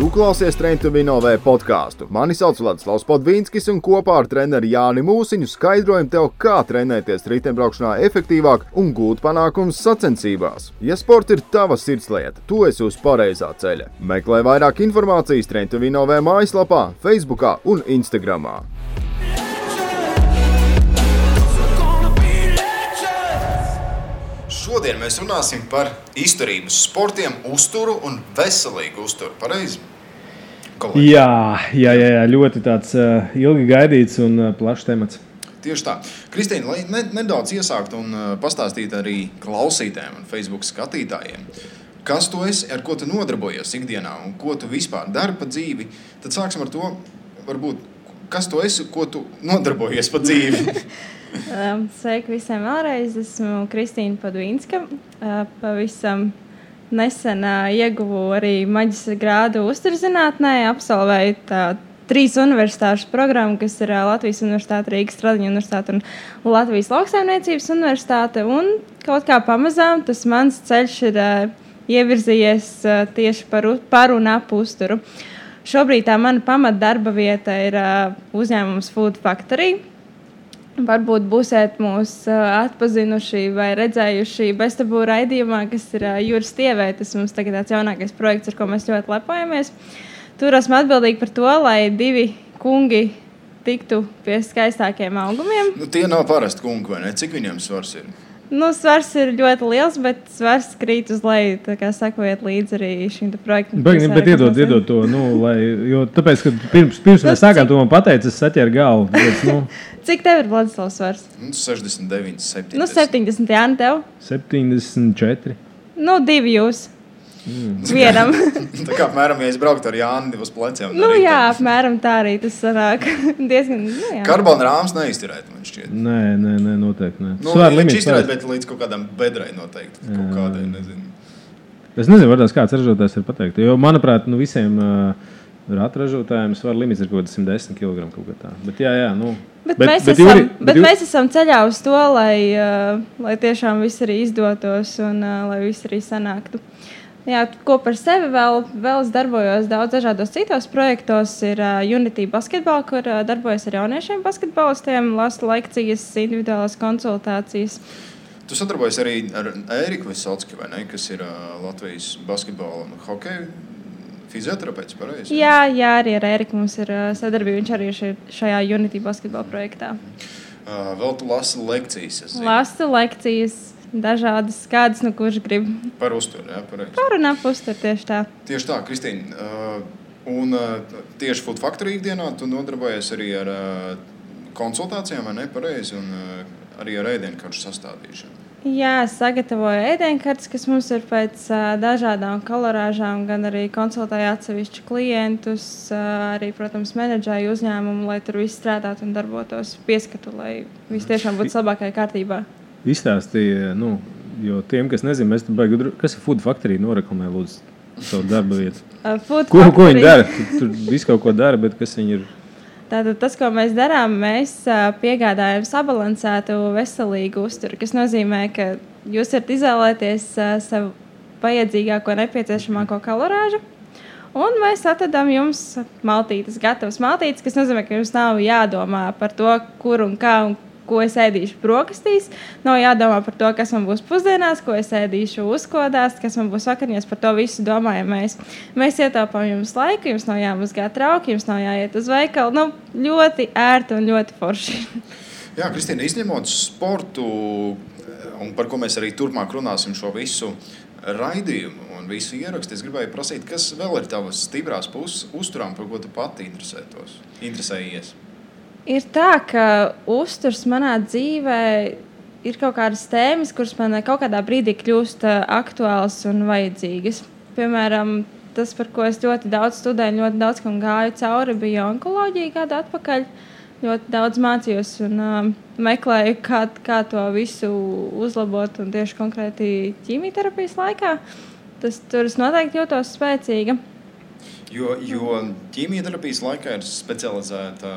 Tu klausies Train to Win OV podcastu. Mani sauc Vladislavs Podvīnskis un kopā ar treneri Jāni Mūsiņu skaidrojam tev, kā trenēties riteņbraukšanā efektīvāk un gūt panākumus sacensībās. Ja sports ir tava sirdslieta, tu esi uz pareizā ceļa. Meklē vairāk informācijas Train to Win OV mājaslapā, Facebookā un Instagramā. Šodien mēs runāsim par izturības sportiem, uzturu un veselīgu uzturu. Pareizi? Jā, ļoti tāds ilgi gaidīts un plašs temats. Tieši tā. Kristīna, lai nedaudz iesākt un pastāstīt arī klausītājiem un Facebook skatītājiem, kas tu esi, ar ko tu nodarbojies ikdienā un ko tu vispār dari pa dzīvi, tad sāksim ar to, varbūt, kas tu esi, ko tu nodarbojies pa dzīvi. Sveiki visiem vēlreiz, esmu Kristīna Podvīnska. Pavisam nesen ieguvu arī maģistra grādu uzturzinātnē, absolvēju 3 universitāšu programmu, kas ir Latvijas Universitāte, Rīgas Stradiņa Universitāte un Latvijas Lauksaimniecības Universitāte. Un kaut kā pamazām tas mans ceļš ir ievirzījies tieši par un ap uzturu. Šobrīd tā mana pamatdarba vieta ir uzņēmums Food Factory. Varbūt būsiet mūs atpazinuši vai redzējuši beztabū raidījumā, kas ir Jūras tievē. Tas mums tagad tāds jaunākais projekts, ar ko mēs ļoti lepojamies. Tur esmu atbildīgi par to, lai 2 kungi tiktu pie skaistākiem augumiem. Tie nav parasti kungi, vai ne? Cik viņiem svars ir? Svars ir ļoti liels, bet svars krīt uz leju. Tā kā sakojiet līdzi arī šim projektam. Bet iedod to, jo tāpēc, ka pirms mēs sākām, tu man pateici, es saķēru galvu. Cik tev ir, Vladislavs, svars? 69, 70. 70, Jāni, tev? 74. 2 jūs. Vienam. Tā kā apmēram, ja es brauktu ar Jāni uz pleciem. Jā, apmēram tā arī tas sanāk. Diezgan, Karbona rāms neizturēt, man šķiet. Nē, noteikti nē. Viņš izturēt, bet līdz kaut kādam bedrai noteikti. Kaut kādai, nezinu. Es nezinu, varbūt kāds ražotājs var pateikt. Jo, manuprāt, visiem ratražotājiem svara limits ir kaut kāds 110 kg kaut kā tā. Bet jā. Bet mēs esam ceļā uz to, lai tiešām viss arī izdotos un lai viss arī sanāktu. Jā, ko par sevi vēl es darbojos daudz dažādos citos projektos. Ir Unity basketball, kur darbojos ar jauniešiem basketbolistiem, lasu lekcijas, individuālās konsultācijas. Tu sadarbojies arī ar Ēriku Visocki, vai ne, kas ir Latvijas basketbola un hokeja fizioterapeits, pareizi? Jā, arī ar Ēriku mums ir sadarbība. Viņš arī ir šajā Unity basketball projektā. Vēl tu lasi lekcijas, es zinu. Lasu lekcijas. Dažādas, kādas, kurš grib. Par uzturu, jā, pareizi. Par un ap uzturu, tieši tā. Tieši tā, Kristīna. Un tieši Food Factory ikdienā tu nodarbojies arī ar konsultācijām, vai ne, pareizi, un arī ar ēdienkaršu sastādīšanu. Jā, sagatavoju ēdienkartes, kas mums ir pēc dažādām kalorāžām, gan arī konsultēju atsevišķu klientus, arī, protams, menedžēju uzņēmumu, lai tur viss strādātu un darbotos pieskatu, lai viss tiešām būtu labākajā kārtībā. Izstāstīja, jo tiem, kas nezina, mēs tur baigi, kas ir Food Factory, noreklamē lūdzu savu darba vietu. Ko viņi dara? Tur visu kaut ko dara, bet kas viņi ir? Tātad tas, ko mēs darām, mēs piegādājam sabalansētu veselīgu uzturu, kas nozīmē, ka jūs varat izvēlēties savu vajadzīgāko, nepieciešamāko kalorāžu, un mēs atradām jums maltītes, gatavas maltītes, kas nozīmē, ka jums nav jādomā par to, kur un kā un ko es ēdīšu brokastīs. Nav jādomā par to, kas man būs pusdienās, ko es ēdīšu uzkodās, kas man būs vakariņās. Par to visu domājam mēs. Mēs ietaupām jums laiku, jums nav jāmazgā trauki, jums nav jāiet uz veikalu. Ļoti ērti un ļoti forši. Jā, Kristīna, izņemot sportu, un par ko mēs arī turpmāk runāsim šo visu raidījumu un visu ierakstu, es gribēju prasīt, kas vēl ir tavas stiprās puses uzturām, par ko tu pati interesējies? Ir tā, ka uzturs manā dzīvē ir kaut kādas tēmas, kuras man kaut kādā brīdī kļūst aktuālas un vajadzīgas. Piemēram, tas, par ko es ļoti daudz studēju, ļoti daudz kam gāju cauri, bija onkoloģija gadu atpakaļ. Ļoti daudz mācījos un meklēju, kā to visu uzlabot un tieši konkrēti ķīmijterapijas laikā. Tur es noteikti jūtos spēcīga. Jo ķīmijterapijas laikā ir specializēta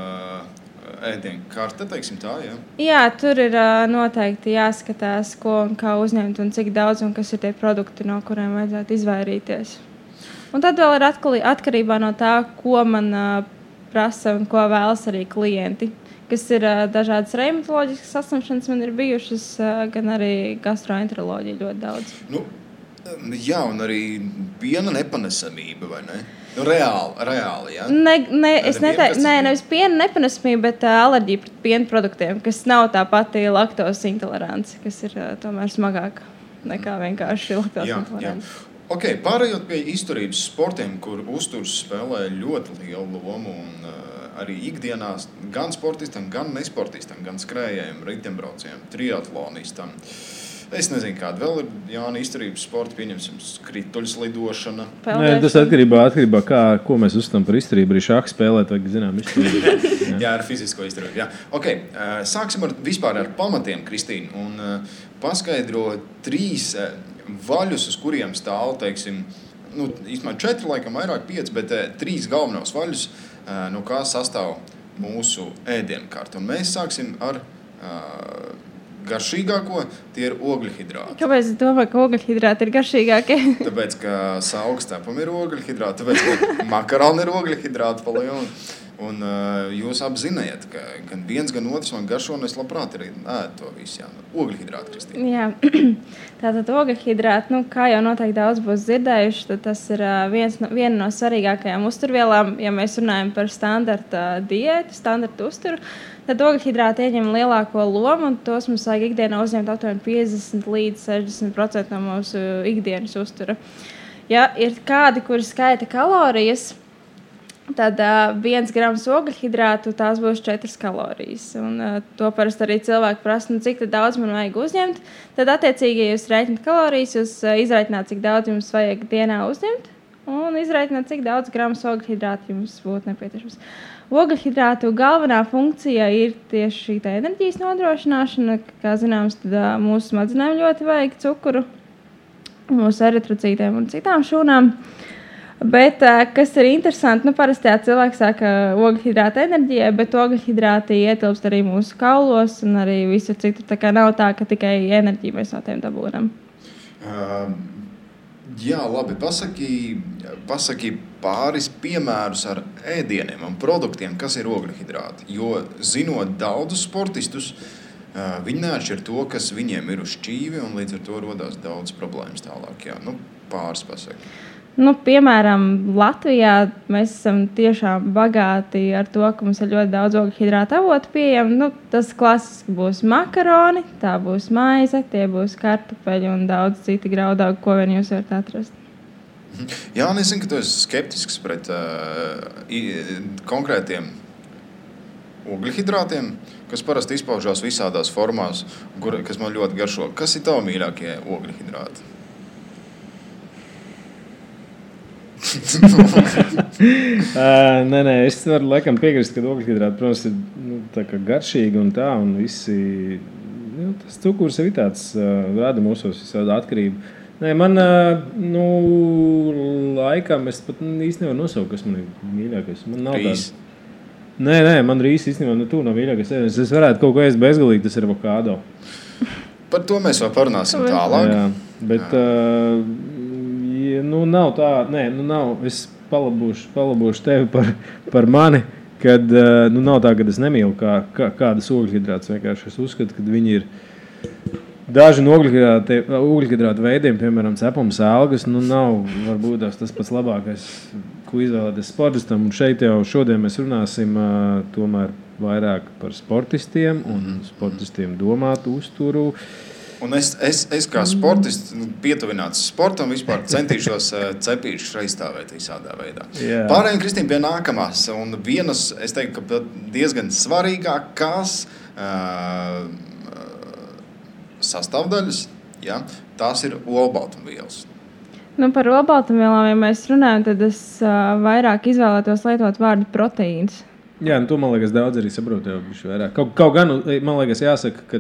ēdienkarte, teiksim tā, jā? Jā, tur ir noteikti jāskatās, ko un kā uzņemt un cik daudz un kas ir tie produkti, no kuriem vajadzētu izvairīties. Un tad vēl ir atkarībā no tā, ko man prasa un ko vēlas arī klienti. Kas ir dažādas reumatoloģiskas saslimšanas man ir bijušas, gan arī gastroenteroloģija ļoti daudz. Jā, un arī piena nepanesamība, vai ne? Reāli, jā? Nevis piena nepanesamība, bet alerģija pret piena produktiem, kas nav tā pati laktozes intolerance, kas ir tomēr smagāka nekā vienkārši laktozes intolerance. Ok, pārējot pie izturības sportiem, kur uzturs spēlē ļoti lielu lomu un arī ikdienās gan sportistam, gan nesportistam, gan skrējējiem, riteņbraucējiem, triatlonistam. Es nezinu, kāda vēl ir Jāna izturības sporta, pieņemsim, krituļslidošana. Nē, tas atkarībā ko mēs uzskatām par izturību. Arī šāku spēlēt, vajag zinām izturību. Jā, ar fizisko izturību. Jā. Ok, sāksim vispār ar pamatiem, Kristīna, un paskaidro 3 vaļus, uz kuriem stāv, teiksim, īstenībā 4, laikam vairāk 5, bet 3 galvenos vaļus, no kā sastāv mūsu ēdienkarte. Un mēs sāksim ar garšīgāko, tie ir ogļhidrāti. Kāpēc es domāju, ka ogļhidrāti ir garšīgākie? Tāpēc, ka saukstēpam ir ogļhidrāti, tāpēc, ka makaroni ir ogļhidrāti pa lielu. Un jūs apziniet, ka gan viens, gan otrs man garšo, un es labprāt arī ēdu to visu. Jā. Ogļhidrāti, Kristīna. Jā, tātad ogļhidrāti, kā jau noteikti daudz būs dzirdējuši, tad tas ir viena no svarīgākajām uzturvielām, ja mēs runājam par standarta diētu, standarta uzturu. Tad ogļhidrāti ieņem lielāko lomu, un tos mums vajag ikdienā uzņemt aptuveni 50 līdz 60% no mūsu ikdienas uztura. Ja ir kādi, kuri skaita kalorijas, tad 1 grams ogļhidrātu tās būs 4 kalorijas. Un, to parasti arī cilvēki prasa, cik daudz man vajag uzņemt. Tad, attiecīgi, ja jūs rēķināt kalorijas, jūs izrēķināt, cik daudz jums vajag dienā uzņemt, un izrēķināt, cik daudz grams ogļhidrātu jums būtu nepieciešams. Ogļhidrātu galvenā funkcija ir tieši šī enerģijas nodrošināšana. Kā zināms, tad mūsu smadzenēm ļoti vajag cukuru, mūsu eritrocītiem un citām šūnām. Bet, kas ir interesanti, parasti cilvēks saka ogļhidrāta enerģijai, bet ogļhidrāti ietilpst arī mūsu kaulos un arī visur citur. Tā kā nav tā, ka tikai enerģiju mēs no tiem dabūnam. Jā, labi. Pasaki pāris piemērus ar ēdieniem un produktiem, kas ir ogļhidrāti. Jo, zinot daudzus sportistus, viņi neatšķir to, kas viņiem ir uz šķīvi, un līdz ar to rodās daudz problēmas tālāk. Jā. Pāris pasaki. Piemēram, Latvijā mēs esam tiešām bagāti ar to, ka mums ir ļoti daudz ogļhidrātu avotu pieejami. Tas klasiski būs makaroni, tā būs maize, tie būs kartupeļi un daudz citi graudaugi, ko vien jūs varat atrast. Jā, es zinu, ka tu esi skeptisks pret konkrētiem ogļhidrātiem, kas parasti izpaužās visādās formās, kas man ļoti garšo. Kas ir tavi mīļākie ogļhidrāti? Nē, es varu laikam piekrist, ka ogļhidrāti, protams, ir tā kā garšīgi un tā, un visi, tas cukurs ir tāds, rada mūsos visādi atkarību. Nē, man, laikam, es pat īsti nevaru nosaukt, kas man ir mīļākais. Man nav Rīs. Nē, man rīs īstenībā tu nav mīļākais. Es varētu kaut ko ēst bezgalīgi, tas ir avokādo. Par to mēs vēl parunāsim tālāk. Jā, bet... nav tā, nav. Es palabūšu tevi par mani, kad nav tā, ka es nemīlu kādas ogļhidrātus. Vienkārši es uzskatu, ka viņi ir daži no ogļhidrātu veidiem, piemēram, cepums, algas, nav varbūt tas pats labākais, ko izvēlēties sportistam. Un šeit jau šodien mēs runāsim tomēr vairāk par sportistiem un sportistiem domātu uzturu. Un es kā sportists, pietuvināts sportam, vispār centīšos cepīšus aizstāvēt visādā veidā. Yeah. Pārējiem, Kristīna, pie nākamās. Un vienas, es teiktu, ka diezgan svarīgākās sastāvdaļas, ja, tās ir olbaltumvielas. Par olbaltumvielām, ja mēs runājam, tad es vairāk izvēlētos lietot vārdu proteīns. Jā, to, man liekas, daudz arī saprot jau vairāk. Kaut gan, man liekas, jāsaka, ka,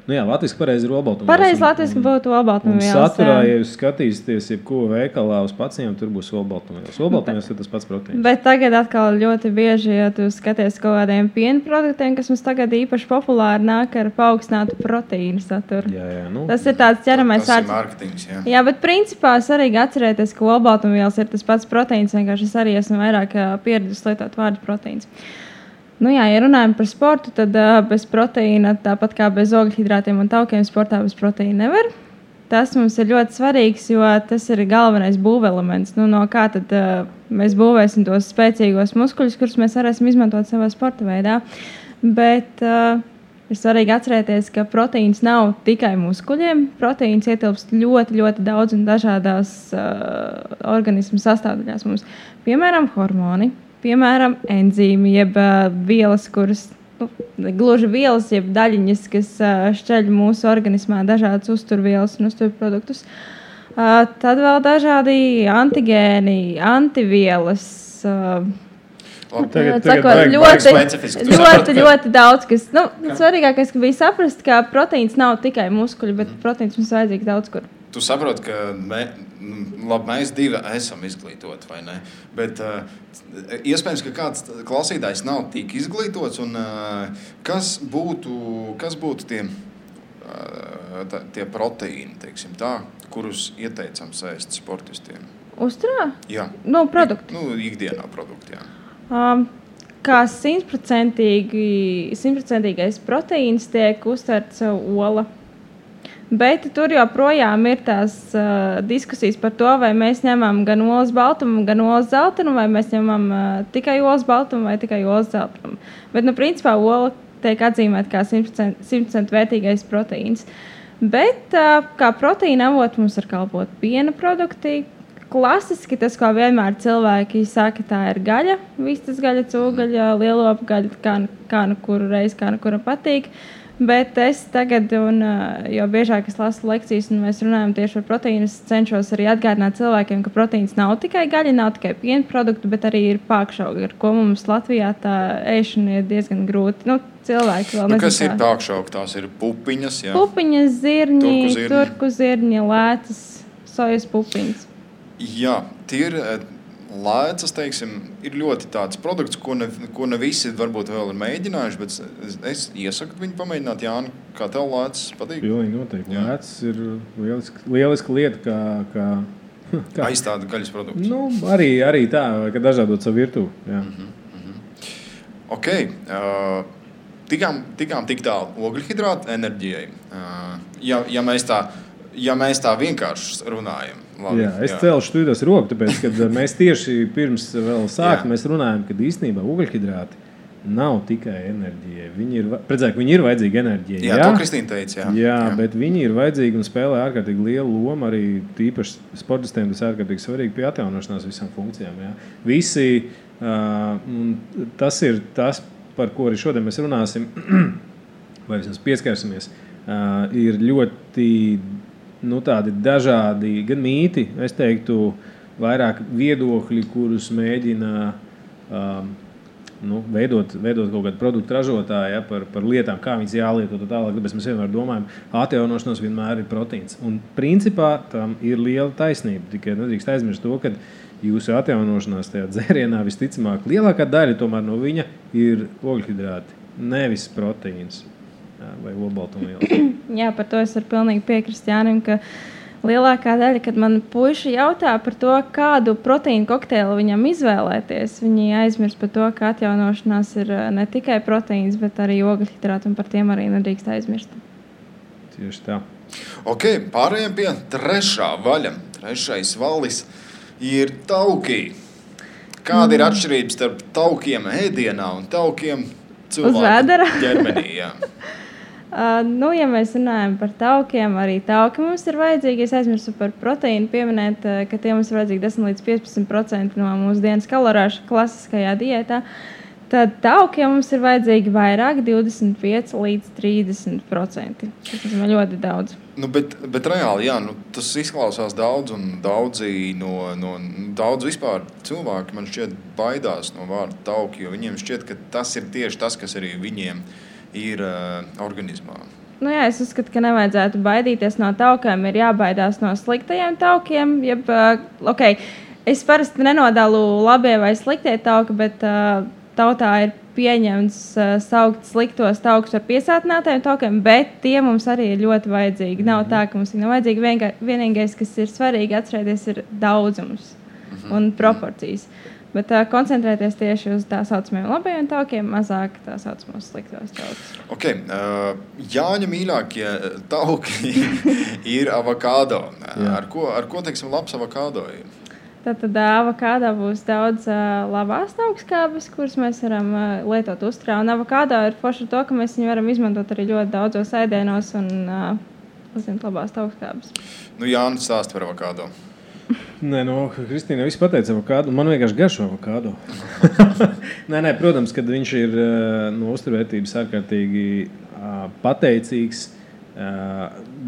latviski pareizi ir olbaltumvielas. Pareizi latviski būtu olbaltumvielas. Un saturā, ja jūs skatīsieties, jebko veikalā uz pacientiem, tur būs olbaltumvielas. Olbaltumvielas ir tas pats proteīns. Bet tagad atkal ļoti bieži, ja tu skaties kaut kādiem piena produktiem, kas mums tagad īpaši populāri nāk ar paaugstinātu proteīnu saturu. Jā, Tas ir tāds ķeramais Tas ir marketings, jā. Jā, bet principā svarīgi atcerēties, ka olbaltumvielas ir tas pats proteīns. Vienkārši es arī esmu vairāk pieradusi lietot vārdu proteīns. Ja runājam par sportu, tad bez proteīna, tāpat kā bez ogļhidrātiem un taukiem, sportā bez proteīna nevar. Tas mums ir ļoti svarīgs, jo tas ir galvenais būvelements. No kā tad mēs būvēsim tos spēcīgos muskuļus, kurus mēs varēsim izmantot savā sporta veidā. Bet ir svarīgi atcerēties, ka proteīns nav tikai muskuļiem. Proteīns ietilpst ļoti, ļoti daudz un dažādās organismu sastāvdaļās mums. Piemēram, hormoni. Piemēram, enzīmi, jeb vielas, kuras, gluži vielas, jeb daļiņas, kas šķeļ mūsu organismā dažādas uzturvielas un uzturproduktus. Tad vēl dažādi antigēni, antivielas. Ļoti daudz, kas, svarīgākais, ka bija saprast, ka proteīns nav tikai muskuļi, bet proteīns mums vajadzīgs daudz kur. Tu saproti, ka mēs divi esam izglītoti, vai ne? Bet iespējams, ka kāds klausītājs nav tik izglītots. Un, kas būtu tie proteīni, teiksim tā, kurus ieteicams ēst sportistiem? Uzturā? Jā. Produkti? Ikdienā produkti, jā. Kā 100% proteīns tiek uztverts ola. Bet tur joprojām ir tās diskusijas par to, vai mēs ņemam gan olas baltumu, gan olas zeltanu, vai mēs ņemam tikai olas baltumu vai tikai olas zeltanu. Bet, principā, ola tiek atzīmēta kā 100% vērtīgais proteīns. Bet kā proteīna avot mums var kalpot piena produkti. Klasiski tas, ko vienmēr cilvēki saka, tā ir gaļa. Vistas gaļa, cūgaļa, lielopa gaļa, kā nu kuru reizi, kā nu kura patīk. Bet es tagad, jo biežāk es lasu lekcijas un mēs runājam tieši par proteīnu, es cenšos arī atgādināt cilvēkiem, ka proteīns nav tikai gaļa, nav tikai piena produkti, bet arī ir pākšaugi, ar ko mums Latvijā tā ēšana ir diezgan grūti. Cilvēki vēl nezinu. Kas ir pākšaugi? Tās ir pupiņas, jā? Pupiņas, zirņi, turku zirņi, lēcas, sojas pupiņas. Jā, tie ir lēcas, teiksim, ir ļoti tāds produkts, ko ne visi varbūt vēl ir mēģinājuši, bet es iesaku viņu pamēģināt. Jāni, kā tev lēcas patīk? Pilnīgi noteikti. Lēcas ir lieliska lieta, kā aizstāda gaļas produktus. Arī tā, ka dažādot savu virtuvi. Ok. Tikām tik tālu ogļhidrātu enerģijai. Ja mēs tā vienkārši runājam. Labi, es celšu studijos roku, tāpēc, kad mēs tieši pirms vēl sākt, mēs runājam, ka īstenībā ogļhidrāti nav tikai enerģija. Viņi ir vajadzīgi enerģija. Jā, to Kristīna teica. Jā, bet viņi ir vajadzīgi un spēlē ārkārtīgi lielu lomu arī tīpaši sportistiem. Tas ārkārtīgi svarīgi pie atjaunošanās visām funkcijām. Jā. Tas ir tas, par ko arī šodien mēs runāsim, vai vismaz pieskarsimies, ir ļoti tādi dažādi gan mīti, es teiktu, vairāk viedokļi, kurus mēģina veidot kaut kādu produktu ražotāju par lietām, kā viņas jālieto tālāk. Tāpēc mēs vienmēr domājam, atjaunošanās vienmēr ir proteīns. Un principā tam ir liela taisnība. Tikai nedrīkst aizmirst to, ka jūsu atjaunošanās tajā dzērienā visticamāk lielākā daļa tomēr no viņa ir ogļhidrāti, nevis proteīns. Vai olbaltumvielas. Jā, par to es varu pilnīgi piekrist Jānim, ka lielākā daļa, kad man puiši jautā par to, kādu proteīnu kokteili viņam izvēlēties, viņi aizmirst par to, ka atjaunošanās ir ne tikai proteīns, bet arī ogļhidrāti, un par tiem arī nedrīkst aizmirst. Tieši tā. Ok, pārējiem pie trešā vaļa. Trešais valis ir tauki. Kāda ir atšķirība starp taukiem ēdienā un taukiem cilvēku ģermenī? Jā. Ja mēs runājam par taukiem, arī tauki mums ir vajadzīgi. Es aizmirsu par proteīnu pieminēt, ka tie mums ir vajadzīgi 10-15% no mūsu dienas kalorāšu klasiskajā diētā. Tad taukiem mums ir vajadzīgi vairāk, 25-30%. Tas ir ļoti daudz. Nu, bet reāli, jā, tas izklausās daudz, un daudz vispār cilvēki man šķiet baidās no vārda tauki, jo viņiem šķiet, ka tas ir tieši tas, kas arī viņiem ir organismā. Nu jā, es uzskatu, ka nevajadzētu baidīties no taukiem, ir jābaidās no sliktajiem taukiem. Es parasti nenodalu labie vai sliktie tauki, bet tautā ir pieņemts saukt sliktos taukus par piesātinātajiem taukiem, bet tie mums arī ir ļoti vajadzīgi. Nav tā, ka mums ir vajadzīgi. Vienīgais, kas ir svarīgi atcerēties, ir daudzums un proporcijas. Bet koncentrēties tieši uz tā saucamajiem labajiem taukiem, mazāk tā saucamos sliktos taukus. Okay. Jāņa mīļākie tauki ir avokado. Ar ko teiksim, labs avokado ir? Tad avokādo būs daudz labās augstskābes, kuras mēs varam lietot uzturā. Un avokādo ir forši to, ka mēs viņu varam izmantot arī ļoti daudzos ēdienos un labās augstskābes. Nu, Jānis stāsta par avokādo. Nē, Kristīna viss pateica avokādo. Man vienkārši garšo avokādo. nē, protams, kad viņš ir no uzturvērtības ārkārtīgi pateicīgs.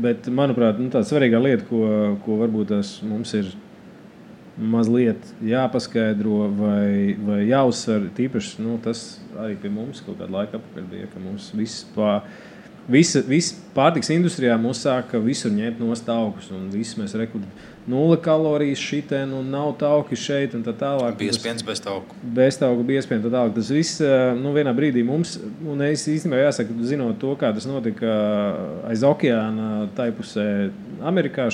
Bet, manuprāt, tā svarīgā lieta, ko varbūt mums ir mazliet jāpaskaidro vai jāuzsver, tīpaši tas arī pie mums kaut kādu laiku apakaļ bija, ka mums viss pārtiks industrijā mūs sāka visur ņemt nost taukus, un viss mēs nulle kalorijas šitien, un nav tauki šeit, un tā tālāk. Biespiens bez tauku. Bez tauku biespiens, tā tālāk. Tas viss, vienā brīdī mums, un es īstenībā jāsaka, zinot to, kā tas notika aiz okeāna, tai pusē Amerikā,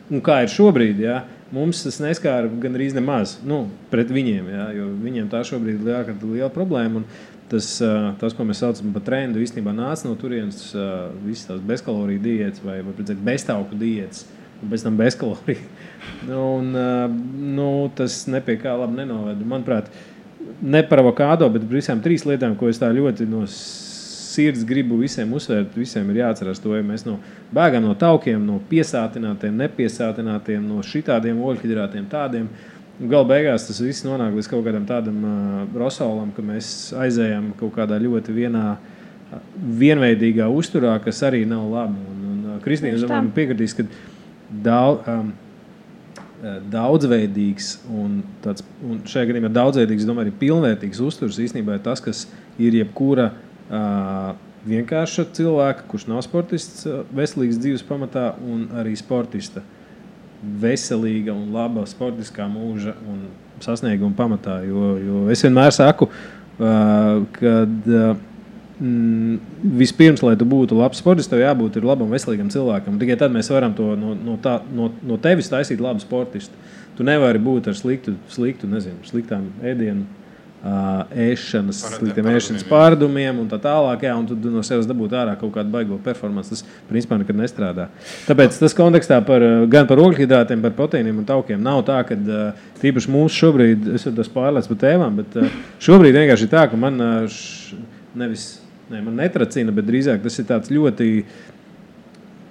un kā ir šobrīd, jā, mums tas neskāra gan arī nemaz pret viņiem, jā, jo viņiem tā šobrīd ir liela problēma. Un tas, ko mēs saucam par trendu, īstenībā nāca no turienes visas tās bezkaloriju diētas vai beztauku diētas, un pēc tam bezkaloriju. Tas nepie kā labi nenoveda. Manuprāt, ne par avokādo, bet visām 3 lietām, ko es tā ļoti no sirds gribu visiem uzsvērt, visiem ir jāatcerās to, ja mēs bēgam no taukiem, no piesātinātiem, nepiesātinātiem, no šitādiem oļhidrātiem, tādiem. Gala beigās tas viss nonāk līdz kaut kādam tādam rosolam, ka mēs aizējam kaut kādā ļoti vienveidīgā uzturā, kas arī nav labi. Un Kristīna, man piekritīs, ka daudzveidīgs un šajā gadījumā daudzveidīgs, domāju, arī pilnvērtīgs uzturs īstenībā ir tas, kas ir jebkura vienkārša cilvēka, kurš nav sportists, veselīgs dzīves pamatā un arī sportista. Veselīga un laba sportiskā mūža un sasnieguma pamatā. Jo es vienmēr saku, kad vispirms, lai tu būtu labs sportists, tev jābūt labam, veselīgam cilvēkam. Tikai tad mēs varam to no tevis taisīt labu sportistu. Tu nevari būt ar sliktām ēdienu ēšanas, sliktiem ēšanas pārdumiem un tā tālāk, jā, un tu no sevis dabūt ārā kaut kādu baigo performanci. Tas, principā, nekad nestrādā. Tāpēc tas kontekstā gan par ogļhidrātiem, par proteīniem un taukiem nav tā, ka tīpaši mūsu šobrīd, es tas pārlēc par tēmām, bet šobrīd vienkārši ir tā, ka man man netracina, bet drīzāk tas ir tāds ļoti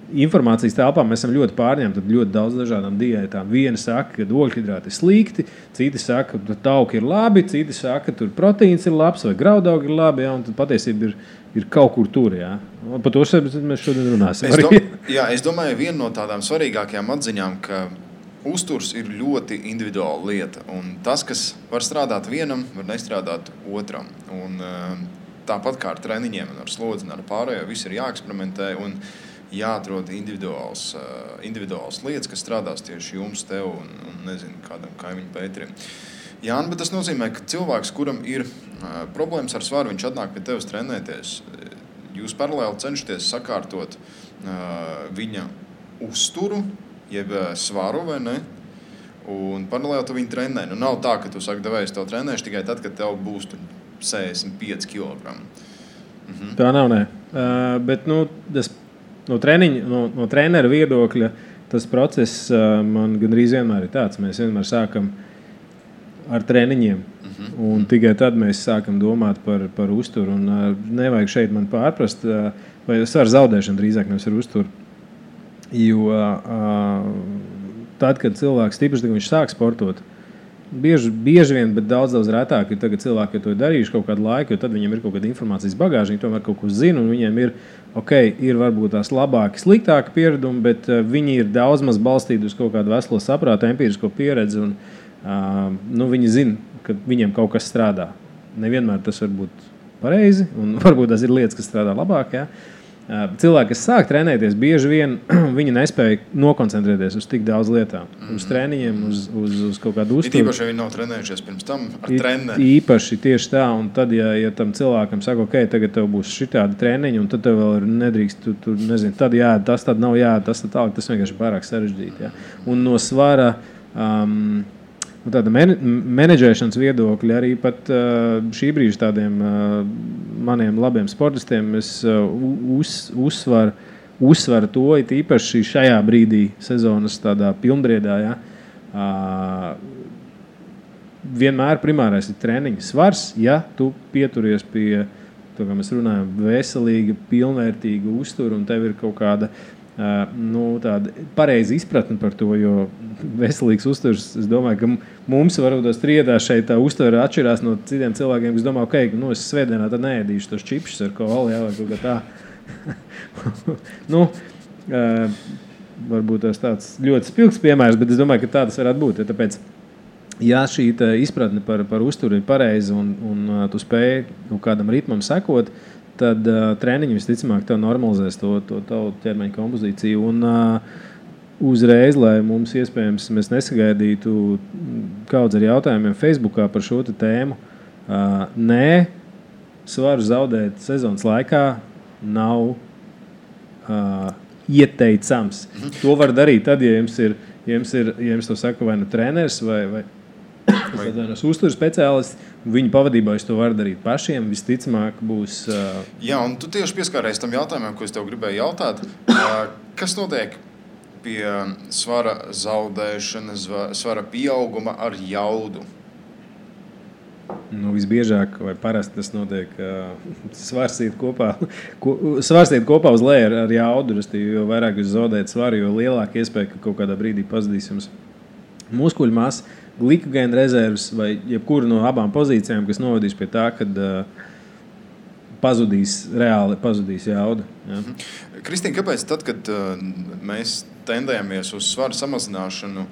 informācijas telpā mēs esam ļoti pārņemti ar ļoti daudz dažādām diētām. Viena saka, ka ogļhidrāti ir slikti, citi saka, ka tauki ir labi, citi saka, ka tur proteīns ir labs vai graudaugi ir labi, jā, un tad patiesība ir kaut kur tur. Jā. Par to mēs šodien runāsim. Es domāju, viena no tādām svarīgākajām atziņām, ka uzturs ir ļoti individuāla lieta. Un tas, kas var strādāt vienam, var nestrādāt otram. Un tāpat kā ar treniņiem un ar slodzi un ar pārējo, viss ir jāeksperimentē un jāatrod individuāls lietas, kas strādās tieši jums, tev un nezinu, kādam kaimiņu Pēterim. Jāni, bet tas nozīmē, ka cilvēks, kuram ir problēmas ar svaru, viņš atnāk pie tevis trenēties. Jūs paralēli cenšaties sakārtot viņa uzturu, jeb svaru vai ne, un paralēli tu viņu trenē. Nav tā, ka tu saki, devējs tev trenēšu tikai tad, kad tev būs 65 kg. Tā nav, nē. Bet, tas no trenera viedokļa tas process man gandrīz vienmēr ir tāds. Mēs vienmēr sākam ar treniņiem, un tikai tad mēs sākam domāt par uzturu. Un nevajag šeit man pārprast, vai ar zaudēšanu drīzāk nevis ar uzturu. Jo tad, kad cilvēks tīpaši, kad viņš sāk sportot, bieži vien, bet daudz retāk ir tagad cilvēki, to ir darījuši kaut kādu laiku, jo tad viņiem ir kaut kāda informācijas bagāža, viņi tomēr kaut ko zina, un viņiem ir varbūt tās labāki, sliktāki pieredumi, bet viņi ir daudz maz balstīti uz kaut kādu veselo saprātu, empirisko pieredzi, un viņi zina, ka viņiem kaut kas strādā. Nevienmēr tas var būt pareizi, un varbūt tas ir lietas, kas strādā labāk, ja? Cilvēki, kas sāk trenēties, bieži vien viņi nespēja nokoncentrēties uz tik daudz lietām. Uz treniņiem, uz kaut kādu uzturu. Īpaši, ja viņi nav trenējušies pirms tam ar treneri. Īpaši tieši tā, un tad, ja tam cilvēkam saka, ok, tagad tev būs šitādi treniņi, un tad tev vēl nedrīkst, tu nezini, tad jā, tas tad nav jā, tas tad tālāk, tas vienkārši pārāk sarežģīti. Ja? Un no svara tāda menedžēšanas viedokļa arī pat šī brīža tādiem maniem labiem sportistiem es uzsvaru to, it īpaši šajā brīdī sezonas tādā pilnbriedā, ja, vienmēr primārais ir treniņa svars, ja tu pieturies pie, to, kā mēs runājam, veselīga, pilnvērtīga uztura un tev ir kaut kāda tāda pareiza izpratne par to, jo veselīgs uzturs, es domāju, ka mums varbūt tās triedā šeit tā uztvere atšķirās no citiem cilvēkiem, kas domā, ok, es svētdienā tad neēdīšu tos čipšus ar kolu, jā, vai kaut kā tā. Varbūt tas tāds ļoti spilgs piemērs, bet es domāju, ka tā tas varētu būt, ja tāpēc, ja šī izpratne par uzturu ir pareiza un tu spēj kādam ritmam sekot, tad treniņi visticamāk tev normalizēs to tavu ķermeņa kompozīciju. Un uzreiz, lai mums iespējams mēs nesagaidītu kaudz ar jautājumiem Facebookā par šo tēmu, nē, svaru zaudēt sezonas laikā nav ieteicams. To var darīt tad, ja jums to saka vai nu treneris vai uzturu speciālists, viņu pavadībā jūs to varat darīt pašiem, visticamāk būs... Jā, un tu tieši pieskārējies tam jautājumam, ko es tev gribēju jautāt. Kas notiek pie svara zaudēšanas, svara pieauguma ar jaudu? Visbiežāk vai parasti tas notiek svars iet kopā uz leju ar jaudu, jo vairāk jūs zaudējat svaru, jo lielāka iespēja, ka kaut kādā brīdī pazudīs jums muskuļu masa, glikogēna rezerves vai jebkura no abām pozīcijām, kas novadīs pie tā, kad reāli pazudīs jauda. Ja? Kristīna, kāpēc tad, kad mēs tendējamies uz svaru samazināšanu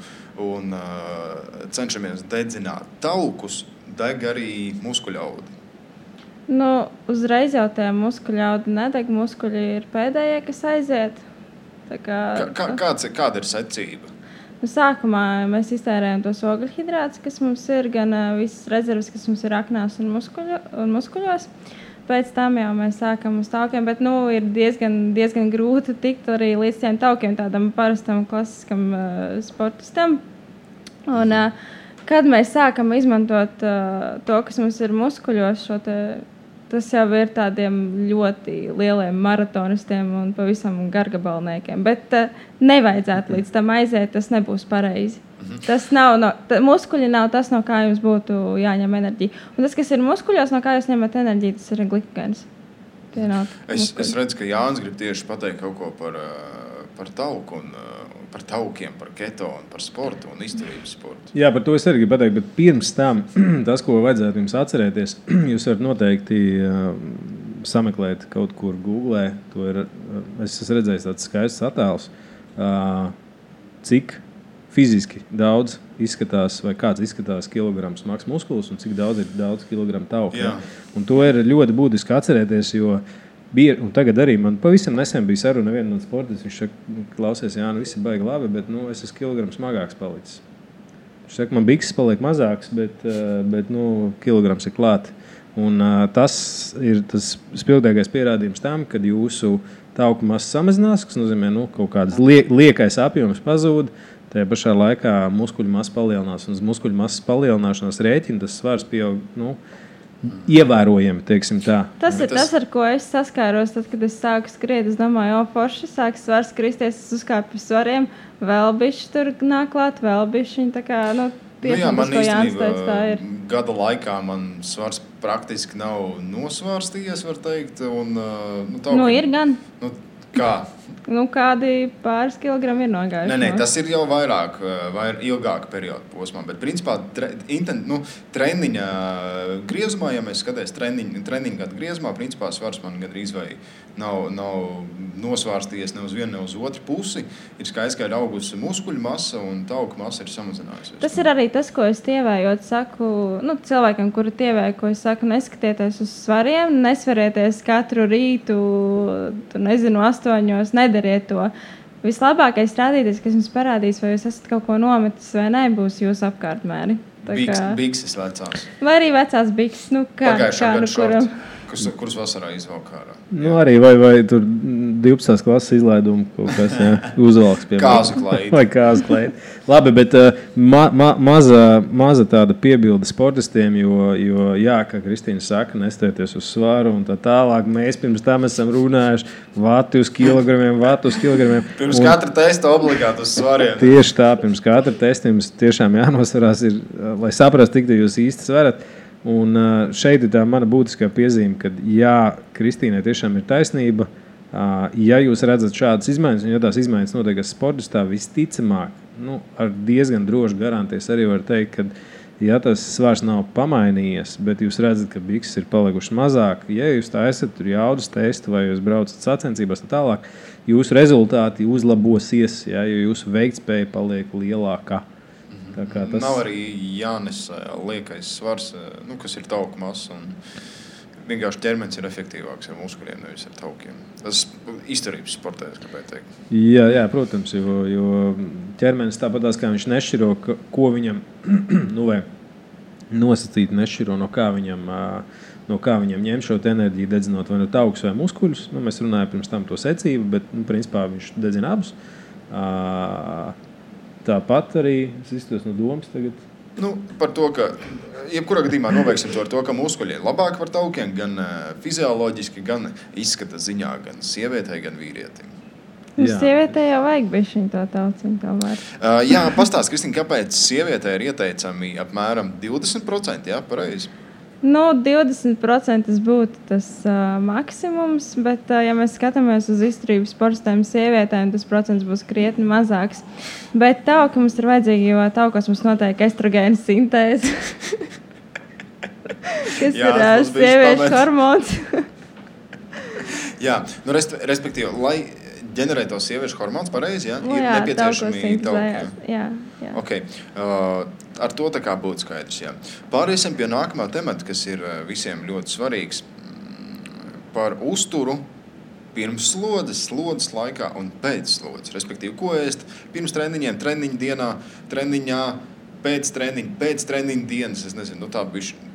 un cenšamies dedzināt taukus, deg arī muskuļaudi? Uzreiz jau tie muskuļaudi nedeg, muskuļi ir pēdējie, kas aiziet. Kāda ir secība? Sākumā mēs iztērējam tos ogļhidrātus, kas mums ir, gan visas rezerves, kas mums ir aknās un muskuļos. Pēc tam jau mēs sākam uz taukiem, bet ir diezgan grūti tikt arī līdz tiem taukiem, tādam parastam klasiskam sportistam. Un, kad mēs sākam izmantot to, kas mums ir muskuļos, tas jau ir tādiem ļoti lieliem maratonistiem un pavisam gargabalniekiem. Bet nevajadzētu līdz tam aiziet, tas nebūs pareizi. Tas muskuļi nav tas, no kā jums būtu jāņem enerģija. Un tas, kas ir muskuļos, no kā jūs ņemat enerģiju, tas ir glikogēns. Es redzu, ka Jānis grib tieši pateikt kaut ko par tauku un par taukiem, par keto un par sportu un izturības sportu. Jā, par to es arī gribu pateikt, bet pirms tam tas, ko vajadzētu jums atcerēties, jūs varat noteikti sameklēt kaut kur Googlē. Es esmu redzējis tāds skaists attēls, cik fiziski daudz izskatās, vai kāds izskatās kilograms smags muskulis un cik daudz ir daudz kilogramu tauku. Ja? Un to ir ļoti būtiski atcerēties, jo un tagad arī man pavisam nesen bija saruna viena no sportistas. Viņš saka, klausies, Jāni, viss ir baigi labi, bet es esmu kilogramu smagāks palicis. Viņš saka, man bikses paliek mazāks, bet kilograms ir klāt. Un tas ir tas spilgtākais pierādījums tam, kad jūsu tauku masa samazinās, kas nozīmē, kaut kādas liekais apjoms pazūd, tajā pašā laikā muskuļu masa palielinās. Un uz muskuļu masas palielināšanās rēķina tas svars pieaug, ievērojami, teiksim tā. Tas ir tas, ar ko es saskāros, tad, kad es sāku skriet. Es domāju, forši sāks svars kristies, es uzkāpu uz svariem, vēl bišķi tur nāk klāt, vēl bišķi, tā kā, jā, man īstenībā gada laikā man svars praktiski nav nosvārstījies, var teikt, un ir gan. Kā? Nu, kādi pāris kilogrami ir nogājuši. Nē, tas ir jau vairāk ilgāka perioda posmā, bet principā treniņa griezumā, ja mēs skatāmies treniņa gadu griezumā, principā svars man gandrīz vai nav nosvārstījies ne uz vienu, ne uz otru pusi. Ir skaidrs, ka ir augusi muskuļu masa un tauku masa ir samazinājusies. Tas ir arī tas, ko es tievējot saku, cilvēkiem, kuri tievēja, ko es saku, neskatieties uz svariem, nesvarieties katru rītu, 8, nedariet to. Vislabākais rādītājs, kas jums parādīs, vai jūs esat kaut ko nometis vai nē, būs jūsu apkārtmēri. Bikses vecās. Vai arī vecās bikses, Pagājušā gada šorti, kuras vasarā izvelk ārā. Arī vai tur 12. klases izlaidumu kaut kas uzvalks, piemēram. Kāzu klaidi. Vai kāzu klaidi. Labi, bet maza tāda piebilde sportistiem, jo kā Kristīna saka, nestēties uz svaru un tā tālāk. Mēs pirms tam esam runājuši vati uz kilogramiem. Pirms katra testa obligāti uz svariem. Tieši tā, pirms katra testa jums tiešām jānosvarās, lai saprastu, cik jūs īsti svarat. Un šeit ir tā mana būtiskā piezīme, ka Kristīnai tiešām ir taisnība. Ja jūs redzat šādas izmaiņas, un ja tās izmaiņas notiekas sportistā, visticamāk, ar diezgan droši garantēs arī var teikt, ka ja tas svars nav pamainījies, bet jūs redzat, ka bikses ir palikušas mazāk, ja jūs taisat tur jaudas testu vai jūs braucat sacensībās tā tālāk, jūsu rezultāti uzlabosies, jo jūsu veiktspēja paliek lielākā. Tas... Nav arī jānes liekais svars, kas ir tauku masa. Vienkārši ķermenis ir efektīvāks ar muskuļiem, nevis ar taukiem. Tas izturības sportēs, kāpēc teikt. Jā, protams, jo ķermenis tāpatās, kā viņš nešķiro, ko viņam nosacīt nešķiro, no kā viņam ņem šo enerģiju, dedzinot vai no taukus vai muskuļus. Mēs runājam pirms tam to secību, bet principā viņš dedzina abus. Tāpat arī es izstos no domas tagad. Par to, ka jebkurā gadījumā nobeigsim to ar to, ka muskuļi ir labāki par taukiem, gan fizioloģiski, gan izskata ziņā, gan sievietei, gan vīrietim. Sievietei jau vajag bišķiņ to tauciņu tomēr. Jā, pastāst, Kristīna, kāpēc sievietei ir ieteicami apmēram 20%, jā, pareizi? 20% būtu tas maksimums, bet, ja mēs skatāmies uz izturības sportistēm sievietēm, tas procents būs krietni mazāks. Bet tauki mums ir vajadzīgi, jo taukos mums notiek estrogēna sintēze, kas ir sieviešu hormons. Jā, respektīvi, lai ģenerēt to sieviešu hormons pareizi, ir nepieciešami tauki. Jā. Okay. Ar to tā kā būtu skaidrs. Jā. Pāriesim pie nākamā temata, kas ir visiem ļoti svarīgs. Par uzturu pirms slodzes laikā un pēc slodzes. Respektīvi, ko ēst pirms treniņiem, treniņu dienā, treniņā, pēc treniņu dienas. Es nezinu,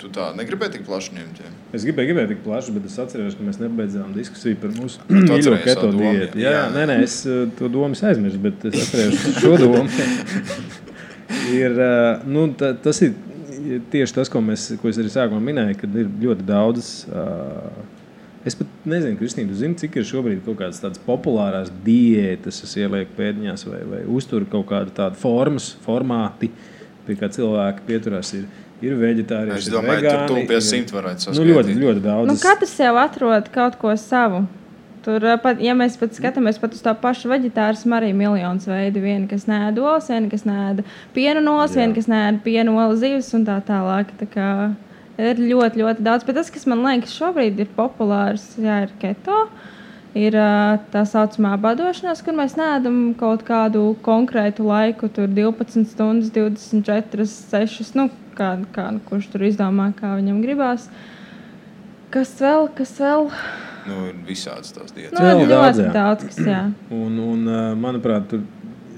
tu tā negribēji tik plaši ņemt? Jā? Es gribēju tik plaši, bet es atceros, ka mēs nebeidzām diskusiju par mūsu mīļo keto diētu. Nē, es to domu aizmirsu, bet es atceros šo domu. Tas ir tieši tas, ko es arī sākumā minēju, kad ir ļoti daudz. Es pat nezinu, Kristīna, tu zini, cik ir šobrīd kaut kādas tādas populārās diētas, es ielieku pēdiņās vai uzturu kaut kādu tādu formāti, pie kā cilvēki pieturās ir veģetārieši, es domāju, vegāni. Tur pie 100 varētu saskaitīt. Ļoti daudz. Katrs jau atrod kaut ko savu. Tur, ja mēs pat skatāmies pat uz tā pašu veģetārismu, arī miljonus veidu. Viena, kas nēd olas, viena, kas nēd piena olas, viena, kas nēd piena olas zivis un tā tālāk. Tā kā ir ļoti, ļoti daudz. Bet tas, kas man liekas šobrīd ir populārs, ir keto. Ir tā saucamā badošanās, kur mēs neēdam kaut kādu konkrētu laiku, tur 12 stundas, 24, 6, kurš tur izdomā, kā viņam gribās. Kas vēl? Ir visādas tās dietas. Ļoti daudz, kas jā. Un manuprāt, tur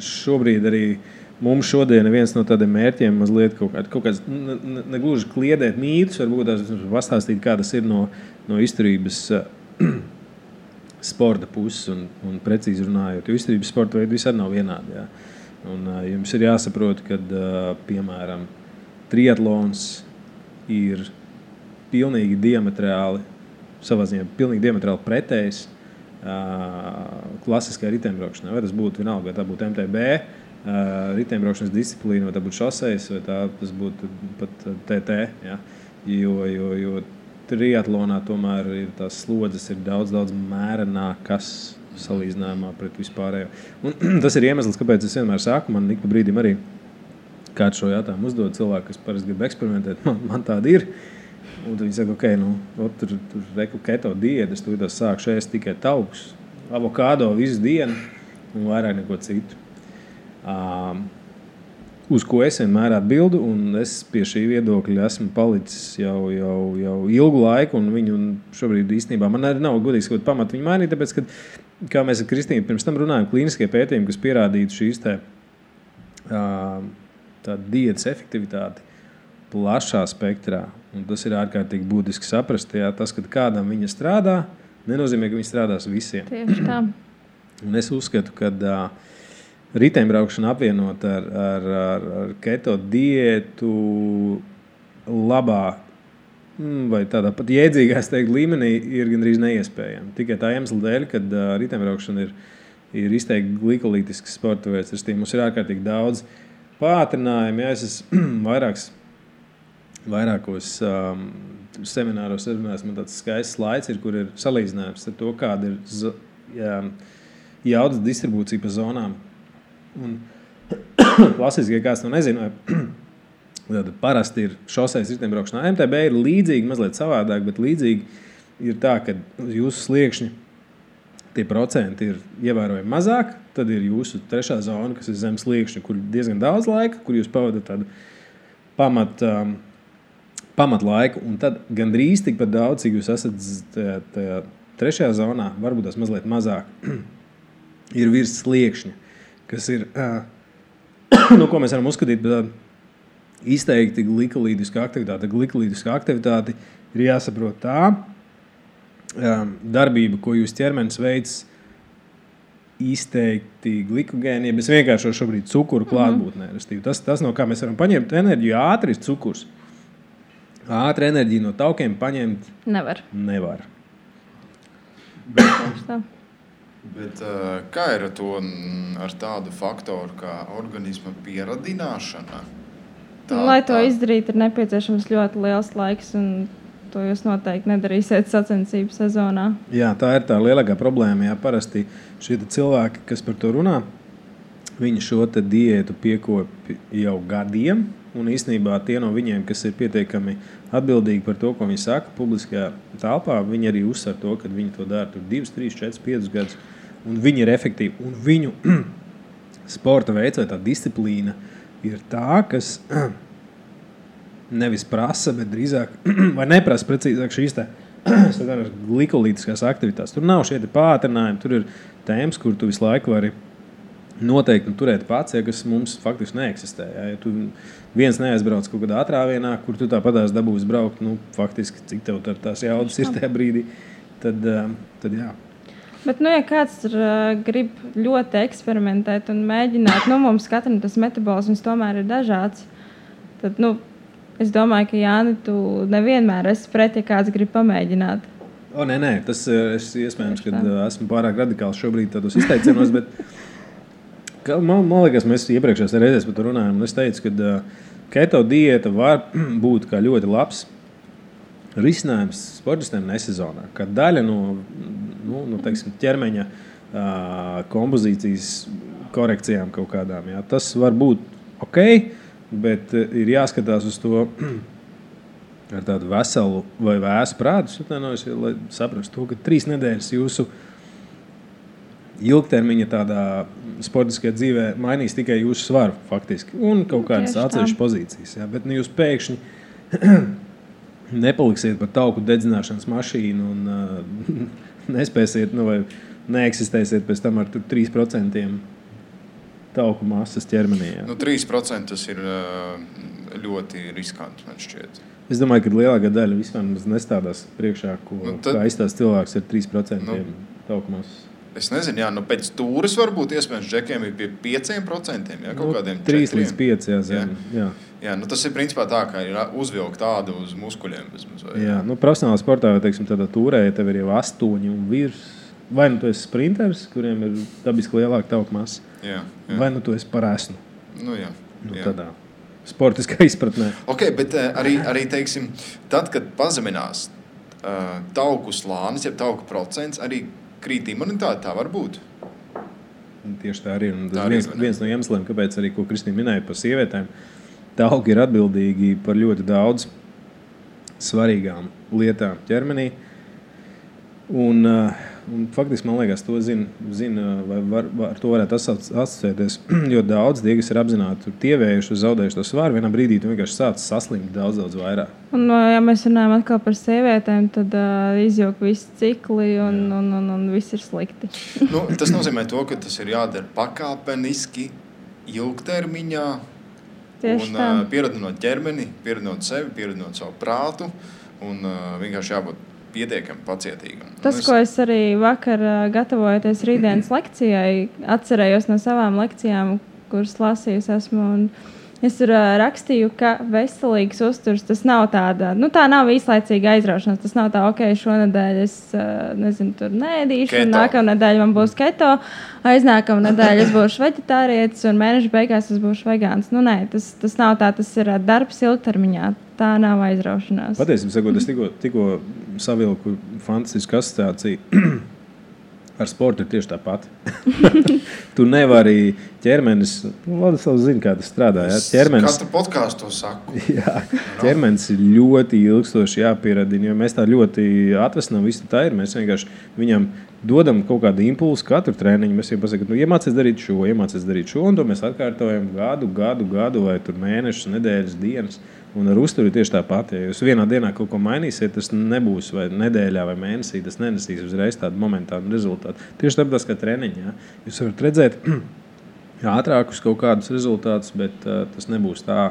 šobrīd arī mums šodien viens no tādiem mērķiem mazliet kaut kāds, negluži kliedēt mītus, varbūt tās pastāstīt, kā tas ir no izturības sporta puses un precīzi runājot, jo izturības sporta veidi visādi nav vienādi. Jā. Un jums ir jāsaprot, ka, piemēram, triatlons ir pilnīgi diametrāli pretējs klasiskai riteņbraukšanai. Vai tas būtu vienalga, vai tā būtu MTB, riteņbraukšanas disciplīna, vai tā būtu šosejas, vai tas būtu pat TT. Ja? Jo triatlonā tomēr ir tās slodzes ir daudz mērenākas salīdzinājumā pret vispārējo. Un tas ir iemesls, kāpēc es vienmēr saku, man ik pa brīdim arī kāds šo jautājumu uzdod cilvēku, kas parasti grib eksperimentēt, man tāda ir. Un tad viņi saka, ok, tur reku keto diētas, tu sākšu ēst tikai taukus, avokādo visu dienu un vairāk neko citu. Uz ko es vienmēr atbildu, un es pie šī viedokļa esmu palicis jau ilgu laiku, un viņu šobrīd īstenībā man arī nav godīgs kaut pamatu viņu mainīt, tāpēc, ka, kā mēs ar Kristīnu pirms tam runājam, klīniskie pētījumi, kas pierādītu šīs tā diētas efektivitāti plašā spektrā, un tas ir ārkārtīgi būtiski saprast, tas, kad kādam viņa strādā, nenozīmē, ka viņa strādās visiem. Tieši tā. Un es uzskatu, ka riteņbraukšana apvienot ar keto diētu labā vai tādā pat jēdzīgā līmenī ir gandrīz neiespējama. Tikai tā iemesla dēļ, kad riteņbraukšana ir izteikti glikolītisks sporta veids. Mums ir ārkārtīgi daudz pātrinājumu. Es esmu vairākos semināros runājis, man tāds skaists slaids ir, kur ir salīdzinājums ar to, kāda ir jaudas distribūcija pa zonām. Un klasiski, ja kāds to nezina, tad parasti ir šoseis riteņbraukšanā. MTB ir līdzīgi, mazliet savādāk, bet līdzīgi ir tā, ka jūsu sliekšņi tie procenti ir ievērojami mazāk, tad ir jūsu trešā zona, kas ir zem sliekšņa, kur diezgan daudz laika, kur jūs pavadat tādu pamat laiku, un tad gandrīz tikpat daudz, cik jūs esat tajā trešajā zonā, varbūt tas mazliet mazāk, ir virs sliekšņa, kas ir, ko mēs varam uzskatīt, izteikti glikolīdiska aktivitāte. Glikolīdiska aktivitāte ir jāsaprot tā darbība, ko jūs ķermenis veids izteikti glikogēni, ja mēs vienkārši šobrīd cukuru klātbūtnē. Tas, no kā mēs varam paņemt enerģiju, ātri ir cukurs. Ātri enerģiju no taukiem paņemt nevar. Bet kā ir ar tādu faktoru kā organisma pieradināšana? Lai to izdarītu, ir nepieciešams ļoti liels laiks, un to jūs noteikti nedarīsiet sacensību sezonā. Jā, tā ir tā lielākā problēma. Jā, parasti šie cilvēki, kas par to runā, viņi šo te diētu piekopja jau gadiem, un īstenībā tie no viņiem, kas ir pietiekami atbildīgi par to, ko viņi saka publiskajā telpā, viņi arī uzsver to, ka viņi to dara 2, 3, 4, 5 gadus, un viņi ir efektīvi. Un viņu sporta veids vai tā disciplīna ir tā, kas nevis prasa, bet drīzāk, vai neprasa precīzāk šīs glikolītiskās aktivitātes. Tur nav šie pātrinājumi, tur ir tēmas, kur tu visu laiku vari noteikti turēt pats, kas mums faktiski neeksistē. Ja tu viens neaizbrauc kaut kādā atrāvienā, kur tu tāpatās dabūsi braukt, faktiski, cik tev tās jaudas ir tajā brīdī, tad jā. Bet, ja kāds grib ļoti eksperimentēt un mēģināt, mums katram tas metabolisms tomēr ir dažāds, tad, es domāju, ka Jāni, tu nevienmēr esi pret, ja kāds grib pamēģināt. Nē, tas ir iespējams, ka esmu pārāk radikāls šobrīd tādos izteicienos, bet man liekas, mēs iepriekšējās reizēs par to runājam, un es teicu, ka keto diēta var būt kā ļoti labs risinājums sportistiem nesezonā, kā daļa no teiksim, ķermeņa kompozīcijas korekcijām kaut kādām. Jā. Tas var būt ok, bet ir jāskatās uz to ar tādu veselu vai vēsu prātu, lai saprastu to, ka 3 nedēļas jūsu ilgtermiņa tādā sportiskajā dzīvē mainīs tikai jūsu svaru faktiski un kaut kādas atsevišķas pozīcijas. Jā. Bet jūs pēkšņi nepaliksiet par tauku dedzināšanas mašīnu un nespēsiet vai neeksistēsiet pēc tam ar 3% tauku masas ķermenī. Jā. 3% tas ir ļoti riskanti, man šķiet. Es domāju, ka lielākā daļa vispār nestādās priekšā, kā izstās cilvēks ar 3% tauku masas. Es nezinu, pēc tūres varbūt iespējams džekiem ir pie 5%, kaut kādiem 3 līdz 5, jā. Jā, tas ir principā tā, kā ir uzvilkt tādu uz muskuļiem. Jā, profesionālā sportā, teiksim, tādā tūrē, ja tev ir jau 8 un virs, vai tu esi sprinters, kuriem ir dabiski lielāka tauku masa, vai tu esi par esnu. Jā. Tādā sportiskā izpratnē. Ok, bet arī teiksim, tad, kad pazeminās tauku slānis, ja tauku procents, arī krīt imunitāte, tā var būt. Tieši tā arī. Un tas Tā arī, viens no iemesliem, kāpēc arī, ko Kristīna minēja par sievietēm, tauki ir atbildīgi par ļoti daudz svarīgām lietām ķermenī. Un faktiski, man liekas, to zina vai ar to varētu asociēties ļoti daudz. Tie, kas ir apzināti tievējuši, zaudējuši to svaru, vienā brīdī tu vienkārši sāc saslimt daudz vairāk. Un, ja mēs runājam atkal par sievietēm, tad izjūg visi cikli un viss ir slikti. Tas nozīmē to, ka tas ir jādara pakāpeniski, ilgtermiņā. Tieši tā. Pieradinot ķermeni, pieradinot sevi, pieradinot savu prātu un vienkārši jābūt pietiekami pacietīgam. Tas, ko es arī vakar gatavojoties rītdienas lekcijai, atcerējos no savām lekcijām, kuras lasījusi esmu. Es tur rakstīju, ka veselīgs uzturs tas nav tāda, tā nav īslaicīga aizraušanās. Tas nav tā, ok, šonadēļ es tur neēdīšu, un nākamā nedēļa man būs keto, aiznākamā nedēļa es būšu veģetārietis, un mēneša beigās es būšu vegāns. Nē, tas nav tā, tas ir darbs ilgtermiņā. Tā nav aizraušanās. Patiesībā sakot, es tikko savilku fantastisku asociāciju. Ar sportu ir tieši tāpat. Tu nevari ķermenis, Vladislavs zina, kā tas strādā. Ja? Katru podkāstu to saku. Jā, ķermenis ir ļoti ilgstoši jāpieradina, jo mēs tā ļoti atvesinām visu tā ir. Mēs vienkārši viņam dodam kaut kādu impulsu katru treniņu. Mēs viņam pasakām, iemācies darīt šo, un to mēs atkārtojam gadu vai tur mēnešus, nedēļas, dienas. Un ar uzturu ir tieši tāpat. Ja jūs vienā dienā kaut ko mainīsiet, tas nebūs vai nedēļā vai mēnesī, tas nenesīs uzreiz tādu momentānu rezultātu. Tieši tāpat kā treniņā. Ja? Jūs varat redzēt ātrākus kaut kādus rezultātus, bet tas nebūs tā.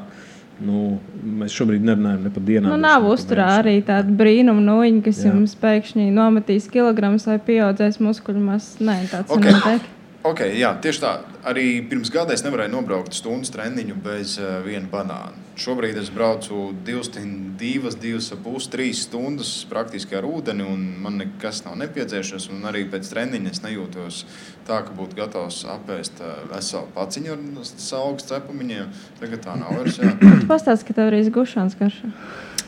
Mēs šobrīd nerunājam ne par dienām. Nav uzturā arī tāda brīnuma nūjiņa, kas jums pēkšņi nometīs kilogramus vai pieaudzēs muskuļu masu. Nē, tāds nenotiek. Okay, jā, tieši tā. Arī pirms gada es nevarēju nobraukt stundas treniņu bez viena banāna. Šobrīd es braucu 2,5, 3 stundas praktiski ar ūdeni, un man nekas nav nepieciešams. Un arī pēc treniņa es nejūtos tā, ka būtu gatavs apēst veselu paciņu ar saugas cepumiņiem. Tagad tā nav vairs. Pastāst, ka tev arī gušanas garšā.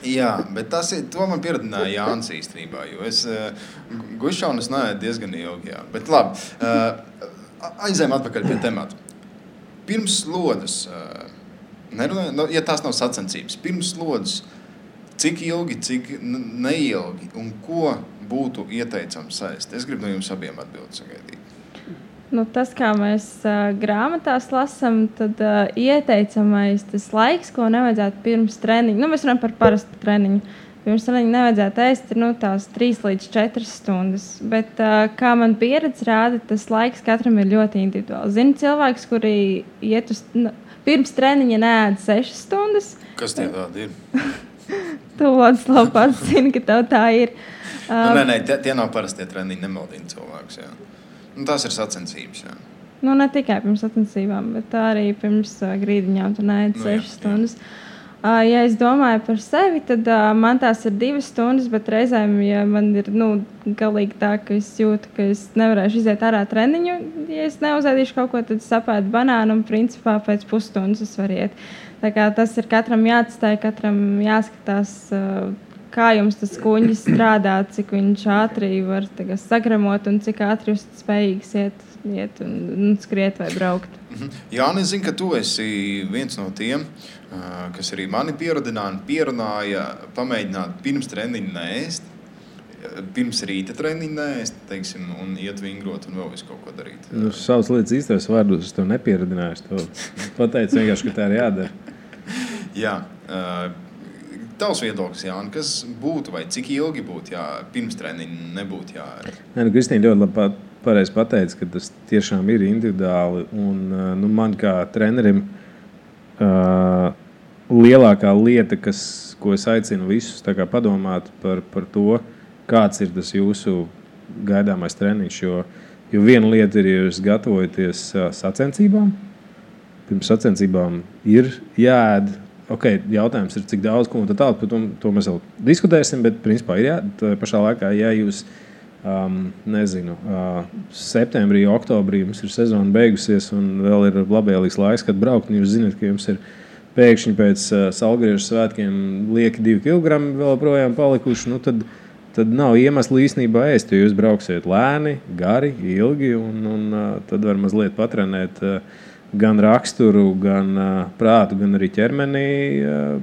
Jā, bet to man pieradināja Jānis īstenībā, jo es gušanu neēdu diezgan ilgi. Jā. Bet labi. Aizējām atpakaļ pie temata. Pirms slodzes, ja tās nav sacensības, pirms slodzes, cik ilgi, cik neilgi un ko būtu ieteicams ēst? Es gribu no jums abiem atbildi sagaidīt. Tas, kā mēs grāmatās lasām, tad ieteicamais tas laiks, ko nevajadzētu pirms treniņa. Mēs runājam par parastu treniņu. Pirms treniņa nevajadzētu ēst tās 3 līdz 4 stundas. Bet, kā man pieredze rāda, tas laiks katram ir ļoti individuāls. Zinu cilvēks, kuri iet pirms treniņa neēd 6 stundas. Kas tie tādi ir? Tu, Vladislav, pats zini, ka tev tā ir. Nē, tie nav parastie treniņi, nemaldina cilvēkus. Jā. Tās ir sacensības. Jā. Ne tikai pirms sacensībām, bet arī pirms grīdiņām tu neēd 6 stundas. Ja es domāju par sevi, tad man tās ir 2 stundas, bet reizēm, ja man ir galīgi tā, ka es jūtu, ka es nevarēšu iziet ārā treniņu, ja es neuzēdīšu kaut ko, tad sapētu banānu un principā pēc pusstundas es varu iet. Tā kā tas ir katram jāatstāj, katram jāskatās, kā jums tas kuņģis strādā, cik viņš ātri var sagramot un cik ātri jūs spējīgs iet un skriet vai braukt. Jāni, es zinu, ka tu esi viens no tiem, kas arī mani pierunāja pamēģināt pirms treniņa neēst, pirms rīta treniņa neēst, teiksim, un iet vingrot un vēl visu kaut ko darīt. Savas lietas īstais vārdos es tev nepieradināju, es tev pateicu vienkārši, ka tā ir jādara. Jā, tavs viedoklis, Jāni, kas būtu vai cik ilgi būtu pirms treniņa nebūtu jāēst? Kristīna ļoti labi pareizi pateica, ka tas tiešām ir individuāli, un man kā trenerim lielākā lieta, ko es aicinu visus padomāt par to, kāds ir tas jūsu gaidāmais treniņš, jo viena lieta ir, ja jūs gatavojaties sacensībām, pirms sacensībām ir jāēd, jautājums ir, cik daudz, ko un tā tālāk, par to mēs vēl diskutēsim, bet principā ir tā pašā laikā, ja jūs septembrī, oktobrī mums ir sezona beigusies un vēl ir labvēlīgs laiks, kad braukt, un jūs zināt, ka jums ir pēkšņi pēc Salgriežu svētkiem lieki 2 kilogrami vēl projām palikuši, tad tad nav iemesla īstenībā ēst, jo jūs brauksiet lēni, gari, ilgi, un tad var mazliet patrenēt gan raksturu, gan prātu, gan arī ķermenī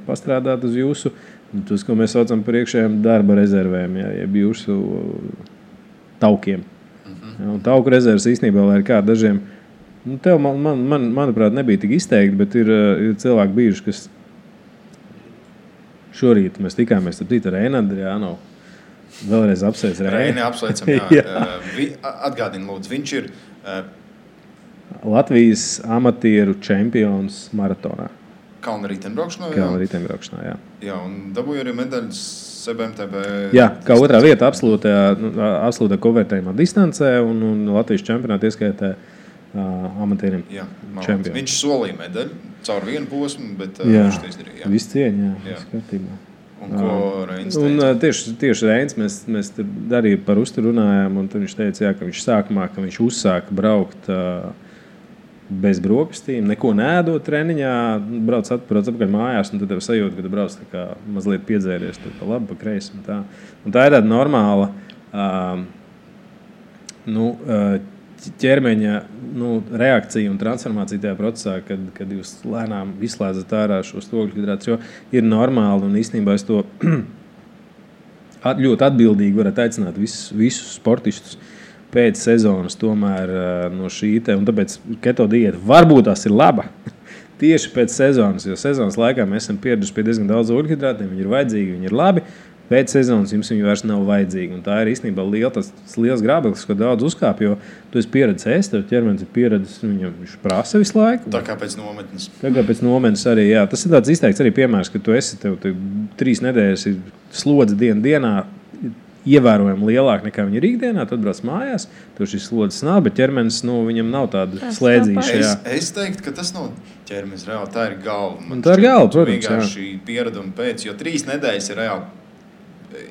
pastrādāt uz jūsu, tas, ko mēs saucam par iekšējiem darba rezervēm, jeb jūsu taukiem. Un tauku rezerves īstenībā, lai ir kā dažiem, tev, manuprāt, nebija tik izteikti, bet ir cilvēki bijuši, kas šorīt mēs tikāmies ar Reinu Andrijānovu. Vēlreiz apsveic Reini. Apsveicam, jā. Atgādini, lūdzu, viņš ir Latvijas amatieru čempions maratonā. Kalna riteņbraukšanā, jā. Jā, un dabūja arī medaļas CBMTB. Jā, kā otrā vieta absolūtā konvertējumā distancē un Latvijas čempionāta ieskaitē amatieriem čempionu. Viņš solīja medaļu caur vienu posmu, bet viņš to izdarīja. Jā, viss cieņa, jā. Skatībā. Un ko Reins teica? Un tieši Reins, mēs arī par uzturu runājām, un tad viņš teica, jā, ka viņš sākumā, ka viņš uzsāka braukt bez brokastīm, neko neēdot treniņā, brauc atpakaļ mājās, un tad tev sajūta, ka tu brauc tā kā mazliet piedzēries, tur pa labi, pa kreisi un tā. Un tā ir tāda normāla ķermeņa reakcija un transformācija tajā procesā, kad jūs lēnām izslēdzat ārā šos ogļhidrātus, jo ir normāli un īstenībā es to ļoti atbildīgi varētu aicināt visus sportistus pēc sezonas tomēr no šī te, un tāpēc keto diēta varbūt tās ir laba tieši pēc sezonas, jo sezonas laikā mēs esam pieraduši pie diezgan daudz ogļhidrātiem, viņi ir vajadzīgi, viņi ir labi. Pēc sezonas jums viņi vairs nav vajadzīgi. Un tā ir īstenībā liels grābeklis, ko daudz uzkāp, jo tu esi pieredzis ēst, tev ķermenis ir pieredzis, viņš prasa visu laiku. Tā kā pēc nometnes. Arī, jā. Tas ir tāds izteikts arī piemērs, ka tu esi, tev 3 nedēļas ir slodze dienā, ievērojami lielāk nekā viņi ir ikdienā, tad brauc mājās, tev šis slodzes nav, bet ķermenis, viņam nav tāda slēdzīša. Es teiktu, ka tas nav ķermenis reāli, tā ir galva. Tā ir galva, protams, vienkārši piereduma pēc, jo 3 nedēļas ir reāli.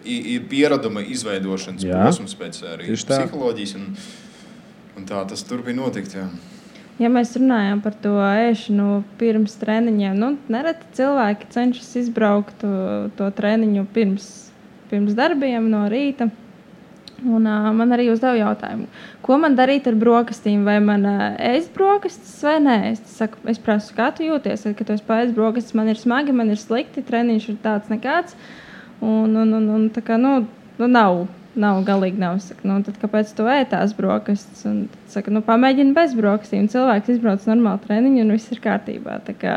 Ir piereduma izveidošanas posms pēc arī psiholoģijas, un tā tas turpina notikt. Jā. Ja mēs runājam par to ēšanu pirms treniņiem, nereti cilvēki cenšas izbraukt to treniņu pirms darbiem no rīta. Un man arī uzdeva jautājumu, ko man darīt ar brokastīm, vai man ēst brokastis vai nē. Es prasu, kā tu jūties, kad tu esi paēst brokastis, man ir smagi, man ir slikti, treniņš ir tāds nekāds. Un tā kā, nav galīgi nav. Saka, tad kāpēc tu ētās brokastis? Un tad saka, pamēģini bez brokastīm. Cilvēks izbrauc normālu treniņu un viss ir kārtībā. Tā kā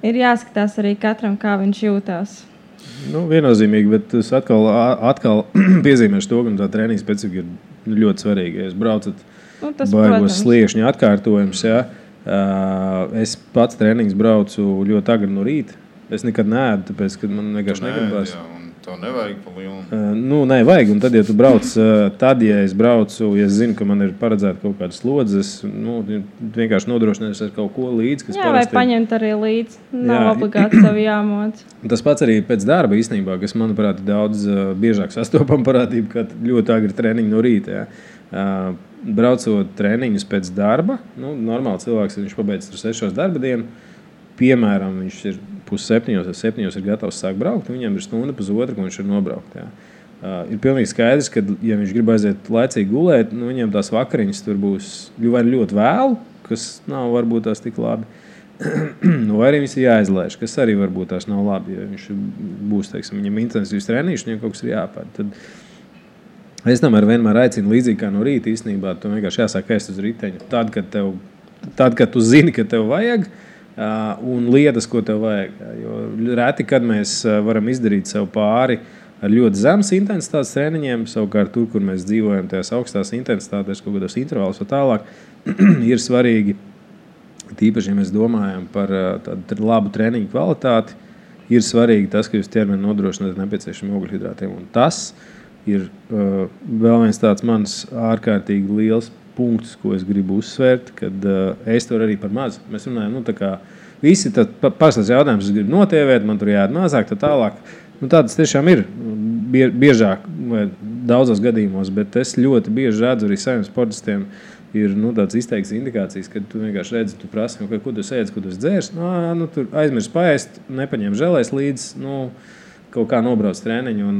ir jāskatās arī katram, kā viņš jūtās. Viennozīmīgi, bet es atkal piezīmēšu to, ka tā treniņa specifika ir ļoti svarīga. Ja jūs braucat baigos sliekšņa atkārtojums, jā. Es pats treniņus braucu ļoti agri no rīta. Es nekad neēdu, tāpēc, ka man vienkārši negribas. Jā, un to nevajag pa lielu. Nevajag, un tad, ja tu brauc, ja es braucu, ja es zinu, ka man ir paredzēta kaut kāda slodze, es vienkārši nodrošinājos ar kaut ko līdzi, kas vai paņemt arī līdzi. Nav obligāti sev jāmoc. Tas pats arī pēc darba īstenībā, kas, manuprāt, ir daudz biežāk sastopama parādība, kā ļoti agri treniņi no rīta. Jā. Braucot treniņus pēc darba, normāli cilvēks, viņš pabeidz 6 darba dienu, piemēram, viņš ir 6:30 vai 7:00 ir gatavs sākt braukt, un viņam ir stunda pusotra, ko viņš ir nobraukt. Jā. Ir pilnīgi skaidrs, ka, ja viņš grib aiziet laicīgi gulēt, viņam tās vakariņas tur būs vai ļoti vēlu, kas nav varbūt tās tik labi, vai arī viņas ir jāizlaiž, kas arī varbūt tās nav labi, ja viņš būs, teiksim, viņam intensīvs treniņš, viņam kaut kas ir jāpār. Tad es tomēr vienmēr aicinu līdzīgi kā no rīta īstenībā, tu vienkārši jāsāk ēst uz riteņa. Tad, kad tu zini, ka tev vajag, un lietas, ko tev vajag. Jo reti, kad mēs varam izdarīt sev pāri ar ļoti zemes intensitātes treniņiem, savukārt tur, kur mēs dzīvojam tajās augstās intensitātēs, kaut kādos intervālus vai tālāk, ir svarīgi, tīpaši, ja mēs domājam par tādu labu treniņu kvalitāti, ir svarīgi tas, ka jūs ķermeni nodrošināt nepieciešamiem ogļhidrātiem. Un tas ir vēl viens tāds mans ārkārtīgi liels punkts, ko es gribu uzsvērt, kad es to arī par mazu. Mēs runājam, tā kā visi pārstāsts jautājums, es gribu notievēt, man tur jāiet mazāk, tā tālāk. Tādas tiešām ir biežāk vai daudzos gadījumos, bet es ļoti bieži redzu arī saviem sportistiem ir tāds izteikts indikācijas, kad tu vienkārši redzi, tu prasi, ko tu ēdzi, ko tu dzērs, tur aizmirst paēst, nepaņem želēs līdz, kaut kā nobrauc treniņu, un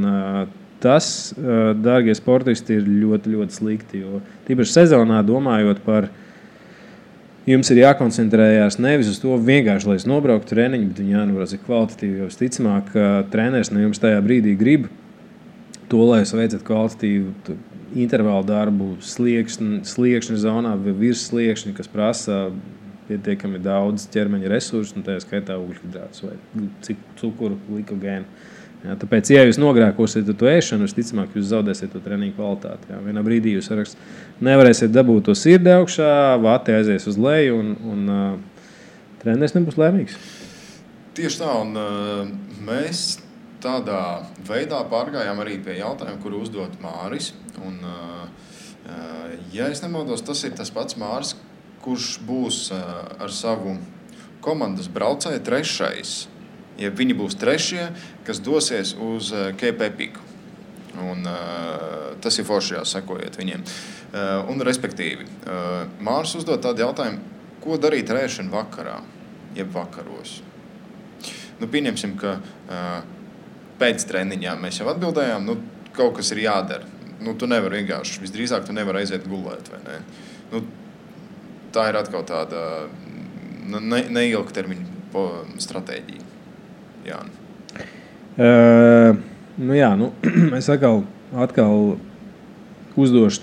tas, dārgie sportisti, ir ļoti, ļoti slikti. Jo tīpaši sezonā domājot par jums ir jākoncentrējās nevis uz to vienkārši, lai es nobrauktu treniņu, bet viņi jānobrauc kvalitatīvi. Jo visticamāk, treneris no jums tajā brīdī grib to, lai jūs veicat kvalitatīvu intervālu darbu sliekšņa zonā vai virs sliekšņa, kas prasa pietiekami daudz ķermeņa resursu, un tajā skaitā ugļhidrātus vai cukuru, glikogēnu. Jā, tāpēc, ja jūs nogrēkosiet to ēšanu, visticamāk, jūs zaudēsiet to treniņu kvalitāti. Jā. Vienā brīdī jūs nevarēsiet dabūt to sirdi augšā, vati aizies uz leju, un treneris nebūs laimīgs. Tieši tā, un mēs tādā veidā pārgājām arī pie jautājuma, kuru uzdot Māris. Un, ja es nemaldos, tas ir tas pats Māris, kurš būs ar savu komandas braucēju trešais. Ja viņi būs trešie, kas dosies uz Cape Epic. Un, tas ir forši, sekojiet viņiem. Un, respektīvi, Māris uzdod tādu jautājumu, ko darīt ēšanu vakarā, jeb vakaros. Nu, pieņemsim, ka pēc treniņā mēs jau atbildējām, nu, kaut kas ir jādara. Nu, tu nevari vienkārši, visdrīzāk tu nevari aiziet gulēt, vai ne? Nu, tā ir atkal tāda neilgtermiņa stratēģija. Jāni. Es atkal uzdošu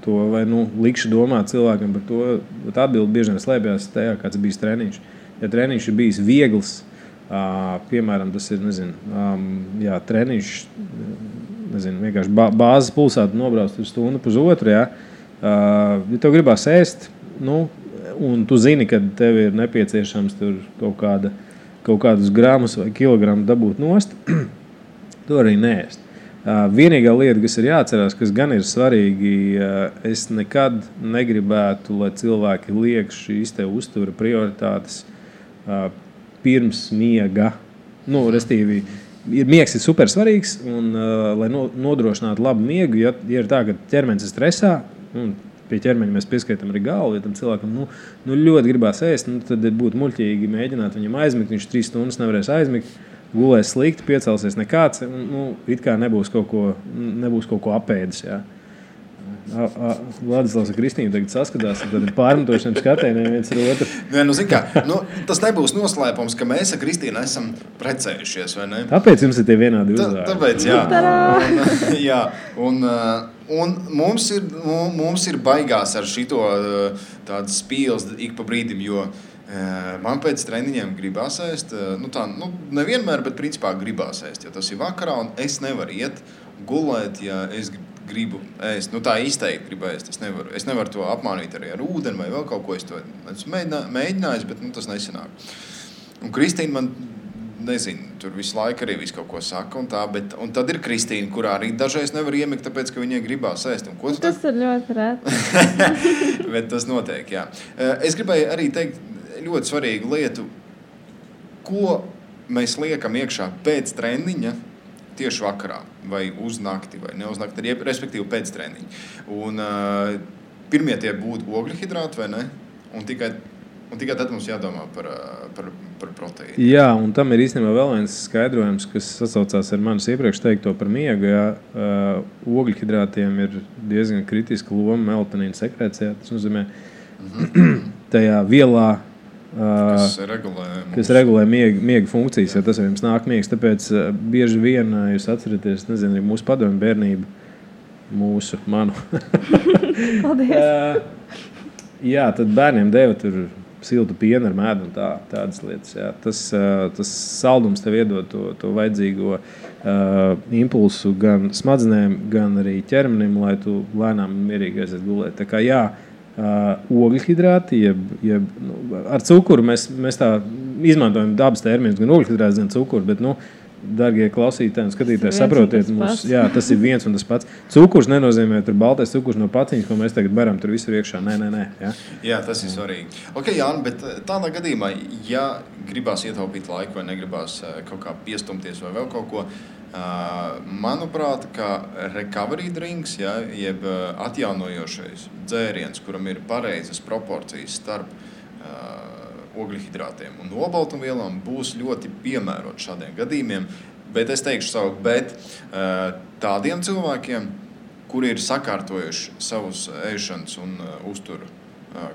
to vai likšu domāt cilvēkam par to, bet atbildi bieži vien slēpjas tajā, kāds bijis treniņš. Ja treniņš ir bijis viegls, piemēram, tas ir, treniņš, vienkārši bāzes pulsātu nobrauc uz stundu pusotru, ja tev gribās ēst, un tu zini, ka tev ir nepieciešams tur kaut kādus gramus vai kilogramu dabūt nost, to arī neēst. Vienīgā lieta, kas ir jāatcerās, kas gan ir svarīgi, es nekad negribētu, lai cilvēki liek šīs te uztura prioritātes pirms miega. Restīvi, miegs ir super svarīgs, un lai nodrošinātu labu miegu, ja ir tā, ka ķermenis ir stresā, pie ķermeņa mēs pieskaitam arī galvu, ja tam cilvēkam ļoti gribās ēst, tad būtu muļķīgi mēģināt viņam aizmigt, viņš 3 stundas nevarēs aizmigt, gulēs slikti, piecelsies nekāds, it kā nebūs kaut ko apēdis. Jā. Vladislavs un Kristīna tagad saskatās, tad ir pārmetošiem skatieniem viens ar otru. Tas nebūs noslēpums, ka mēs ar Kristīnu esam precējušies, vai ne? Tāpēc jums ir tie vienādi uzvārdi. Tāpēc, jā. Un mums ir baigās ar šito tādas spīles ik pa brīdim, jo man pēc treniņiem gribās ēst, nevienmēr, bet principā gribās ēst, jo tas ir vakarā, un es nevaru iet gulēt, ja es gribu ēst. Tā izteikti gribu ēst, es nevaru to apmānīt arī ar ūdeni vai vēl kaut ko, es to esmu mēģinājis, bet tas nesanāk. Un Kristīna man, nezinu, tur visu laiku arī visu kaut ko saka un tā, un tad ir Kristīna, kurā arī dažreiz nevar iemigt, tāpēc, ka viņai gribās ēst. Tas ir ļoti reti. Bet tas notiek, jā. Es gribēju arī teikt ļoti svarīgu lietu, ko mēs liekam iekšā pēc treniņa tieši vakarā, vai uz nakti, vai ne uz nakti, respektīvi pēc treniņa. Un pirmie tie būtu ogļhidrāti, vai ne? Un tikai tad mums jādomā par proteīnu. Jā, un tam ir īstenībā vēl viens skaidrojums, kas sasaucās ar manis iepriekš teikto par miegu. Ogļhidrātiem ir diezgan kritiska loma melatonīna sekrecijā. Tas nozīmē tajā vielā, kas regulē miega funkcijas, ja tas ar jums nāk miegs. Tāpēc bieži vien jūs atceraties, nezinu, mūsu padomju bērnību, manu. Paldies. Jā, tad bērniem deva tur siltu pienu ar mēdu un tādas lietas. Jā. Tas saldums tev iedod to vajadzīgo impulsu gan smadzenēm, gan arī ķermenim, lai tu lēnām un mierīgi aiziet gulēt. Tā kā jā, ogļhidrāti, ar cukuru mēs tā izmantojam dabas terminus, gan ogļhidrāts, gan cukuru, bet, dargie klausītāji un skatītāji, saprotiet, tas ir viens un tas pats. Cukurs nenozīmē tur baltais cukurs no paciņas, ko mēs tagad baram tur visur iekšā. Nē. Jā, tas ir svarīgi. Ok, Jāni, bet tādā gadījumā, ja gribās ietaupīt laiku vai negribās kaut kā piestumties vai vēl kaut ko, manuprāt, ka recovery drinks, jeb atjaunojošais dzēriens, kuram ir pareizas proporcijas starp ogļhidrātiem un olbaltumvielām, būs ļoti piemērots šādiem gadījumiem. Bet es teikšu savu, bet tādiem cilvēkiem, kuri ir sakārtojuši savus ēšanas un uzturu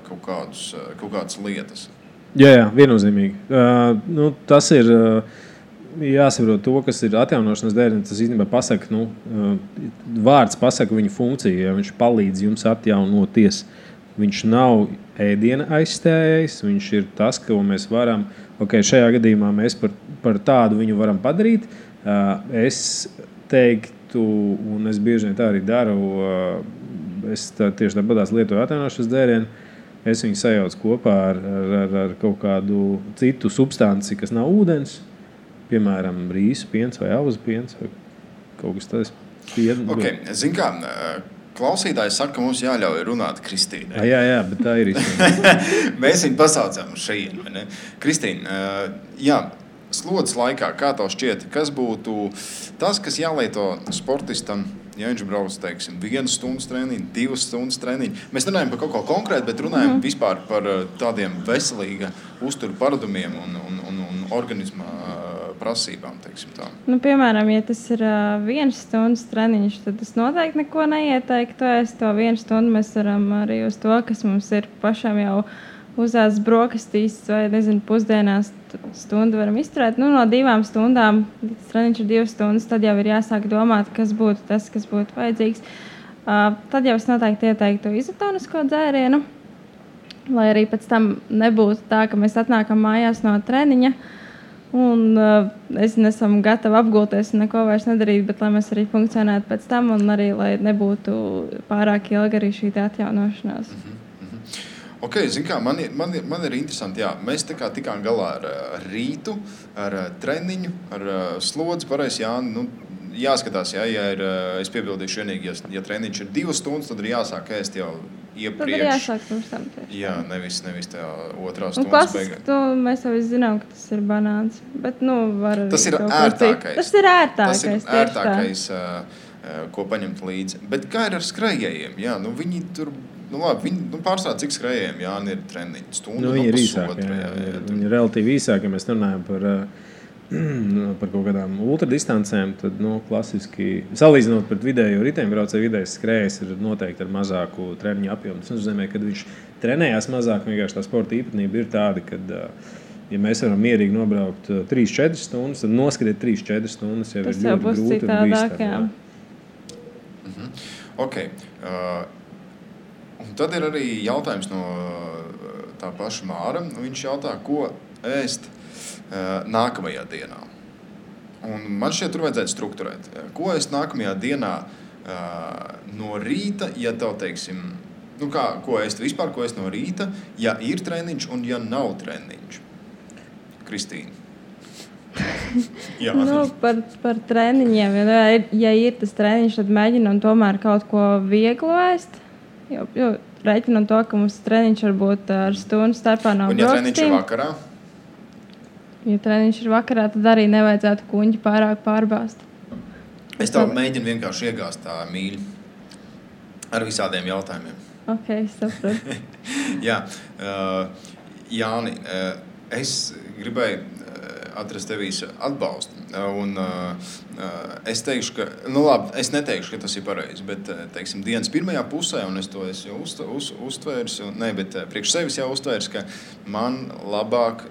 kaut kādas lietas. Jā, viennozīmīgi. Tas ir jāsaprot to, kas ir atjaunošanas dēļ. Tas īstenībā pasaka, vārds pasaka viņu funkciju, ja viņš palīdz jums atjaunoties. Viņš nav ēdiena aizstājējs, viņš ir tas, ko mēs varam, šajā gadījumā mēs par tādu viņu varam padarīt. Es teiktu, un es bieži vien tā arī daru, es tieši tāpatās lietoju atjaunošanas dēļienu, es viņu sajaucu kopā ar kaut kādu citu substanci, kas nav ūdens, piemēram, rīsu piens vai auzu piens vai kaut kas tāds. Zin kā, klausītājs saka, ka mums jāļauj runāt Kristīnai. Jā, bet tā ir īstenībā. Mēs viņu pasaucām uz šejienu, vai ne? Kristīna, slodzes laikā, kā tev šķiet, kas būtu tas, kas jālieto sportistam, ja viņš brauc, teiksim, 1 stundas treniņu, 2 stundas treniņu. Mēs runājam par kaut ko konkrētu, bet runājam vispār par tādiem veselīga uzturu paradumiem un organisma prasībām, teiksim tā. Piemēram, ja tas ir 1 stundas treniņš, tad es noteikti neko neieteiktu. To 1 stundu mēs varam arī uz to, kas mums ir pašam jau uzās brokastīs vai, pusdienās stundu varam izturēt. No 2 stundām, tas treniņš ir 2 stundas, tad jau ir jāsāk domāt, kas būtu tas, kas būtu vajadzīgs. Tad jau es noteikti ieteiktu izotonisko dzērienu, lai arī pēc tam nebūtu tā, ka mēs atnākam mājās no treniņa un nesam gatavi apgulties un neko vairs nedarīt, bet lai mēs arī funkcionētu pēc tam un arī, lai nebūtu pārāk ilga arī šī atjaunošanās. Zin kā, man ir interesanti, mēs tikām galā ar rītu, ar treniņu, ar slodzi, pareizi, jāskatās, ja es piebildīšu vienīgi, ja treniņš ir 2 stundas, tad ir jāsāk ēst jau iepriekš. Tad ir jāsāk pirms tam tieši. Jā, nevis tajā 2 stundas beigā. Mēs jau zinām, ka tas ir banāns, bet var arī tas ir ērtākais. Tas ir ērtākais, ko paņemt līdzi. Bet kā ir ar skrējējiem? Jā, viņi tur... viņi pārstāv, cik skrējējiem ir treniņi stundu, viņi ir īsāki. Viņi ir relatīvi īsāki, ja mēs runājam par kaut kādām ultradistancēm, tad klasiski, salīdzinot pret vidējo riteņbraucēju, vidējais skrējējs ir noteikti ar mazāku treniņu apjomu. Tas nozīmē, ka viņš trenējās mazāk, vienkārši tā sporta īpatnība ir tāda, ka, ja mēs varam mierīgi nobraukt 3-4 stundas, tad noskatīt 3-4 stundas jau ir ļoti grūti un bīstami. Un tad ir arī jautājums no tā paša Māra. Viņš jautā, ko ēst nākamajā dienā. Un man šķiet, tur vajadzētu strukturēt. Ko ēst nākamajā dienā no rīta, ja tev, teiksim, ko ēst vispār, ko ēst no rīta, ja ir treniņš un ja nav treniņš? Kristīna. Par treniņiem. Ja ir tas treniņš, tad mēģinam tomēr kaut ko vieglu ēst. Jo reiķinam to, ka mums treniņš varbūt ar stundu starpā nav brokastīm. Un ja treniņš ir vakarā? Ja treniņš ir vakarā, tad arī nevajadzētu kuņģi pārāk pārbāzt. Es tev mēģinu vienkārši iegāzt tā mīļi ar visādiem jautājumiem. Saprotu. Jā, Jāni, es gribēju atrast tevīs atbalstu. Un es teikšu, ka, es neteikšu, ka tas ir pareizi, bet, teiksim, dienas pirmajā pusē, un es to esmu uztvērs, bet priekš sevis jau uztvērs, ka man labāk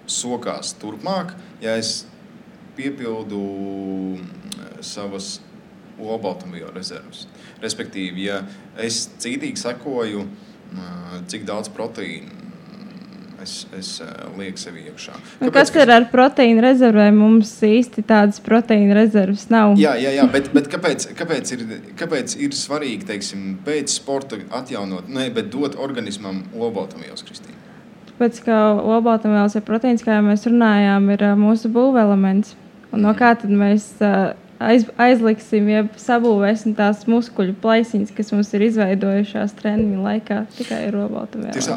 sokās turpmāk, ja es piepildu savas olbaltumvielu rezervas. Respektīvi, ja es cītīgi sekoju, cik daudz proteīnu es lieku sevi iekšā. Kas ir ar proteīnu rezervēm? Mums īsti tādas proteīnu rezervas nav. Jā, bet kāpēc ir svarīgi, teiksim, pēc sporta atjaunot, bet dot organismam olbaltumvielas, Kristīna? Tāpēc, ka olbaltumvielas ir proteīns, kā jau mēs runājām, ir mūsu būvelements. Un no kā tad mēs aizliksim, ja sabūvēsim tās muskuļu plaisiņas, kas mums ir izveidojušās treniņu laikā, tikai ir olbaltumvielas.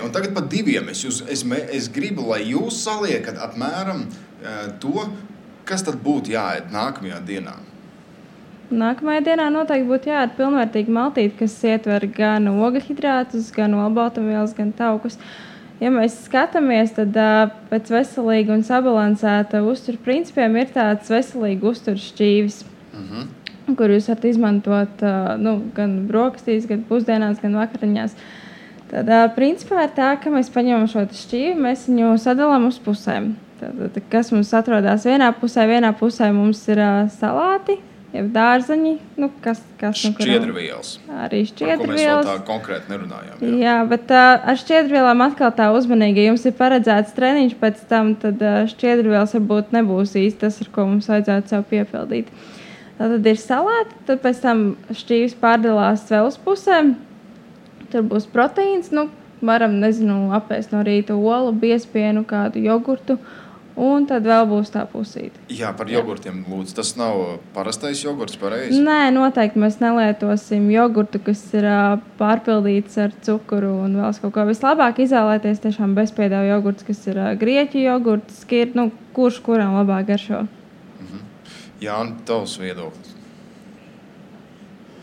Un tagad par 2. Es gribu, lai jūs saliekat apmēram to, kas tad būtu jāēd nākamajā dienā. Nākamajā dienā noteikti būtu jāēd pilnvērtīgi maltīti, kas ietver gan ogļhidrātus, gan olbaltumvielas, gan taukus. ja mēs skatāmies, tad pēc veselīga un sabalansēta uztura principiem ir tāds veselīga uztura šķīvis, kur jūs varat izmantot gan brokastīs, gan pusdienās, gan vakariņās. Tad principā ir tā, ka mēs paņemam šo šķīvi, mēs viņu sadalām uz pusēm. Tad, kas mums atrodas vienā pusē mums ir salāti, jeb dārzeņi, kas šķiedrvielas. Arī šķiedrvielas. Par ko mēs vēl tā konkrēti nerunājām. Jā, bet ar šķiedrvielām atkal tā uzmanīgi. Ja jums ir paredzēts treniņš pēc tam, tad šķiedrvielas varbūt nebūs īsti tas, ar ko mums vajadzētu sev piepildīt. Tad ir salāti, tad pēc tam šķīvis pārdalās vēl uz pusēm. Tur būs proteīns, varam, apēst no rīta olu, biespienu, kādu jogurtu. Un tad vēl būs tā pusīte. Jā, par jogurtiem lūdzu. Tas nav parastais jogurts, pareizi? Nē, noteikti mēs nelietosim jogurtu, kas ir pārpildīts ar cukuru un vēl kaut ko. Vislabāk izvēlēties tiešām bezpiedāvu jogurts, kas ir grieķu jogurts, kurš kuram labāk garšo. Jā, un tavs viedoklis?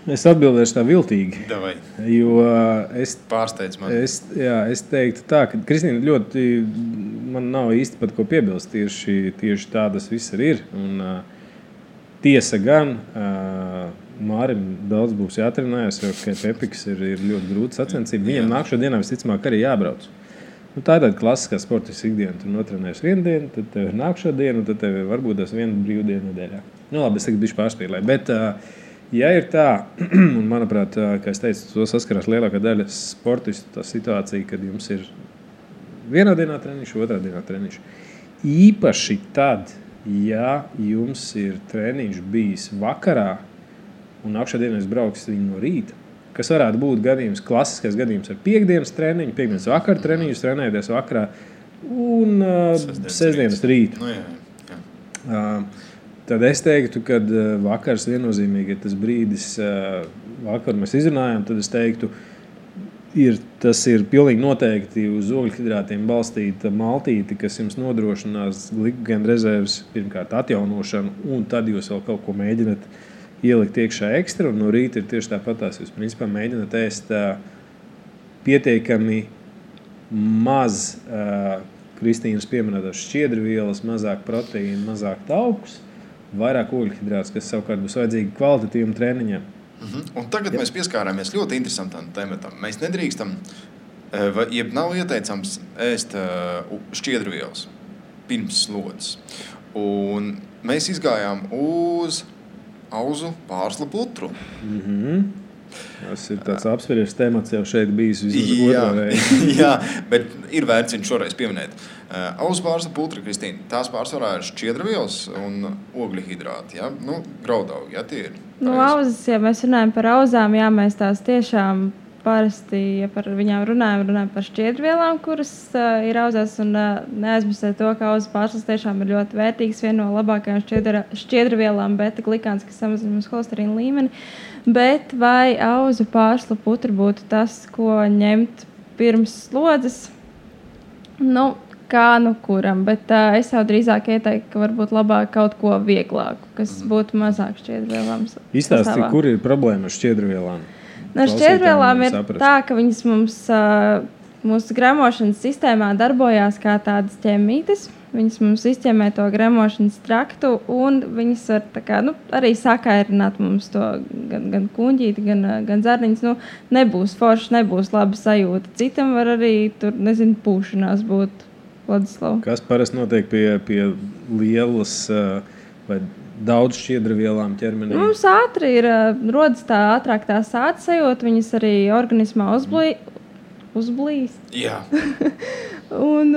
Es atbildēšu tā viltīgi. Davai. Jo pārsteidz mani. Es teiktu tā, ka Kristīna ļoti, man nav īsti pat ko piebilst. Tieši tā tas viss ir. Un tiesa gan, Mārim daudz būs jātrenējas, jo Pepiks ir ļoti grūti sacensība. Viņam nākšo dienā visticamāk arī jābrauc. Tā ir tāda klasiskā sportiskā ikdiena. Tu notrenējies vienu dienu, tad tev ir nākšo dienu, tad tev varbūt tas viena brīvdiena nedēļā. Labi, es tagad bišķi pārspīlēju, bet ja ir tā, un manuprāt, kā es teicu, to saskarās lielākā daļa sportistu, tā situācija, kad jums ir vienā dienā treniņš, otrā dienā treniņš. Īpaši tad, ja jums ir treniņš bijis vakarā, un nākšā dienā es braukšu viņu no rīta, kas varētu būt gadījums, klasiskais gadījums ar piekdienas treniņu, piekdienas vakara treniņus, trenēties vakarā, un sestdienas rītu. Jā. Tad es teiktu, ka vakars viennozīmīgi ir tas brīdis, vakar mēs izrunājām, tad es teiktu, tas ir pilnīgi noteikti uz ogļhidrātiem balstīta maltīte, kas jums nodrošinās glikogēna rezerves pirmkārt atjaunošanu, un tad jūs vēl kaut ko mēģināt ielikt iekšā ekstra, un no rīta ir tieši tāpatās. Jūs principā mēģināt ēst pietiekami maz Kristīnas pieminētās šķiedrvielas, mazāk proteīnu, mazāk taukus, vairāk ogļhidrātus, kas savukārt būs vajadzīgi kvalitatīvam treniņam. Un tagad mēs pieskārāmies ļoti interesantam tematam. Mēs nedrīkstam, jeb nav ieteicams ēst šķiedrvielas pirms slodzes. Un mēs izgājām uz auzu pārslu putru. Tas ir tāds apsveries temats jau šeit bijis vismaz otrā reize. Jā, bet ir vērts viņu šoreiz pieminēt. Auzu pārslu putra, Kristīna, tās pārsvarā ir šķiedrvielas un ogļhidrāti, ja? Graudaugi, ja tie ir? Auzas, ja mēs runājam par auzām, jā, mēs tās tiešām parasti, ja par viņām runājam par šķiedrvielām, kuras ir auzās, un neaizmirsēt to, ka auzu pārslas tiešām ir ļoti vērtīgs, viena no labākajām šķiedrvielām, beta-glikāns, kas samazina mums holesterīna līmeni. Bet vai auzu pārslu putra būtu tas, ko ņemt pirms slodzes? Kā kuram, bet es jau drīzāk ieteiktu, ka varbūt labāk kaut ko vieglāku, kas būtu mazāk šķiedrvielām. Izstāsti, kur ir problēma ar šķiedrvielām? Šķiedrvielām ir tā, ka viņas mums mūsu gremošanas sistēmā darbojās kā tādas ķemītes. Viņas mums izķemē to gremošanas traktu, un viņas var arī sakairināt mums to gan kuņģīti, gan zarniņas. Nebūs forši, nebūs laba sajūta. Citam var arī tur, pūšanās būt. Vladislav. Kas parasti notiek pie lielas vai daudz šķiedrvielām ķermenī? Mums ātri rodas ātrāk tā sāta sajūta, viņas arī organismā uzblīst. Jā. un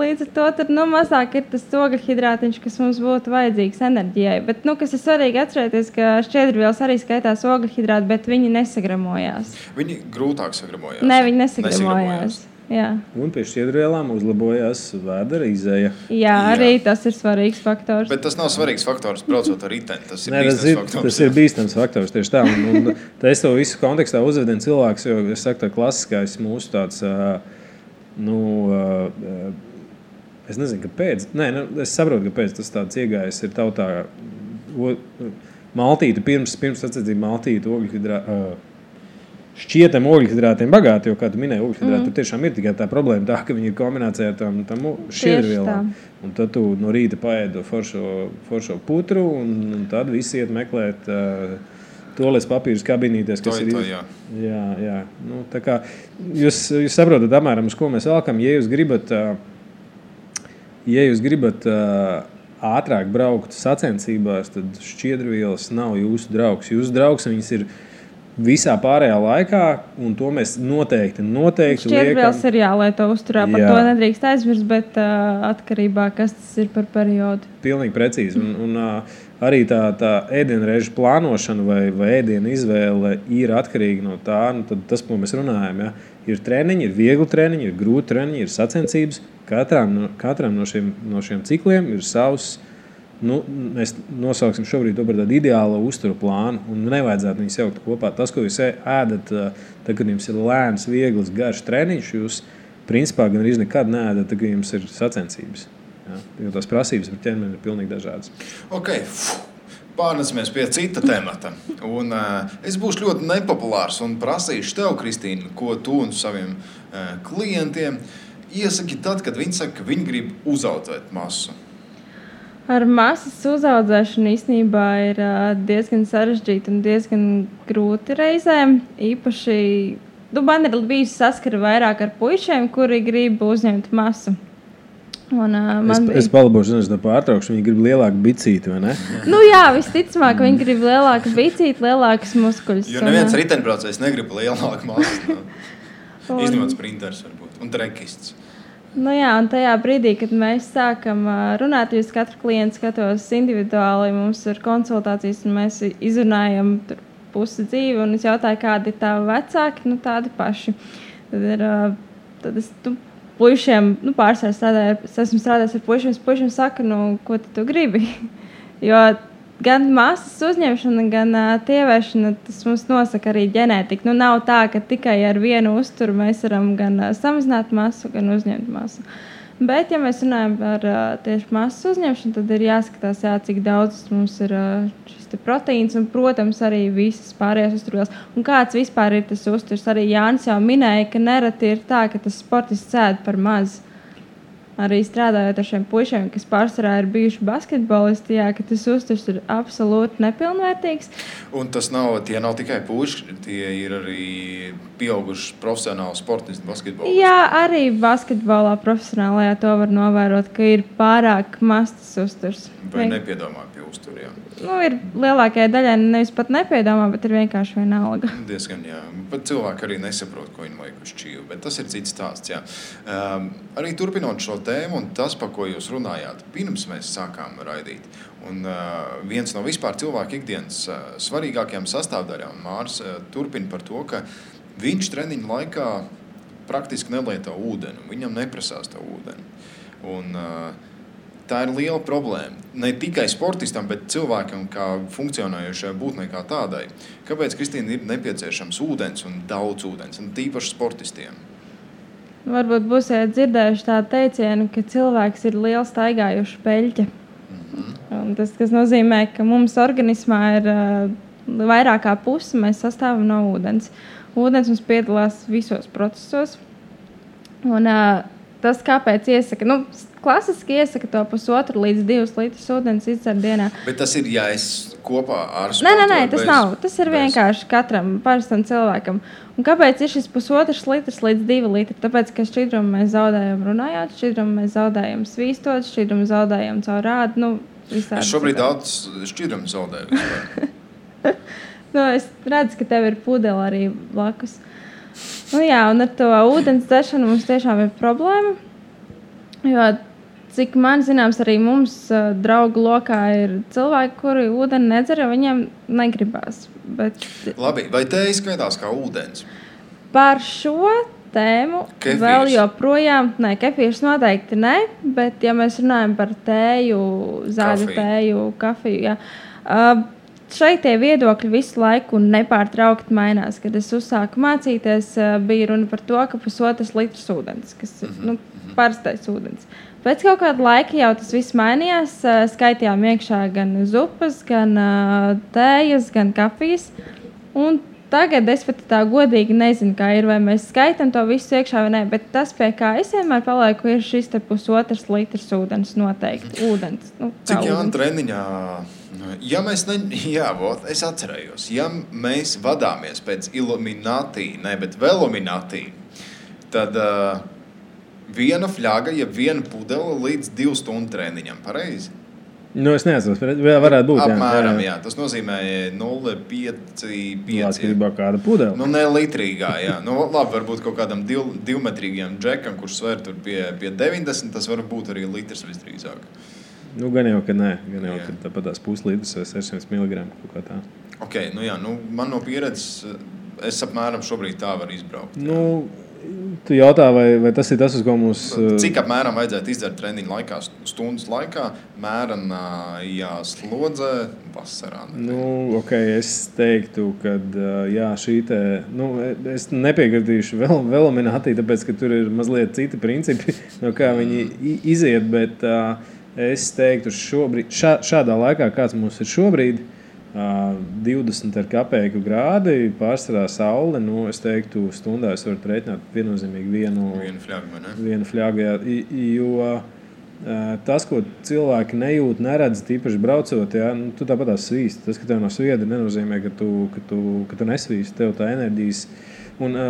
līdz ar to tad, mazāk ir tas ogļhidrātiņš, kas mums būtu vajadzīgs enerģijai. Bet, kas ir svarīgi atcerēties, ka šķiedrvielas arī skaitās ogļhidrāti, bet viņi nesagramojās. Viņi grūtāk sagramojās? Nē, viņi nesagramojās. Jā. Un pie šķiedrvielām uzlabojās vēdera izeja. Jā, arī tas ir svarīgs faktors. Bet tas nav svarīgs faktors, braucot ar riteni. Tas ir bīstams faktors. Tas ir bīstams faktors, tieši tā. Un es to visu kontekstā uzvedinu cilvēks, jo es saku, tā klasiskais mūsu tāds, es nezinu, kāpēc. Es saprotu, kāpēc tas tāds iegājis ir tautā maltīte, pirms sacensību maltīte, šķietam ogļhidrātiem bagāti, jo, kā tu minēji, ogļhidrāti tiešām ir tikai tā problēma tā, ka viņi ir kombinācijā ar tam šķiedrvielām. Un tad tu no rīta paēdi foršo putru, un tad visi iet meklēt toalets papīrus kabinītēs, kas ir... Jā. Nu, tā kā jūs saprotat apmēram, uz ko mēs velkam. Ja jūs gribat ātrāk braukt sacensībās, tad šķiedrvielas nav jūsu draugs. Jūsu draugs viņas ir visā pārējā laikā, un to mēs noteikti šķiedrvielas ir jālieto uzturā, par to nedrīkst aizmirst, bet atkarībā, kas tas ir par periodu. Pilnīgi precīzi. Un arī tā ēdienreižu plānošana vai ēdienu izvēle ir atkarīga no tā, tad tas, ko mēs runājam, ja? Ir treniņi, ir viegli treniņi, ir grūti treniņi, ir sacensības. Katram no šiem cikliem ir savs, mēs nosauksim šobrīd to par tādu ideālu uzturu plānu, un nevajadzētu viņus jaukt kopā. Tas, ko jūs ēdat, tad, kad jums ir lēns, viegls, garš treniņš, jūs principā gan arī nekad neēdat, tad, kad jums ir sacensības. Ja? Jo tās prasības par ķermeni ir pilnīgi dažādas. Ok, pārnesamies pie cita temata. Un es būšu ļoti nepopulārs un prasīšu tev, Kristīna, ko tu un saviem klientiem iesaki tad, kad viņi saka, ka viņi grib uzaudzēt masu. Ar masas uzaudzēšanu īstenībā ir diezgan sarežģīti un diezgan grūti reizēm. Īpaši, man ir bijusi saskara vairāk ar puišiem, kuri grib uzņemt masu. Un, es palabošu, no pārtraukšu, viņi grib lielāku bicīti, vai ne? Jā, visticamāk, viņi grib lielāku bicīti, lielākas muskuļus. Jo neviens riteņbraucējs negrib lielāku masu. Izņemot sprinters varbūt un trekists. Un tajā brīdī, kad mēs sākam runāt, jūs katru klientu skatos individuāli, mums ir konsultācijas un mēs izrunājam pusi dzīvi un es jautāju, kādi ir tavi vecāki, tādi paši. Tad es puišiem, pārsvarā esmu strādājis ar puišiem saka, ko tu gribi? Jo gan masas uzņemšana, gan tievēšana, tas mums nosaka arī ģenētika. Nav tā, ka tikai ar vienu uzturu mēs varam gan samazināt masu, gan uzņemt masu. Bet, ja mēs runājam par tieši masas uzņemšanu, tad ir jāskatās, cik daudz mums ir šis proteīns un, protams, arī visas pārējās uzturvielas. Un kāds vispār ir tas uzturs? Arī Jānis jau minēja, ka nereti ir tā, ka tas sportists ēd par maz. Arī strādājot ar šiem puišiem, kas pārsvarā ir bijuši basketbolisti, ka tas uzturs ir absolūti nepilnvērtīgs. Un tie nav tikai puiši, tie ir arī pieauguši profesionāli sportisti basketbolisti. Jā, arī basketbolā profesionālajā to var novērot, ka ir pārāk mazs tas uzturs. Vai nepiedomā pie uzturiem? Ir lielākajai daļai nevis pat nepiedomā, bet ir vienkārši vienalga. Diezgan, jā. Pat cilvēki arī nesaprot, ko viņi vajag uz čīvu, bet tas ir cits stāsts, jā. Arī turpinot šo tēmu un tas, par ko jūs runājāt, pirms mēs sākām raidīt. Un viens no vispār cilvēku ikdienas svarīgākajām sastāvdaļām, Māris turpina par to, ka viņš treniņu laikā praktiski nelieto ūdeni, viņam neprasās to ūdeni. Un tā ir liela problēma. Ne tikai sportistam, bet cilvēkam kā funkcionējošai būtnei kā tādai. Kāpēc, Kristīna, ir nepieciešams ūdens un daudz ūdens, un tīpaši sportistiem? Varbūt būsiet dzirdējuši tādu teicienu, ka cilvēks ir liela staigājuša peļķe. Un tas nozīmē, ka mums organismā ir vairāk kā pusi, mēs sastāvam no ūdens. Ūdens mums piedalās visos procesos. Un tas, kāpēc iesaka, klasiski iesaka to 1,5 līdz 2 litrus ūdens izdzert dienā. Bet tas ir jāies kopā ar sportu? Nē, tas nav. Tas ir vienkārši katram parastam cilvēkam. Un kāpēc ir šis 1,5 litrs līdz 2 litri? Tāpēc, ka šķidrumu mēs zaudējam runājot, šķidrumu mēs zaudējam svīstot, šķidrumu zaudējam caur rādu. Es šobrīd daudz šķidrumu zaudēju. Es redzu, ka tev ir pudele arī blakus. Un ar to ūdens dzeršanu mums tiešām ir problēma. Jo, cik man zināms, arī mums draugu lokā ir cilvēki, kuri ūdeni nedzer, jo viņiem negribās. Labi, vai tēja skaitās kā ūdens? Par šo tēmu kefīrs. Vēl joprojām, kefīrs noteikti ne, bet ja mēs runājam par tēju, zāļu tēju, kafiju, šeit tie viedokļi visu laiku nepārtraukti mainās. Kad es uzsāku mācīties, bija runa par to, ka 1,5 litrs ūdens, kas ir parastais ūdens. Pēc kaut kāda laika jau tas viss mainījās. Skaitījām iekšā gan zupas, gan tējas, gan kafijas. Un tagad es pat tā godīgi nezinu, kā ir, vai mēs skaitam to visu iekšā vai nē, bet tas, pie kā es vienmēr palieku, ir šis te 1,5 litrs ūdens noteikti. Ūdens. Cik Jāna treniņā, ja mēs es atcerējos, ja mēs vadāmies pēc Illuminati, bet Veluminati, tad viena fļaga, ja viena pudele līdz 2 stundu treniņam, pareizi? Es neatceros, varētu būt. Apmēram, jā. Tas nozīmē 0,5. Atkarībā kāda pudele. Ne litrīgā, jā. Labi, varbūt kaut kādam 2-metrīgajam džekam, kurš sver tur pie 90, tas var būt arī litrs visdrīzāk. Gan jau, ka nē. Gan jau, ka tāpat tās puslitrs vai 600 mg kaut kā tā. Ok, man no pieredzes, es apmēram šobrīd tā var izbraukt. Tu jautā, vai tas ir tas, uz ko mums... Cik apmēram vajadzētu izdzert treniņu laikā, stundas laikā, mērenā slodzē, vasarā? Es teiktu, ka šī te... es nepiekritīšu Veluminati, tāpēc, ka tur ir mazliet citi principi, no kā viņi iziet, bet es teiktu šobrīd, šādā laikā, kāds mums ir šobrīd, 20 ar kapeiku grādi, pārsvarā saule, es teiktu, stundā es varu rēķināt viennozīmīgi vienu fļagu, jo tas, ko cilvēki nejūt, neredz, tīpaši braucot, tu tāpat tās svīsti. Tas, ka tev nav sviedri, nenozīmē, ka tu nesvīsti, tev tā enerģijas. Un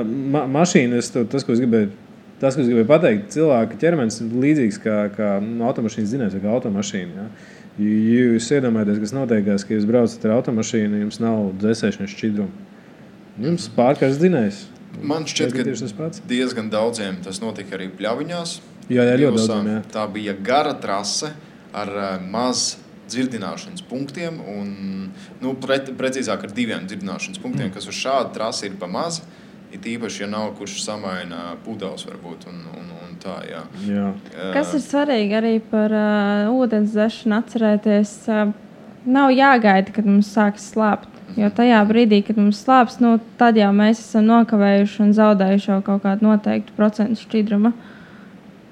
mašīna, tas, ko es gribēju pateikt, cilvēka ķermenis ir līdzīgs kā automašīnas dzinējs vai kā automašīna, ja? Ja jūs iedomājaties, kas notiekās, ka jūs braucat ar automašīnu, jums nav dzēsēšanas šķidrumu. Jums pārkārs dzinējs. Man šķiet, ka diezgan daudziem tas notika arī pļaviņās. Jā, ļoti daudziem, jā. Tā bija gara trase ar maz dzirdināšanas punktiem un, precīzāk ar 2 dzirdināšanas punktiem, kas uz šādu trasi ir pa maz. Ir īpaši, ja nav kurš samaina pudeles varbūt un tā, jā. Kas ir svarīgi arī par ūdens dzeršanu atcerēties, nav jāgaida, kad mums sāks slāpt. Jo tajā brīdī, kad mums slāps, tad jau mēs esam nokavējuši un zaudējuši jau kaut kādu noteiktu procentu šķidruma.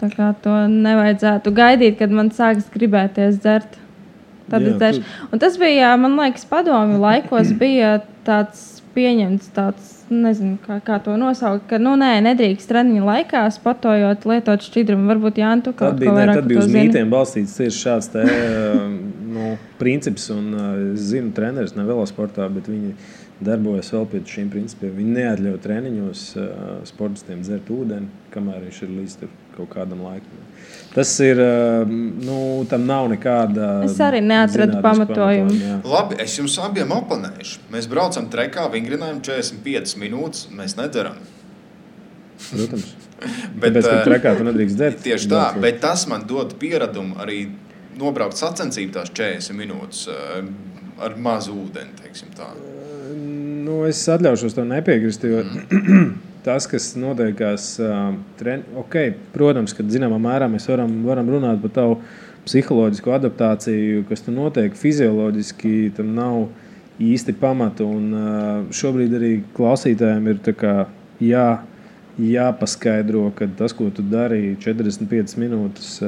Tā kā to nevajadzētu gaidīt, kad man sāks gribēties dzert. Tad es dzeršu. Un tas bija, man liekas, padomju laikos bija tāds pieņemts tāds, nezinu, kā to nosaukt, ka, nedrīkst treniņa laikā sportojot, lietot šķidrumu. Varbūt, Jāni, tu kaut ko vairāk tad bija uz mītiem balstīts tieši šāds princips, un es zinu treneris ne velosportā, bet viņi darbojas vēl pie šīm principiem. Viņi neatļauj treniņos sportistiem dzert ūdeni, kamēr viņš ir līdz kaut kādam laikam. Tas ir, tam nav nekāda... Es arī neatradu pamatojumu. Labi, es jums abiem oponēšu. Mēs braucam trekā, vingrinājam 45 minūtes, mēs nedzeram. Protams. Tāpēc, ka trekā tu nedrīkst dzert. Tieši tā, bet tas man dod pieradumu arī nobraukt sacensību tās 40 minūtes ar mazu ūdeni, teiksim tā. Es atļaušos to nepiekrist, jo... Tas, kas notiekās, protams, ka zināmā mērā mēs varam runāt par tavu psiholoģisko adaptāciju, kas tur notiek fizioloģiski, tam nav īsti pamata. Un šobrīd arī klausītājiem ir tā kā jāpaskaidro, ka tas, ko tu dari 45 minūtes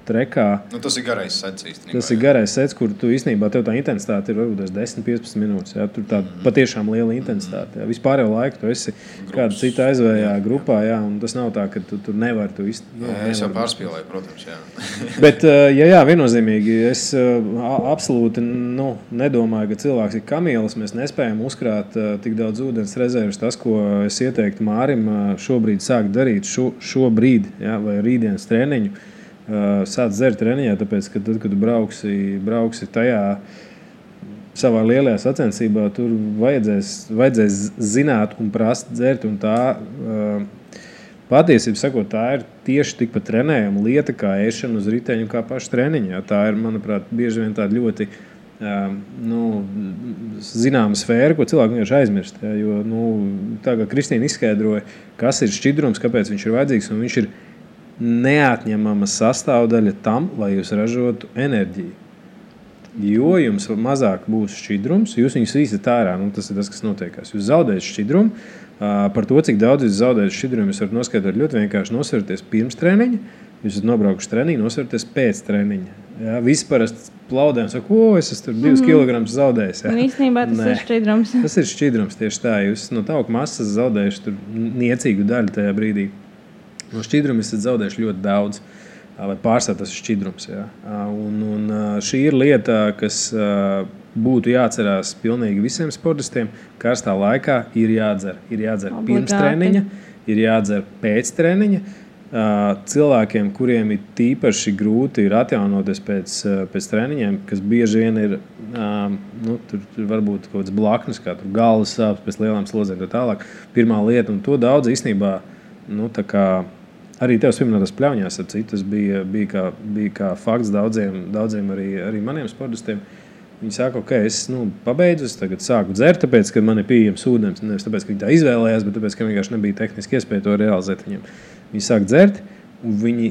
trekā... tas ir garais sets īstenībā. Tas ir garais sets, kur tu īstenībā tev tā intensitāte ir varbūt 10-15 minūtes. Ja? Tur tā patiešām liela intensitāte. Ja? Vispār jau laiku tu esi kāda cita aizvējā grupā, ja? Un tas nav tā, ka tu tur nevari tu es jau pārspīlēju, protams, jā. Bet, viennozīmīgi, es absolūti nedomāju, ka cilvēks ir kamielis. Mēs nespējam uzkrāt tik daudz ūdens rezerves. Tas, ko es ieteiktu Mārim šobrīd sākt darīt, šobrīd, ja, vai rītdienas treniņu, sāc dzert treniņā, tāpēc, ka tad, kad tu brauksi tajā savā lielajā sacensībā, tur vajadzēs zināt un prast dzert, un tā patiesībā sakot, tā ir tieši tikpat trenējama lieta kā ēšana uz riteņu kā paša treniņā. Tā ir, manuprāt, bieži vien tāda ļoti zināma sfēra, ko cilvēki vienkārši aizmirst. Ja, jo, tā kā Kristīna izskaidroja, kas ir šķidrums, kāpēc viņš ir vajadzīgs, un viņš ir neatņemama sastāvdaļa tam, lai jūs ražotu enerģiju. Jo jums mazāk būs šķidrums, jūs viņus īstat ārā, tas ir tas, kas notiekās. Jūs zaudējat šķidrumu, par to, cik daudz jūs zaudējat šķidrumu, jūs varat noskaidrot ļoti vienkārši nosverties pirms treniņa, jūs esat nobraukuši treniņu, nosverties pēc treniņa. Jā, visi parasti plaudē un saka, es esmu 2 kilogramus zaudējis. Jā. Un īstenībā tas ir šķidrums. Tas ir šķidrums tieši tā. Jūs no tauku masas zaudējuši tur niecīgu daļu tajā brīdī. No šķidruma esat zaudējuši ļoti daudz. Vai pārsvarā tas ir šķidrums. Jā. Un šī ir lieta, kas būtu jāatcerās pilnīgi visiem sportistiem. Karstā laikā ir jādzer. Ir jādzer pirms treniņa, ir jādzer pēc treniņa. Cilvēkiem, kuriem ir tīpaši grūti ir atjaunoties pēc treniņiem, kas bieži vien ir tur varbūt kaut kāds blaknes, kā tur galvas sāpes pēc lielām slozēm tā tālāk. Pirmā lieta, un to daudz īstenībā tā kā arī tev pieminētās pļauņās ar citu, tas bija kā fakts daudziem arī maniem sportistiem. Viņi saka, es pabeidzu, es tagad sāku dzert, tāpēc, ka man ir pieejams ūdens. Nevis tāpēc, ka viņi tā izvēlējās, bet tāpēc, ka vienkārši nebija tehniski iespēja to realizēt viņiem. Viņi sāk dzert, un viņi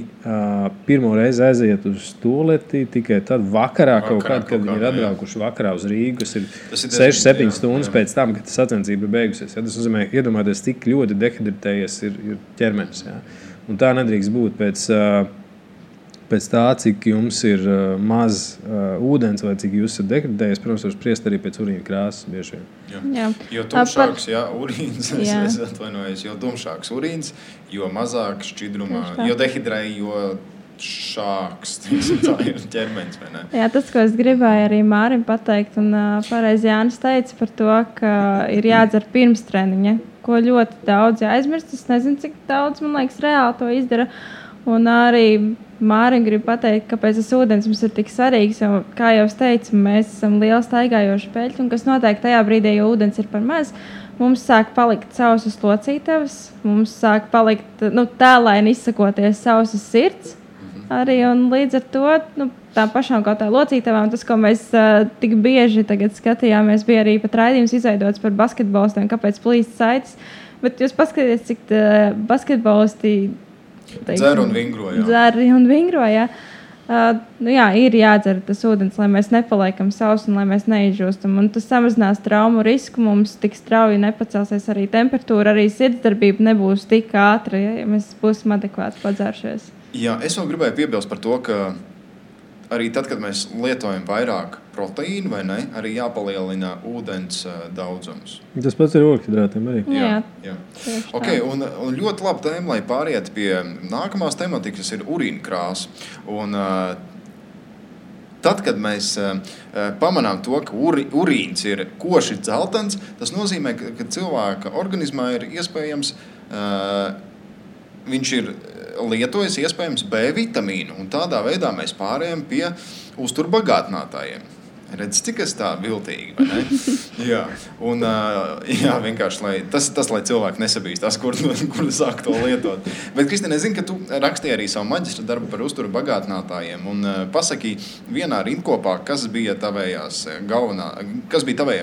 pirmo reizi aiziet uz tualeti tikai tad vakarā kad viņi ir atbraukuši vakarā uz Rīgu, kas ir 6-7 stundas pēc tam, kad sacensība ir beigusies. Ja? Tas nozīmē, iedomājieties, cik ļoti dehidratējies ir ķermenis. Ja? Un tā nedrīkst būt pēc tā, cik jums ir maz ūdens vai cik jūs esat dehidratējies, protams, var spriest arī pēc urīna krāsas bieži vien. Jā. Jo tumšāks urīns, es atvainojos, jo tumšāks urīns, jo mazāk šķidrumā, jo dehidrēji, jo šāks, tā ir ķermenis, vai ne? Jā, tas, ko es gribēju arī Mārim pateikt, un pareizi Jānis teica par to, ka ir jādzer pirms treniņa, ko ļoti daudz aizmirst. Es nezinu, cik daudz, man liekas, reāli to izdara. Un arī Mārim grib pateikt, kāpēc tas ūdens mums ir tik svarīgs. Jo, kā jau es teicu, mēs esam lieli staigājoši peļķi, un kas notiek tajā brīdī, ja ūdens ir par maz, mums sāk palikt sausas locītavas, mums sāk palikt tēlaini izsakoties sausas sirds. Arī, un līdz ar to tām pašām kaut tā locītavām, tas, ko mēs tik bieži tagad skatījāmies, bija arī pat raidījums izveidots par basketbolistiem, kāpēc plīst saites. Bet jūs paskatieties, cik basketbolisti dzer un vingro, jā. Dzer un vingro, jā. Jā, ir jādzer tas ūdens, lai mēs nepaliekam sausi un lai mēs neizžūstam. Un tas samazinās traumu risku, mums tik strauji nepacelsies arī temperatūra, arī sirdsdarbība nebūs tik ātra, ja mēs būsim adekvāti padzēršies. Jā, es vēl gribēju piebilst par to, ka arī tad, kad mēs lietojam vairāk proteīnu, vai ne, arī jāpalielina ūdens daudzums. Tas pats ir ogļhidrātiem arī. Jā. Okay, un ļoti laba tēma, lai pāriet pie nākamās tematikas, ir urīna krāsa. Un tad, kad mēs pamanām to, ka urīns ir koši dzeltens, tas nozīmē, ka cilvēka organismā ir iespējams, viņš ir lietojas iespējams B vitamīnu, un tādā veidā mēs pārējām pie uzturbagātinātājiem. Redz, cik es tā viltīgi, vai ne? Jā, un vienkārši, tas, lai cilvēki nesabīstās, kur sāk to lietot. Bet, Kristīne, es zinu, ka tu rakstīji arī savu maģistra darbu par uzturbagātinātājiem, un pasaki vienā rindkopā, kas bija tavējie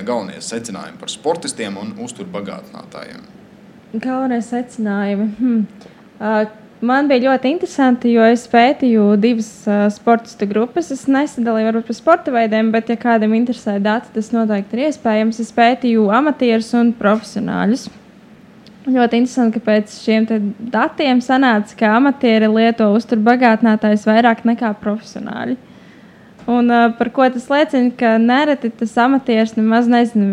galvenie secinājumi par sportistiem un uzturbagātinātājiem? Galvenie secinājumi? Man bija ļoti interesanti, jo es pētīju 2 sportistu grupas. Es nesadalīju varbūt par sporta veidiem, bet, ja kādam interesē dati, tas noteikti ir iespējams. Es pētīju amatierus un profesionāļus. Ļoti interesanti, ka pēc šiem datiem sanāca, ka amatieri lieto uzturbagātinātājus vairāk nekā profesionāļi. Un par ko tas liecina, ka nereti tas amatieris nemaz nezina,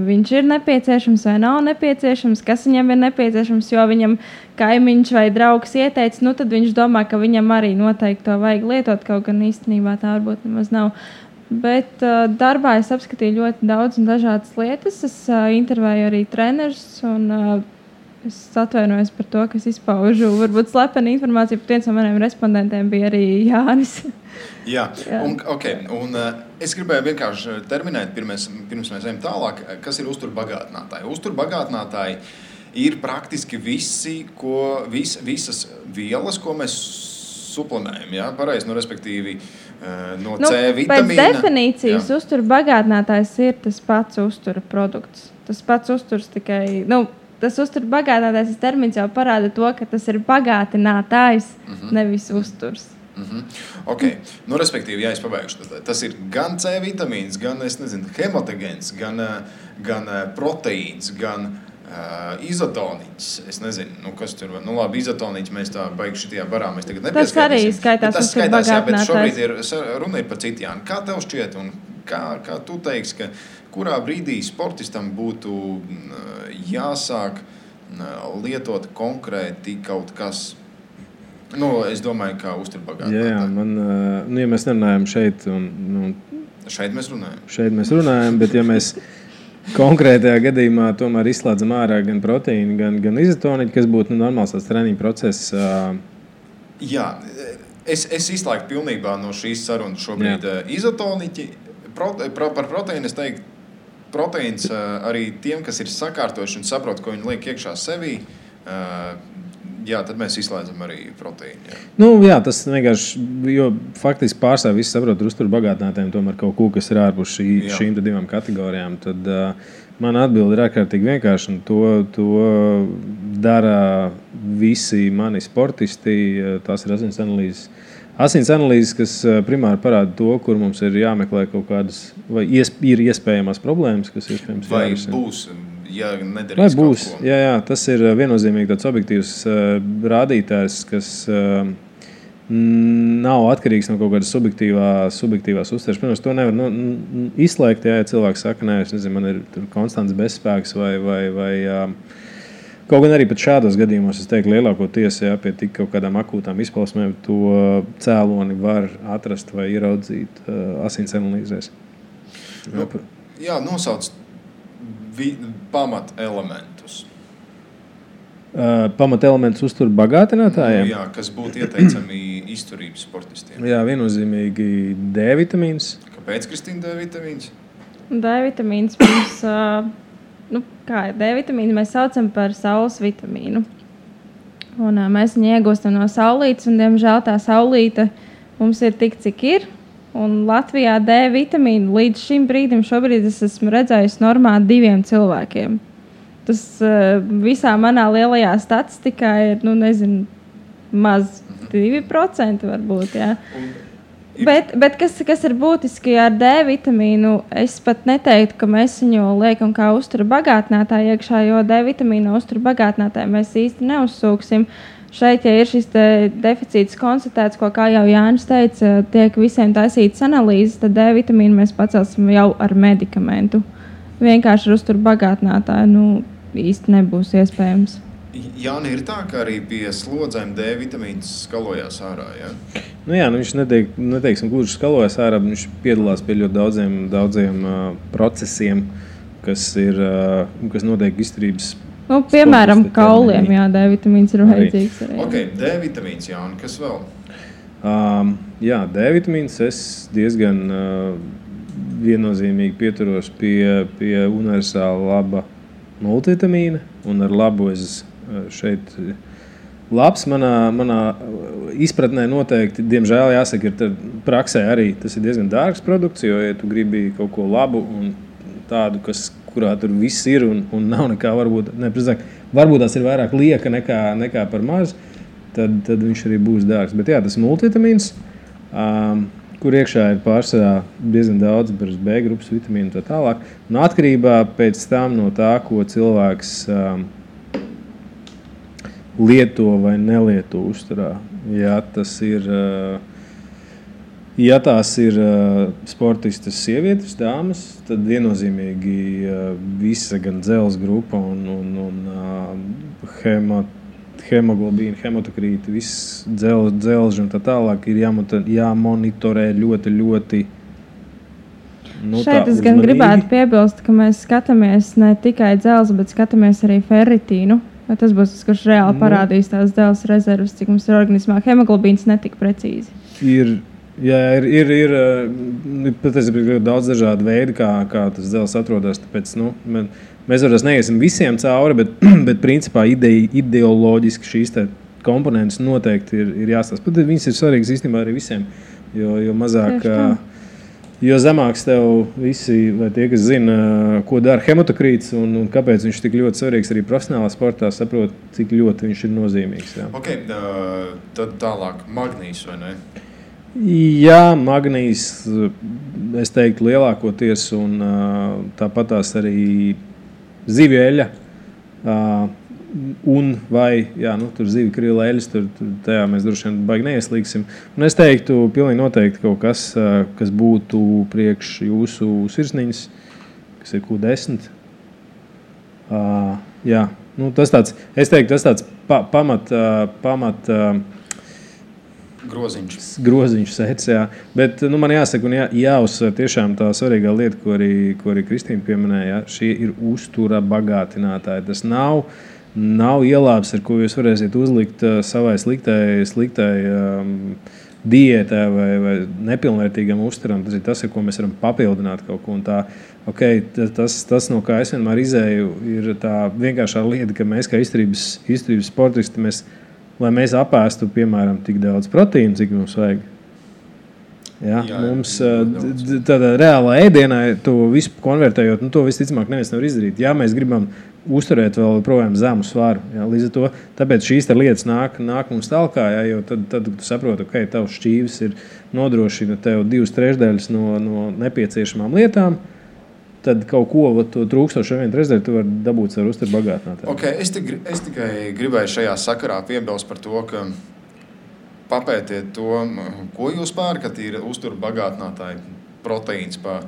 viņš ir nepieciešams vai nav nepieciešams, kas viņam ir nepieciešams, jo viņam kaimiņš vai draugs ieteica, tad viņš domā, ka viņam arī noteikti to vajag lietot, kaut gan īstenībā tā varbūt nemaz nav. Bet darbā es apskatīju ļoti daudz un dažādas lietas. Es intervēju arī trenerus un es atvainojos par to, ka es izpaužu varbūt slepenu informāciju, bet viens no maniem respondentiem bija arī Jānis. Jā. Un es gribēju vienkārši terminēt, pirms mēs ejam tālāk, kas ir uzturbagātinātāji. Uzturbagātinātāji ir praktiski visas vielas, ko mēs suplemējam, jā, pareizi, respektīvi no C vitamīna. Pēc definīcijas uzturbagātinātājs ir tas pats uztura produkts. Tas pats uzturs tikai, tas uzturbagātinātājs termins jau parāda to, ka tas ir bagātinātājs, nevis uzturs. Respektīvi, ja es pabeigšu, tas ir gan C vitamīns, gan, hematogens, gan proteīns, gan Izotoniķis. Es nezinu, kas tur var. Labi, izotoniķis mēs tā baigi šitajā barā. Mēs tagad tas arī skaitās. Tas skaitās, jā, bet šobrīd runa ir par citu, Jāni. Kā tev šķiet un kā tu teiksi, ka kurā brīdī sportistam būtu jāsāk lietot konkrēti kaut kas? Es domāju, kā uzturbagātinātāji. Jā, ja mēs nerunājam šeit. Šeit mēs runājam. Šeit mēs runājam, bet ja mēs konkrētajā gadījumā tomēr izslēdzam ārā gan proteīnu, gan izotoniķu, kas būtu normāls tāds treniņu process. Jā, es izslēgtu pilnībā no šīs sarunas šobrīd izotoniķi. Par proteīnu es teiktu, proteīns arī tiem, kas ir sakārtojuši un saprot, ko viņi liek iekšā sevī, tad mēs izslēdzam arī proteīnu. Jā, tas vienkārši, jo faktiski pārstāv visi saprot uzturbagātinātājiem tomēr kaut ko, kas ir ārpus šīm divām kategorijām. Tad man atbilde ir ārkārtīgi vienkārši, un to dara visi mani sportisti. Tās ir asins analīzes. Asins analīzes, kas primāri parāda to, kur mums ir jāmeklē kaut kādas, vai ir iespējamās problēmas, kas iespējams jārisina. Vai būs? Ja vai būs? Jā, tas ir viennozīmīgi tāds objektīvs rādītājs, kas nav atkarīgs no kaut kādas subjektīvās uztveres. Protams, to nevar izslēgt, ja cilvēks saka, nē, es nezinu, man ir konstants bezspēks vai kaut gan arī pat šādos gadījumos, es teiktu, lielākoties, pie tik kaut kādām akūtām izpausmēm to cēloni var atrast vai ieraudzīt asins analīzēs. Jā, nosauc pamatelementus. Pamatelementus uzturbagātinātājiem? Jā, kas būtu ieteicami izturības sportistiem. Jā, viennozīmīgi D vitamīns. Kāpēc, Kristīna, D vitamīns? D vitamīns mums, kā ir D vitamīnu, mēs saucam par saules vitamīnu. Un mēs viņu iegūstam no saulītes, un diemžēl tā saulīte mums ir tik, cik ir. Un Latvijā D vitamīnu līdz šim brīdim šobrīd es esmu redzējusi normā 2 cilvēkiem. Tas visā manā lielajā statistikā ir, maz 2% varbūt, jā. Bet kas ir būtiski ar D vitamīnu, es pat neteiktu, ka mēs viņu liekam kā uzturbagātinātāju iekšā, jo D vitamīnu uzturbagātinātāju mēs īsti neuzsūksim. Šeit, ja ir šis deficīts konstatēts, ko, kā jau Jānis teica, tiek visiem taisītas analīzes, tad D vitamīnu mēs pacelsim jau ar medikamentu. Vienkārši ar uzturbagātinātāju īsti nebūs iespējams. Jāni, ir tā, ka arī pie slodzēm D vitamīns skalojās ārā, jā? Viņš neteiksim gluži skalojās ārā, viņš piedalās pie ļoti daudziem procesiem, kas notiek izturības. Piemēram, kauliem, jā, D vitamīns ir vajadzīgs arī. Ok, D vitamīns, Jāni, kas vēl? Jā, D vitamīns es diezgan viennozīmīgi pieturos pie universāla laba multivitamīna, un ar labu es šeit labs manā izpratnē noteikti, diemžēl jāsaka, ir praksē arī tas ir diezgan dārgs produkts, jo, ja tu gribi kaut ko labu un tādu, kurā tur viss ir un nav nekā, varbūt tās ir vairāk lieka nekā par maz, tad viņš arī būs dārgs. Bet jā, tas ir multivitamīns, kur iekšā ir pārsvarā diezgan daudz B grupas vitamīnu un tā tālāk. Un atkarībā pēc tam no tā, ko cilvēks lieto vai nelieto uzturā. Ja tās ir sportistas sievietes, dāmas, tad viennozīmīgi visa gan dzelzs grupa un hemoglobīna, hemotokrīti, viss dzelži un tā tālāk ir jāmonitorē ļoti šeit es gan gribētu piebilst, ka mēs skatāmies ne tikai dzelzi, bet skatāmies arī ferritīnu. Tas būs tas, kurš reāli parādīs tās dzelzs rezervas, cik mums ir organismā. Hemoglobīns netika precīzi. Ir patiesībā daudz dažādu veidu, kā tas dzelzs atrodas. Tāpēc, mēs varbūt neiesim visiem cauri, bet principā ideoloģiski šīs komponentes noteikti ir jāstāsta. Pat viņas ir svarīgas īstenībā arī visiem, jo mazāk, jo zemāks tev visi, vai tie, kas zina, ko dara hemotokrīts un kāpēc viņš tik ļoti svarīgs arī profesionālā sportā, saprot, cik ļoti viņš ir nozīmīgs. Jā. Ok, tad tālāk magnīs, vai ne? Jā, magnīs, es teiktu, lielākoties, un tāpat tās arī zivju eļļa Un vai, tur zivi, krīla, eļas, tur tajā mēs droši vien baigi neieslīgsim. Un es teiktu, pilnīgi noteikti kaut kas, kas būtu priekš jūsu sirsniņas, kas ir Q10. Tas tāds, es teiktu, tas tāds pamat groziņš sēdz, jā. Bet man jāsaka un jāuzsver tiešām tā svarīgā lieta, ko arī Kristīna pieminēja. Šie ir uztura bagātinātāji. Tas nav ielāps, ar ko jūs varēsiet uzlikt savai sliktai diētā vai nepilnvērtīgam uzturam. Tas ir tas, ar ko mēs varam papildināt kaut ko. Un tā, tas, no kā es vienmēr izēju, ir tā vienkāršā lieta, ka mēs kā izturības sportisti, lai mēs apēstu, piemēram, tik daudz proteīnu, cik mums vajag. Mums tādā reālā ēdienā to visu konvertējot, to visticamāk neviens nevar izdarīt. Ja mēs gribam uzturēt vēl projām zemu svaru. Līdz ar to, tāpēc šīs lietas nāk mums tālāk, jo tad tu saproti, ka tavs šķīvis nodrošina tev 2/3 no nepieciešamām lietām. Tad kaut ko trūkstošo 1/3 tu vari dabūt ar uzturu bagātinātāju. Okay, es tikai gribēju šajā sakarā piebilst par to, ka papētiet to, ko jūs pērkat, ir uzturu bagātinātāji proteīns pa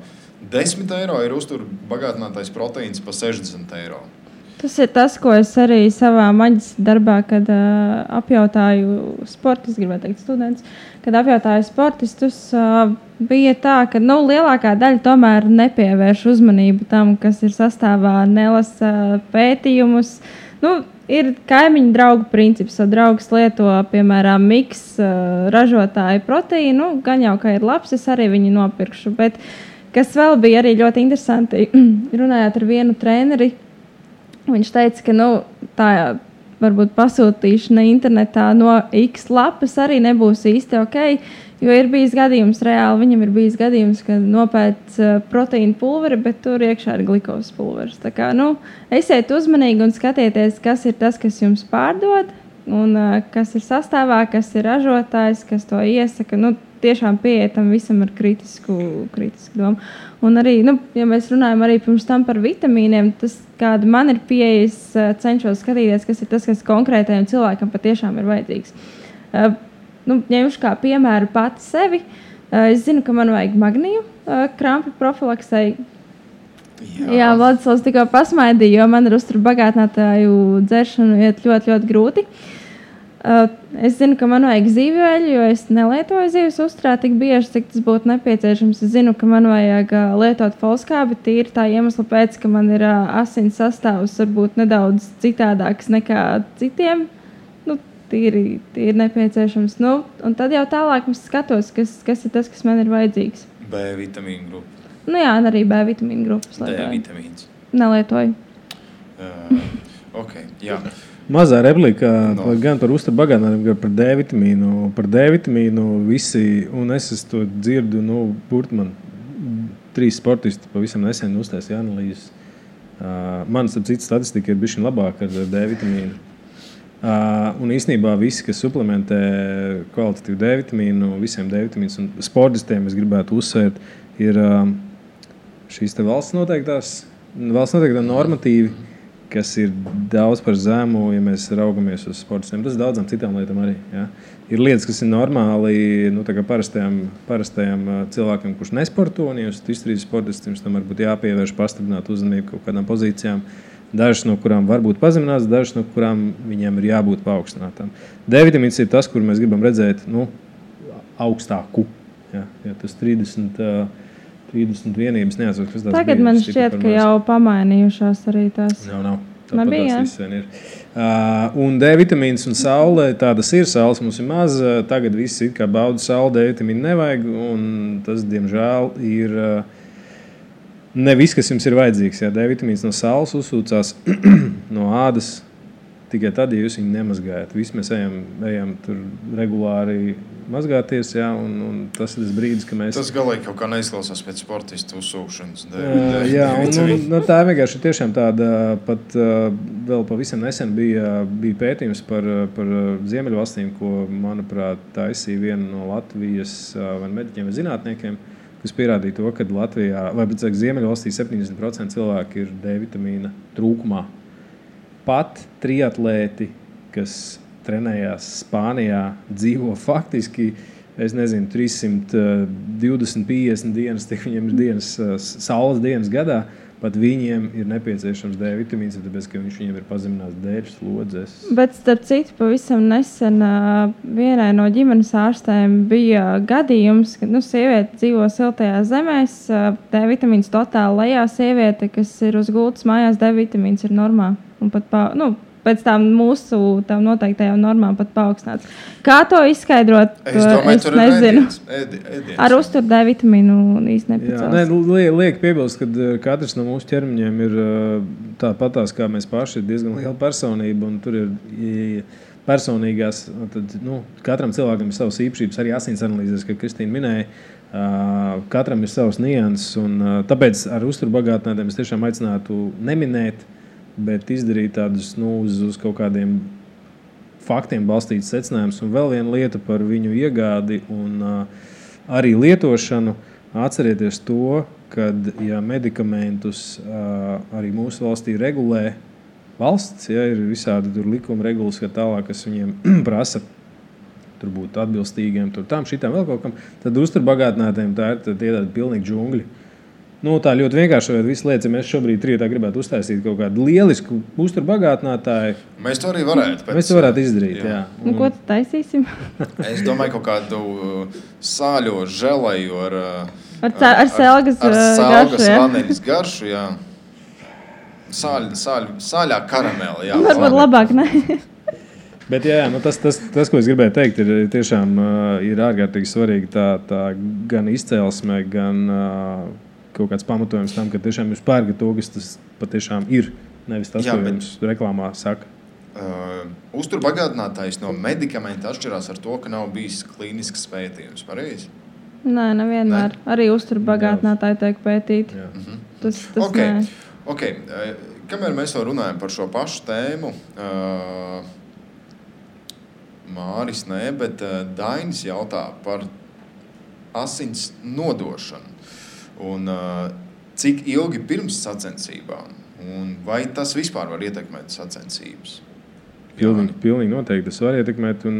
10 eiro, ir uzturu bagātinātājs proteīns pa 60 eiro. Tas ir tas, ko es arī savā maģistra darbā, kad apjautāju sportistus, gribētu teikt studentus, kad apjautāju sportistus, bija tā, ka lielākā daļa tomēr nepievērš uzmanību tam, kas ir sastāvā, nelasa pētījumus. Ir kaimiņu draugu princips, jo draugs lieto, piemēram, miks ražotāju proteīnu, gan jau, ka ir labs, es arī viņu nopirkšu. Bet kas vēl bija arī ļoti interesanti, runājot ar vienu treneri, viņš teica, ka tā varbūt pasūtīšana internetā no X lapas arī nebūs īsti ok, jo ir bijis gadījums reāli, viņam ir bijis gadījums, ka nopēc proteīna pulveri, bet tur iekšā ir glikovas pulveris. Tā kā, esiet uzmanīgi un skatieties, kas ir tas, kas jums pārdod, un kas ir sastāvā, kas ir ražotājs, kas to iesaka. Tiešām pieetam visam ar kritisku domu. Un arī, ja mēs runājam arī pirms tam par vitamīniem, tas, kāda man ir pieejas, cenšos skatīties, kas ir tas, kas konkrētajam cilvēkam patiešām ir vajadzīgs. Ņemšu kā piemēru pati sevi. Es zinu, ka man vajag magniju krampu profilaksei. Jā, Vladislavs tikko pasmaidīja, jo man ar uzturu bagātinātāju dzeršanu iet ļoti, ļoti grūti. Es zinu, ka man vajag zīvju eļļu, jo es nelietoju zīves uzturā tik bieži, cik tas būtu nepieciešams. Es zinu, ka man vajag lietot folskābi tīri tā iemesla pēc, ka man ir asins sastāvs varbūt nedaudz citādāks nekā citiem. Tīri nepieciešams. Un tad jau tālāk es skatos, kas ir tas, kas man ir vajadzīgs. B vitamīnu grupa. Arī B vitamīnu grupas lietoju. D vitamīns. Nelietoju. Jā. Mazā replika gan par uzturu bagātinājumu, gan par D vitamīnu. Par D vitamīnu visi, un es to dzirdu, burti man 3 sportisti pavisam nesen uztaisīja analīzes. Man, starp citu, statistika ir bišķiņ labāka ar D vitamīnu. Un īstenībā visi, kas suplementē kvalitatīvu D vitamīnu, visiem D vitamīnus un sportistiem, es gribētu uzsvērt, ir šīs te valsts noteiktā normatīvi, kas ir daudz par zemu, ja mēs raugamies uz sportistiem. Tas daudzām citām lietām arī. Ja? Ir lietas, kas ir normāli parastajam cilvēkam, kurš nesporto, un ja jūs izturīs sportistiem, tam varbūt jāpievērš pastiprināt uzmanību kaut kādām pozīcijām. Dažas no kurām var būt pazeminātas, dažas no kurām viņiem ir jābūt paaugstinātām. D vitamīns ir tas, kur mēs gribam redzēt augstāku. Ja tas 30 vienības neatceros, kas tās tagad bija. Man šķiet, ka jau pamainījušās arī tās. Nav. Tāpat tās viss vien ir. Un D vitamīns un saule, tādas ir. Saules mums ir maz. Tagad visi it kā bauda sauli, D vitamīnu nevajag. Un tas, diemžēl, ir... Ne viss, kas jums ir vajadzīgs. Jā. D vitamīns no saules uzsūcās no ādas tikai tad, ja jūs viņu nemazgājat. Visi mēs ejam tur regulāri mazgāties, jā, un tas ir tas brīdis, ka mēs... Tas galīgi kaut kā neizklausās pēc sportistu uzsūkšanas. Jā, un tā vienkārši ir tiešām tāda, pat vēl pavisam nesen bija pētījums par Ziemeļvalstīm, ko, manuprāt, taisīja viena no Latvijas vai mediķiem vai zinātniekiem, kas pierādīja to, ka Latvijā, vai Ziemeļvalstī 70% cilvēki ir D vitamīna trūkumā. pat triatlēti, kas trenējās Spānijā, dzīvo faktiski, es nezinu, 320-50 dienas, tik viņiem ir saules dienas gadā, pat viņiem ir nepieciešams D vitamīns, tāpēc, ka viņiem ir pazemināts dēļu slodzes. Bet, starp citu, pavisam nesen vienai no ģimenes ārstēm bija gadījums, ka sieviete dzīvo siltajās zemēs, D vitamīns totāli lejā, sieviete, kas ir uz gultas mājās, D vitamīns ir normā. Un pat pēc tām mūsu noteiktajām normām pat paaugstināts. Kā to izskaidrot? Es domāju, tur nezinu. Ēdiens. Ar uzturu D vitamīnu īsti nepacels. Liek piebilst, ka katrs no mūsu ķermeņiem ir tāpatās, kā mēs paši, ir diezgan liela personība, un tur ir personīgās, tad, katram cilvēkam ir savas īpašības, arī asins analīzes, kā Kristīna minēja, katram ir savas nianses, un tāpēc ar uzturu bagātinātiem es tiešām aicinātu neminēt, bet izdarīt tādus uz kaut kādiem faktiem balstītus secinājumus. Un vēl viena lieta par viņu iegādi un arī lietošanu. Atcerieties to, ka medikamentus arī mūsu valstī regulē valsts, ir visādi likuma regulas, tālāk, kas viņiem prasa tur būt atbilstīgiem, tam, šitām vēl kaut kam, tad uzturbagātinātiem tā ir tādi pilnīgi džungļi. Tā ļoti vienkārši visu lietas, ja mēs šobrīd rietā gribētu uztaisīt kaut kādu lielisku uzturbagātinātāju. Mēs to arī varētu. Mēs to varētu izdarīt, jā. Un ko tad taisīsim? Es domāju, kaut kādu sāļo želeju ar selgas garšu, vaneļas garšu, jā. Sāļā karamela, jā. Varbūt labāk, ne? Bet jā, tas, ko es gribēju teikt, ir tiešām ir ārkārtīgi svarīgi tā gan izcelsme, gan kaut kāds pamatojums tam, ka tiešām jūs pērgat to, kas tas patiešām ir, nevis tas, ko jums reklāmā saka. Uzturbagātinātājs no medikamenta atšķirās ar to, ka nav bijis klīnisks pētījums, pareizi? Nē, nevienmēr. Arī uzturbagātinātāji tiek pētīti. Tas nē. Okay. Kamēr mēs vēl runājam par šo pašu tēmu, Māris nē, bet Dainis jautā par asins nodošanu. Un cik ilgi pirms sacensībām? Un vai tas vispār var ietekmēt sacensības? Pilnīgi noteikti tas var ietekmēt. Un,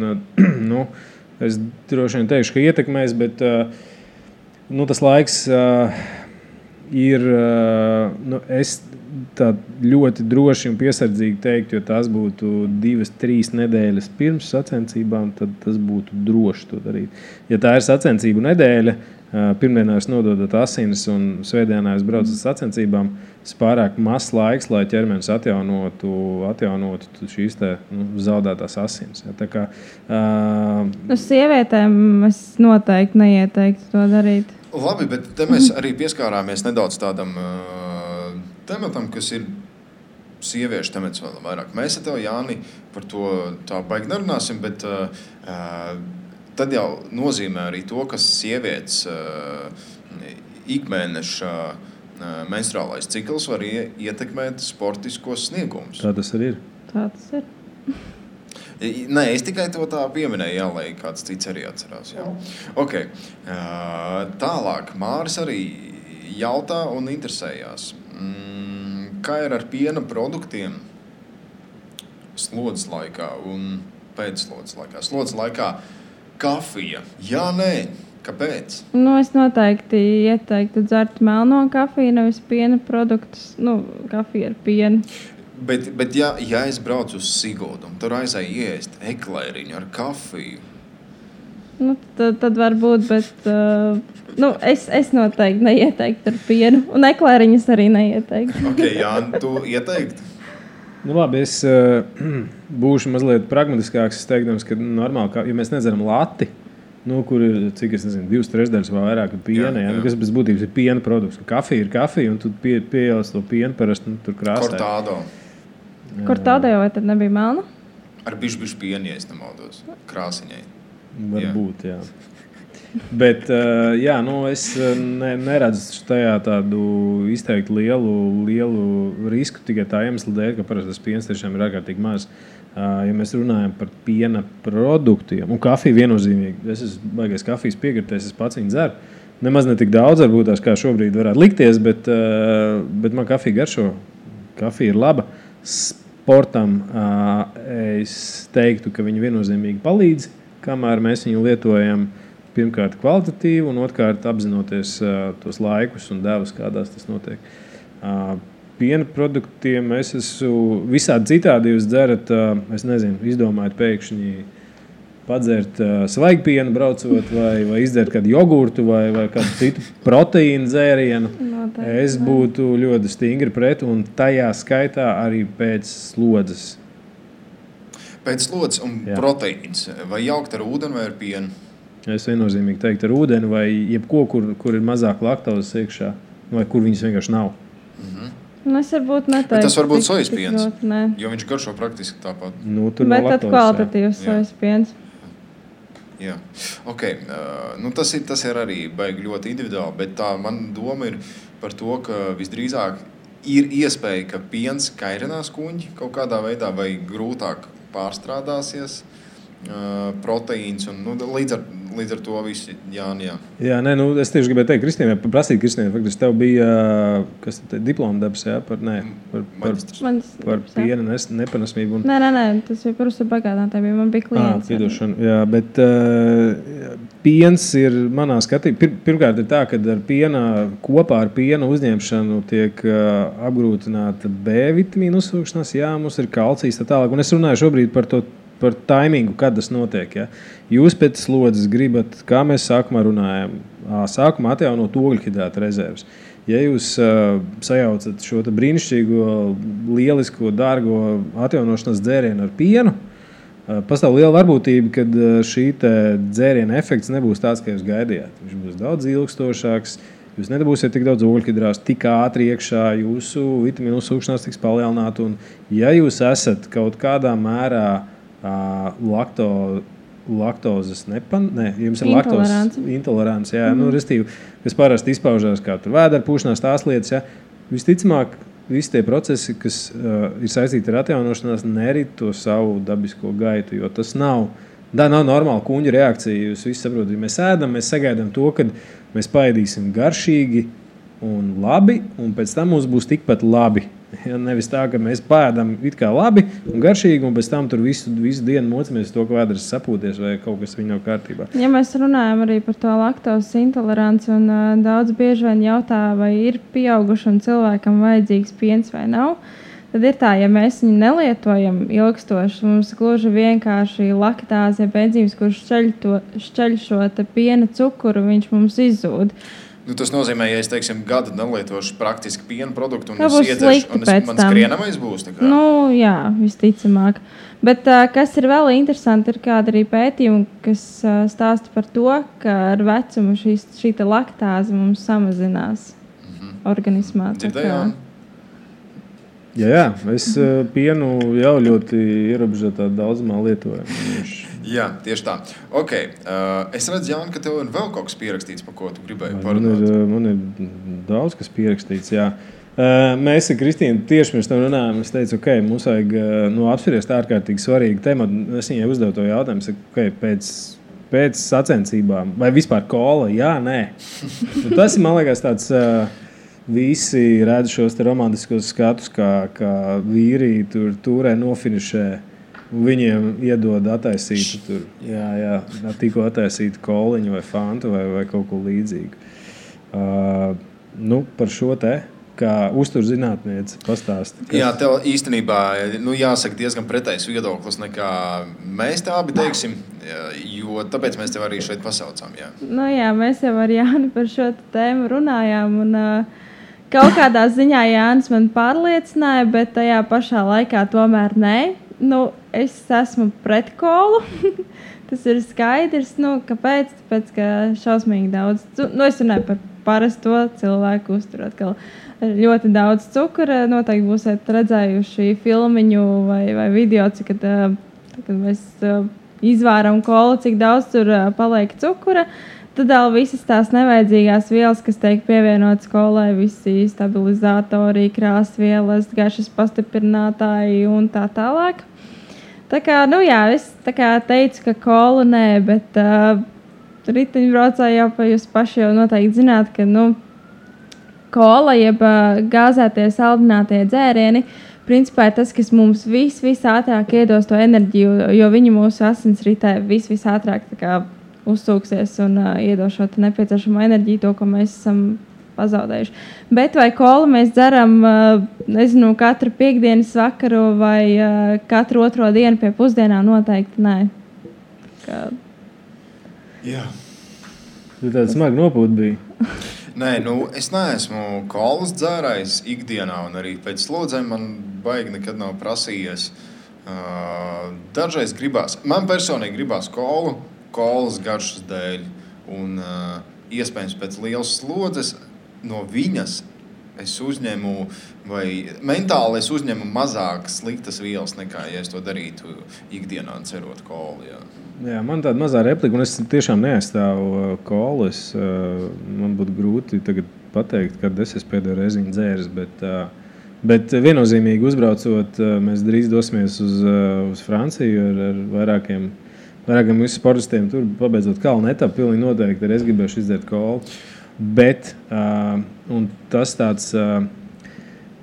es droši vien teikšu, ka ietekmēs, bet tas laiks ir... es tā ļoti droši un piesardzīgi teiktu, jo tās būtu 2-3 nedēļas pirms sacensībām, tad tas būtu droši to darīt. Ja tā ir sacensību nedēļa, pirmdienā jūs nododat asinis un svētdienā jūs braucat sacensībām, tas pārāk mazs laiks, lai ķermenis atjaunotu šīs zaudētās asinis. Ja, tā kā, sievietēm es noteikti neieteiktu to darīt. Labi, bet te mēs arī pieskārāmies nedaudz tādam tematam, kas ir sieviešu temats vēl vairāk. Mēs ar tevi, Jāni, par to tā baigi nerunāsim, bet tad jau nozīmē arī to, ka sievietes ikmēneša menstruālais cikls var ietekmēt sportiskos sniegumus. Tā tas arī ir. Tā tas ir. Nē, es tikai to tā pieminēju, jā, lai kāds cits arī atcerās. Jā. Okay. Tālāk, Māris arī jautā un interesējās. Kā ir ar piena produktiem slodzes laikā un pēcslodzes laikā? Slodzes laikā kafija. Jā, nē. Kāpēc? Es noteikti ieteiktu dzert melno kafiju, nevis piena produktus. Kafija ar pienu. Bet ja es braucu uz Siguldu un tur aizēju iest eklēriņu ar kafiju? Tad varbūt, bet es noteikti neieteiktu ar pienu. Un eklēriņas arī neieteiktu. Ok, Jāni, tu ieteiktu? Labi, es būšu mazliet pragmatiskāks. Es teikdams, ka normāli, ja mēs nedzeram lati, kur ir, cik es nezinu, 2/3 vai vairāk piena, kas bez būtības ir piena produkts. Kafija ir kafija, un tu pieejās to pienu parasti tur krāsē. Kortādo. Kortādo vai tad nebija melna? Ar bišķi pienu, ja es nemaldos. Krāsiņai. Varbūt, jā. Bet, es neredzu tajā tādu izteikti lielu risku tikai tā iemesla dēļ, ka parasti tas piens tiešām ir ārkārtīgi maz. Ja mēs runājam par piena produktiem, un kafiju viennozīmīgi, es esmu baigais kafijas piekritējs, es pats viņu dzeru. Nemaz ne tik daudz, varbūt tās kā šobrīd varētu likties, bet man kafija garšo. Kafija ir laba. sportam es teiktu, ka viņi viennozīmīgi palīdz, kamēr mēs viņu lietojam pirmkārt kvalitatīvi un otrkārt apzinoties tos laikus un devas, kādās tas notiek. Piena produktiem es esmu visādi citādi jūs dzerat, es nezinu, izdomājat pēkšņi padzert svaigu pienu braucot vai izdzert kādu jogurtu vai kādu citu proteīnu dzērienu. Es būtu ļoti stingri pret un tajā skaitā arī pēc slodzes. Pēc slodzes un proteīns. Vai jaukt ar ūdeni vai ar pienu? Es viennozīmīgi teiktu ar ūdeni vai jebko, kur ir mazāk laktozes iekšā vai kur viņas vienkārši nav. Es varbūt neteiktu. Bet tas var būt sojas piens, jo viņš garšo praktiski tāpat. Bet tad kvalitatīvs sojas piens. Jā, tas ir arī baigi ļoti individuāli, bet tā man doma ir par to, ka visdrīzāk ir iespēja, ka piens kairinās kuņģi kaut kādā veidā vai grūtāk pārstrādāsies proteīns un līdz ar to visi jā. Jā, es tieši gribēju teikt Kristīnai, faktiski tev bija diploma darbs, par piena nepanesmību. Nē, tas bija par uzturbagādātājiem, man bija klients. Piedošana, jā, bet piens ir manā skatījumā, pirmkārt ir tā, ka kopā ar piena uzņemšanu tiek apgrūtināta B vitamīnu uzsūkšanās, mums ir kalcijs tā tālāk, un es runāju šobrīd par taimingu, kad tas notiek. Ja? Jūs pēc slodzes gribat, kā mēs sākumā runājam, sākumā atjaunot ogļhidrāta rezerves. Ja jūs sajaucat šo brīnišķīgo, lielisko, dārgo atjaunošanas dzērienu ar pienu, pastāv liela varbūtība, ka šī dzēriena efekts nebūs tāds, kā jūs gaidījāt. Viņš būs daudz ilgstošāks, jūs nedabūsiet tik daudz ogļhidrātu, tik ātri iekšā, jūsu vitamīnu uzsūkšanās tiks palielināta. Un ja jūs esat kaut kādā mērā laktozes jums ir laktozes intolerants, restīvi, kas parasti izpaužās kā tur vēdera pūšanās, tās lietas, visticamāk, visi tie procesi, kas ir saistīti ar atjaunošanās, nerit to savu dabisko gaitu, jo tas nav normāla kuņģa reakcija. Jūs visi saprotat, ja mēs ēdam, mēs sagaidām to, kad mēs paēdīsim garšīgi un labi, un pēc tam mums būs tikpat labi. Ja, nevis tā, ka mēs pēdam it kā labi un garšīgi, un pēc tam tur visu dienu mocamies to, ka vēders sapūties vai kaut kas viņa nav kārtībā. Ja mēs runājam arī par to laktozes intoleranci, un daudz bieži vien jautā, vai ir pieaugušam cilvēkam vajadzīgs piens vai nav, tad ir tā, ja mēs viņu nelietojam ilgstoši, mums gluži vienkārši laktāze, enzīms, kurš šķeļ šo piena cukuru, viņš mums izzūd. Tas nozīmē, ja es, gadu nelietošu praktiski piena produktu, un es iedzeršu, un man skrienamais būs? Jā, visticamāk. Bet kas ir vēl interesanti, ir kāda arī pētījuma, kas stāsta par to, ka ar vecumu šī laktāze mums samazinās organismā. Dzirdējām? Jā, es pienu jau ļoti ierobežotā daudzumā lietoju. Jā, tieši tā. Es redzu, Jāni, ka tev ir vēl kaut kas pierakstīts, par ko tu gribēji parunāt. Man ir daudz kas pierakstīts, jā. Mēs ar Kristīnu tieši pirms tam runājām. Es teicu, mums vajag apspriest ārkārtīgi svarīgu tematu. Es viņai uzdevu to jautājumu, pēc sacensībām, vai vispār kola, jā, nē. Tas ir, man liekas, tāds... Visi redz šos romantiskos skatus, kā vīri turē nofinišē. Viņiem iedod attaisītu tikko attaisītu koliņu vai fantu vai kaut ko līdzīgu. Par šo kā uzturzinātniece pastāsti. Jā, tev īstenībā jāsaka diezgan pretējs viedoklis nekā mēs tā abi teiksim, jo tāpēc mēs tev arī šeit pasaucām. Jā. Mēs jau ar Jāni par šo tēmu runājām un kaut kādā ziņā Jānis man pārliecināja, bet tajā pašā laikā tomēr nē. Es esmu pret kolu. Tas ir skaidrs. Kāpēc? Tāpēc, ka šausmīgi daudz. Es runāju par parasto cilvēku uzturu. Atkal ļoti daudz cukura. Noteikti būsiet redzējuši filmiņu vai video, kad mēs izvāram kolu, cik daudz tur paliek cukura. Tad vēl visas tās nevajadzīgās vielas, kas tiek pievienotas kolai, visi stabilizatori, krāsvielas, garšas pastiprinātāji un tā tālāk. Tā kā, es teicu, ka kola nē, bet riteņbraucēji jau jūs paši jau noteikti zināt, ka kola jeb gāzētie saldinātie dzērieni principā ir tas, kas mums visātrāk iedos to enerģiju, jo viņi mūsu asinsritē visātrāk uzsūksies un iedos šo nepieciešamo enerģiju, to, ko mēs esam pazaudējuši. Bet vai kolu mēs dzeram, nezinu, katru piekdienas vakaru vai katru otro dienu pie pusdienām? Noteikti nē. Jā. Tu tāda smaga nopūta bija. Nē, es neesmu kolas dzērājs ikdienā, un arī pēc slodzēm man baigi nekad nav prasījies. Dažreiz gribās, man personīgi gribās kolas garšas dēļ, un iespējams pēc lielas slodzes no viņas es uzņemu, vai mentāli es uzņemu mazāk sliktas vielas nekā, ja es to darītu ikdienā cerot kolu. Jā, man tāda mazā replika, un es tiešām neaizstāvu kolu. Man būtu grūti tagad pateikt, kad es esmu pēdējo reizi dzēris, bet viennozīmīgi uzbraucot, mēs drīz dosimies uz Franciju ar vairākiem mūsu sportistiem. Tur pabeidzot kalnu etapu, pilnīgi noteikti arī es gribēšu izdzert kolu. Bet un tas tāds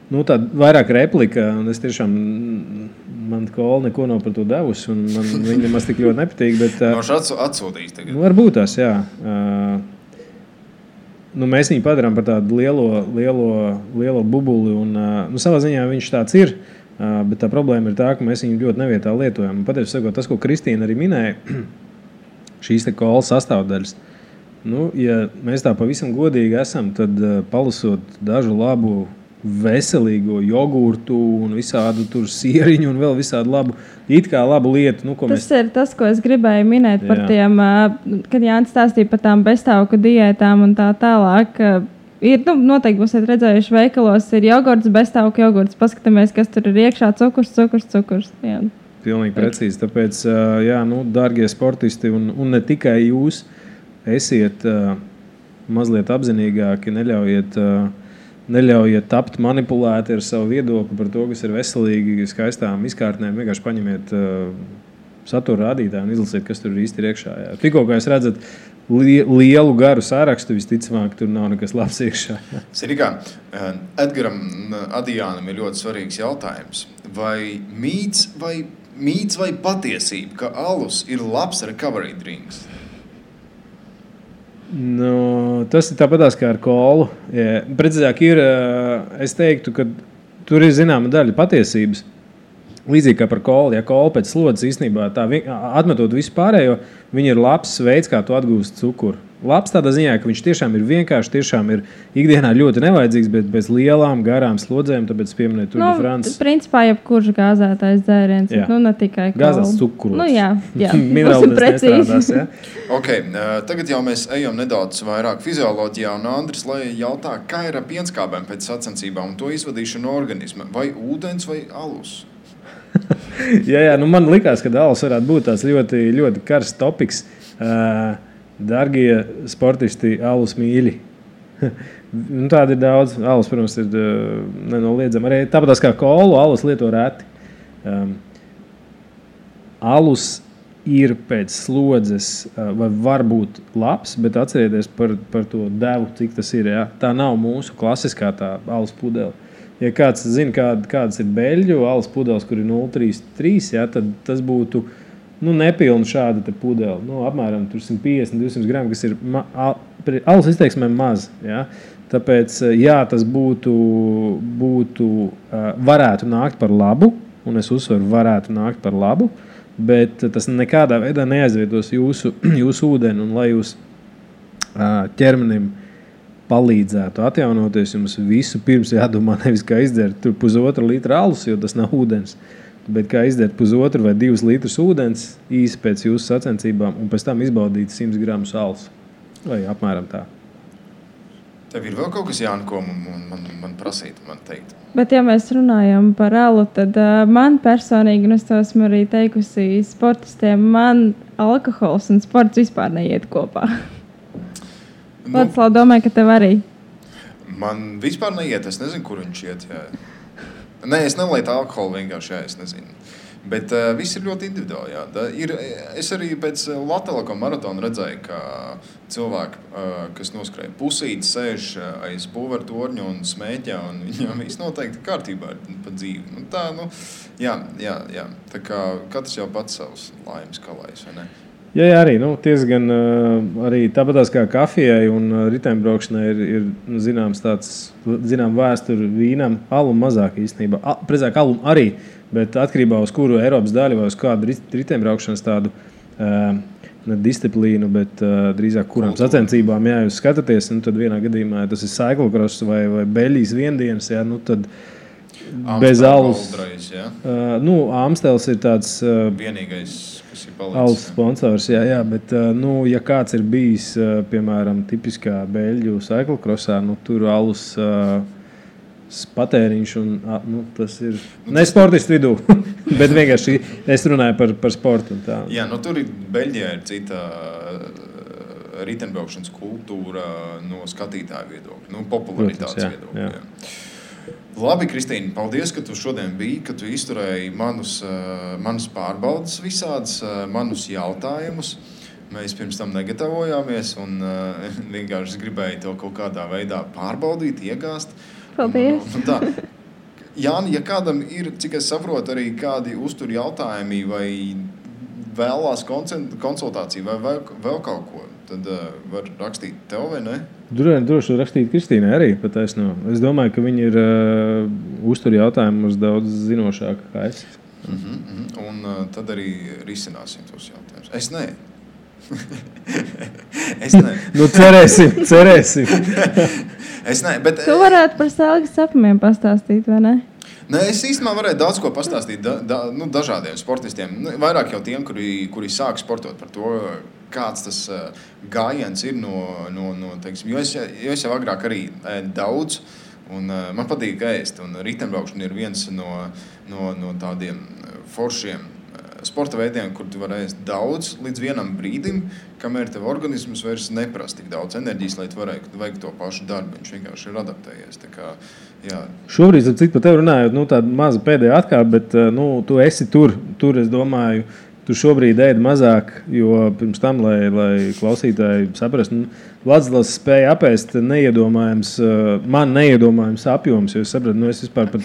tāda vairāk replika, un es tiešām man kola neko nav par to devusi, un man viņa nemaz tik ļoti nepatīk. Noši atsūtīs tagad. Varbūt tās, jā. Mēs viņu padarām par tādu lielo bubuli, un savā ziņā viņš tāds ir, bet tā problēma ir tā, ka mēs viņu ļoti nevietā lietojam. Patiesi sakot, tas, ko Kristīna arī minēja, šīs te kola sastāvdaļas. Ja mēs tā pavisam godīgi esam, tad palasot dažu labu veselīgo jogurtu un visādu tur sieriņu un vēl visādu labu lietu. Tas ir tas, ko es gribēju minēt par tiem, kad Jānis stāstīja par tām beztauku diētām un tā tālāk. Ir, noteikti būsiet redzējuši veikalos, ir jogurts, beztauku jogurts. Paskatāmies, kas tur ir iekšā, cukurs. Jā. Pilnīgi precīzi. Tāpēc, dārgie sportisti un ne tikai jūs, esiet mazliet apzinīgāki, neļaujiet tapt manipulēti ar savu viedokli par to, kas ir veselīgi, skaistām izkārtnēm. Vienkārši paņemiet satura rādītāju un izlasiet, kas tur īsti ir iekšā. Jā. Tikko, kā jūs redzat, lielu garu sārakstu, visticamāk, tur nav nekas labs iekšā. Sirikā, Edgaram Adijānam ir ļoti svarīgs jautājums. Vai mīts vai patiesība, ka alus ir labs recovery drinks? Tas ir tāpatās kā ar kolu. Precīzāk ir, es teiktu, ka tur ir zināma daļa patiesības. Līdzīgi kā par kolu. Ja kola pēc slodzes īstenībā atmetot visu pārējo, viņa ir labs veids, kā tu atgūst cukuru. Labs tādā ziņā, ka viņš tiešām ir vienkārši, tiešām ir ikdienā ļoti nevajadzīgs, bet bez lielām, garām slodzēm, tāpēc pieminēt Tour de France. Principā jebkurš gāzētais dzēriens, ne tikai kola. Gāzēts cukurs. Jā. Minerāli nestrādās, ja? Okay, tagad jau mēs ejam nedaudz vairāk fizioloģijā, un Andris jautā, kā ir ar pienskābēm pēc sacensībām un to izvadīšanu no organisma? Vai ūdens vai alus? jā, man likās, ka alus varētu būt tāds ļoti, ļoti karsts topiks. Dargie sportisti, alus mīļi. Tāda ir daudz. Alus, protams, ir nenoliedzama. Arī tāpat kā kolu, alus lieto reti. Alus ir pēc slodzes vai var būt labs, bet atcerieties par to devu, cik tas ir. Ja? Tā nav mūsu klasiskā tā alus pudele. Ja kāds zina, kādas ir beļģu alus pudeles, kur ir 0,33, ja, tad tas būtu nepilnu šādu te pudeli. Apmēram 150-200 gramu, kas ir alus izteiksmēm maz. Ja? Tāpēc, tas varētu nākt par labu, un es uzsveru, varētu nākt par labu, bet tas nekādā veidā neaizvietos jūsu ūdeni, un lai jūs ķermenim palīdzētu atjaunoties, jums visu pirms jādomā nevis kā izdzert 1,5 litra alus, jo tas nav ūdens, bet kā izdzert 1,5 vai 2 litrus ūdens īsi pēc jūsu sacensībām un pēc tam izbaudīt 100 gramus alus. Vai apmēram tā. Tev ir vēl kaut kas, Jāni, ko man prasīt, man teikt? Bet ja mēs runājam par alu, tad man personīgi, un es to esmu arī teikusi sportistiem, man alkohols un sports vispār neiet kopā. Lācis domāju, ka tev arī. Man vispār neiet, es nezinu, kur viņš iet. Jā. Nē, es nelietu alkoholu vienkārši, es nezinu. Bet viss ir ļoti individuāli. Jā. Es arī pēc Latvijas maratona redzēju, ka cilvēki, kas noskrēja pusīti, sēž aiz būvēra torņa un smēķē, un viņam viss noteikti kārtībā ir pa dzīvi. Jā. Tā kā katrs jau pats savus laimes kalējs, vai ne? Jā, arī diezgan arī tāpatās kā kafijai un riteņbraukšanai ir zināms vēsture vīnam, alum mazāk īstenībā. Precīzāk alum arī, bet atkarībā uz kuru Eiropas daļu vai uz kādu riteņbraukšanas tādu ne disciplīnu, bet drīzāk kurām sacensībām jūs skatāties, tad vienā gadījumā tas ir cyclocross vai Beļģijas viendienas, tad bez alus. Amstels ir tāds vienīgais, kas ir palicis. Alus sponsors, jā, bet ja kāds ir bijis, piemēram, tipiskā Beļģu cyclocrossā, tur alus patēriņš un tas ir ne sportistu vidū, bet vienkārši es runāju par sportu un tā. Jā, tur Beļģijā ir cita riteņbraukšanas kultūra no skatītāju viedokļa, popularitātes viedokļa. Jā. Labi, Kristīne, paldies, ka tu šodien biji, ka tu izturēji manus pārbaudas visādas, manus jautājumus. Mēs pirms tam negatavojāmies un vienkārši gribēju to kaut kādā veidā pārbaudīt, iegāzt. Paldies. Jāni, ja kādam ir, cik es saprotu, arī kādi uztur jautājumi vai vēlās konsultāciju vai vēl kaut ko, tad var rakstīt tev vai ne? Droši rakstīt Kristīnai arī pataisno. Es domāju, ka viņi ir uztur jautājumus daudz zinošāki kā es. Un tad arī risināsim tos jautājumus. Es ne. Cerēsim. Es ne, bet... Tu varētu par sēlgas sapumiem pastāstīt, vai ne? Nē, es īstenībā varēju daudz ko pastāstīt dažādiem sportistiem. Vairāk jau tiem, kuri sāk sportot par to, kāds tas gājiens ir teiksim, jo es jau agrāk arī ēdu daudz, un man patīk ēst, un riteņbraukšana ir viens no tādiem foršiem sporta veidiem, kur tu vari ēst daudz līdz vienam brīdim, kamēr tev organisms vairs neprasa tik daudz enerģijas, lai tu varētu veikt to pašu darbu. Viņš vienkārši ir adaptējies. Tā kā, jā. Šobrīd, cik par tevi runājot, tāda maza pēdējā atkāpe, bet tu esi tur, es domāju, tu šobrīd ēdi mazāk, jo pirms tam, lai klausītāji saprastu, Vladislavs spēja apēst man neiedomājams apjoms, jo es sapratu, es vispār pa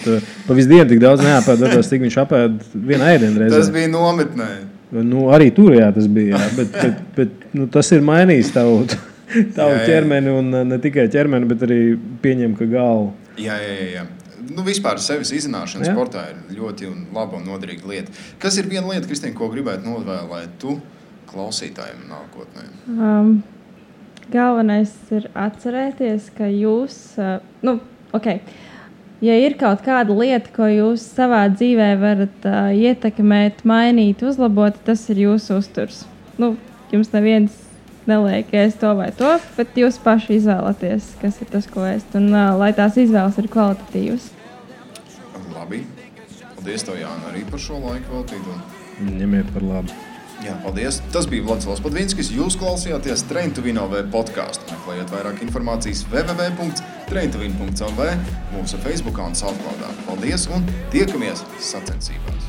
visu dienu tik daudz neapēdu, cik viņš apēd vienā ēdienreizē. Tas bija nometnē. Arī tur, jā, tas bija, jā, bet tas ir mainījis tavu ķermeni, un ne tikai ķermeni, bet arī pieņem, ka galvu. Jā. Vispār sevis izzināšana sportā ir ļoti laba un noderīga lieta. Kas ir viena lieta, Kristīne, ko gribētu novēlēt tu klausītājiem nākotnē? Galvenais ir atcerēties, ka jūs, ja ir kaut kāda lieta, ko jūs savā dzīvē varat ietekmēt, mainīt, uzlabot, tas ir jūsu uzturs. Jums neviens neliek ēst to vai to, bet jūs paši izvēlaties, kas ir tas, ko ēst, un lai tās izvēles ir kvalitatīvas. Labi. Paldies tev, Jāna, arī par šo laiku veltītu. Ņemiet par labu. Jā, paldies. Tas bija Vladislavs Podvinskis. Jūs klausījāties Train to Win LV podcastu. Meklējiet vairāk informācijas www.traintowin.lv, mūsu Facebookā un Soundcloudā. Paldies un tiekamies sacensībās!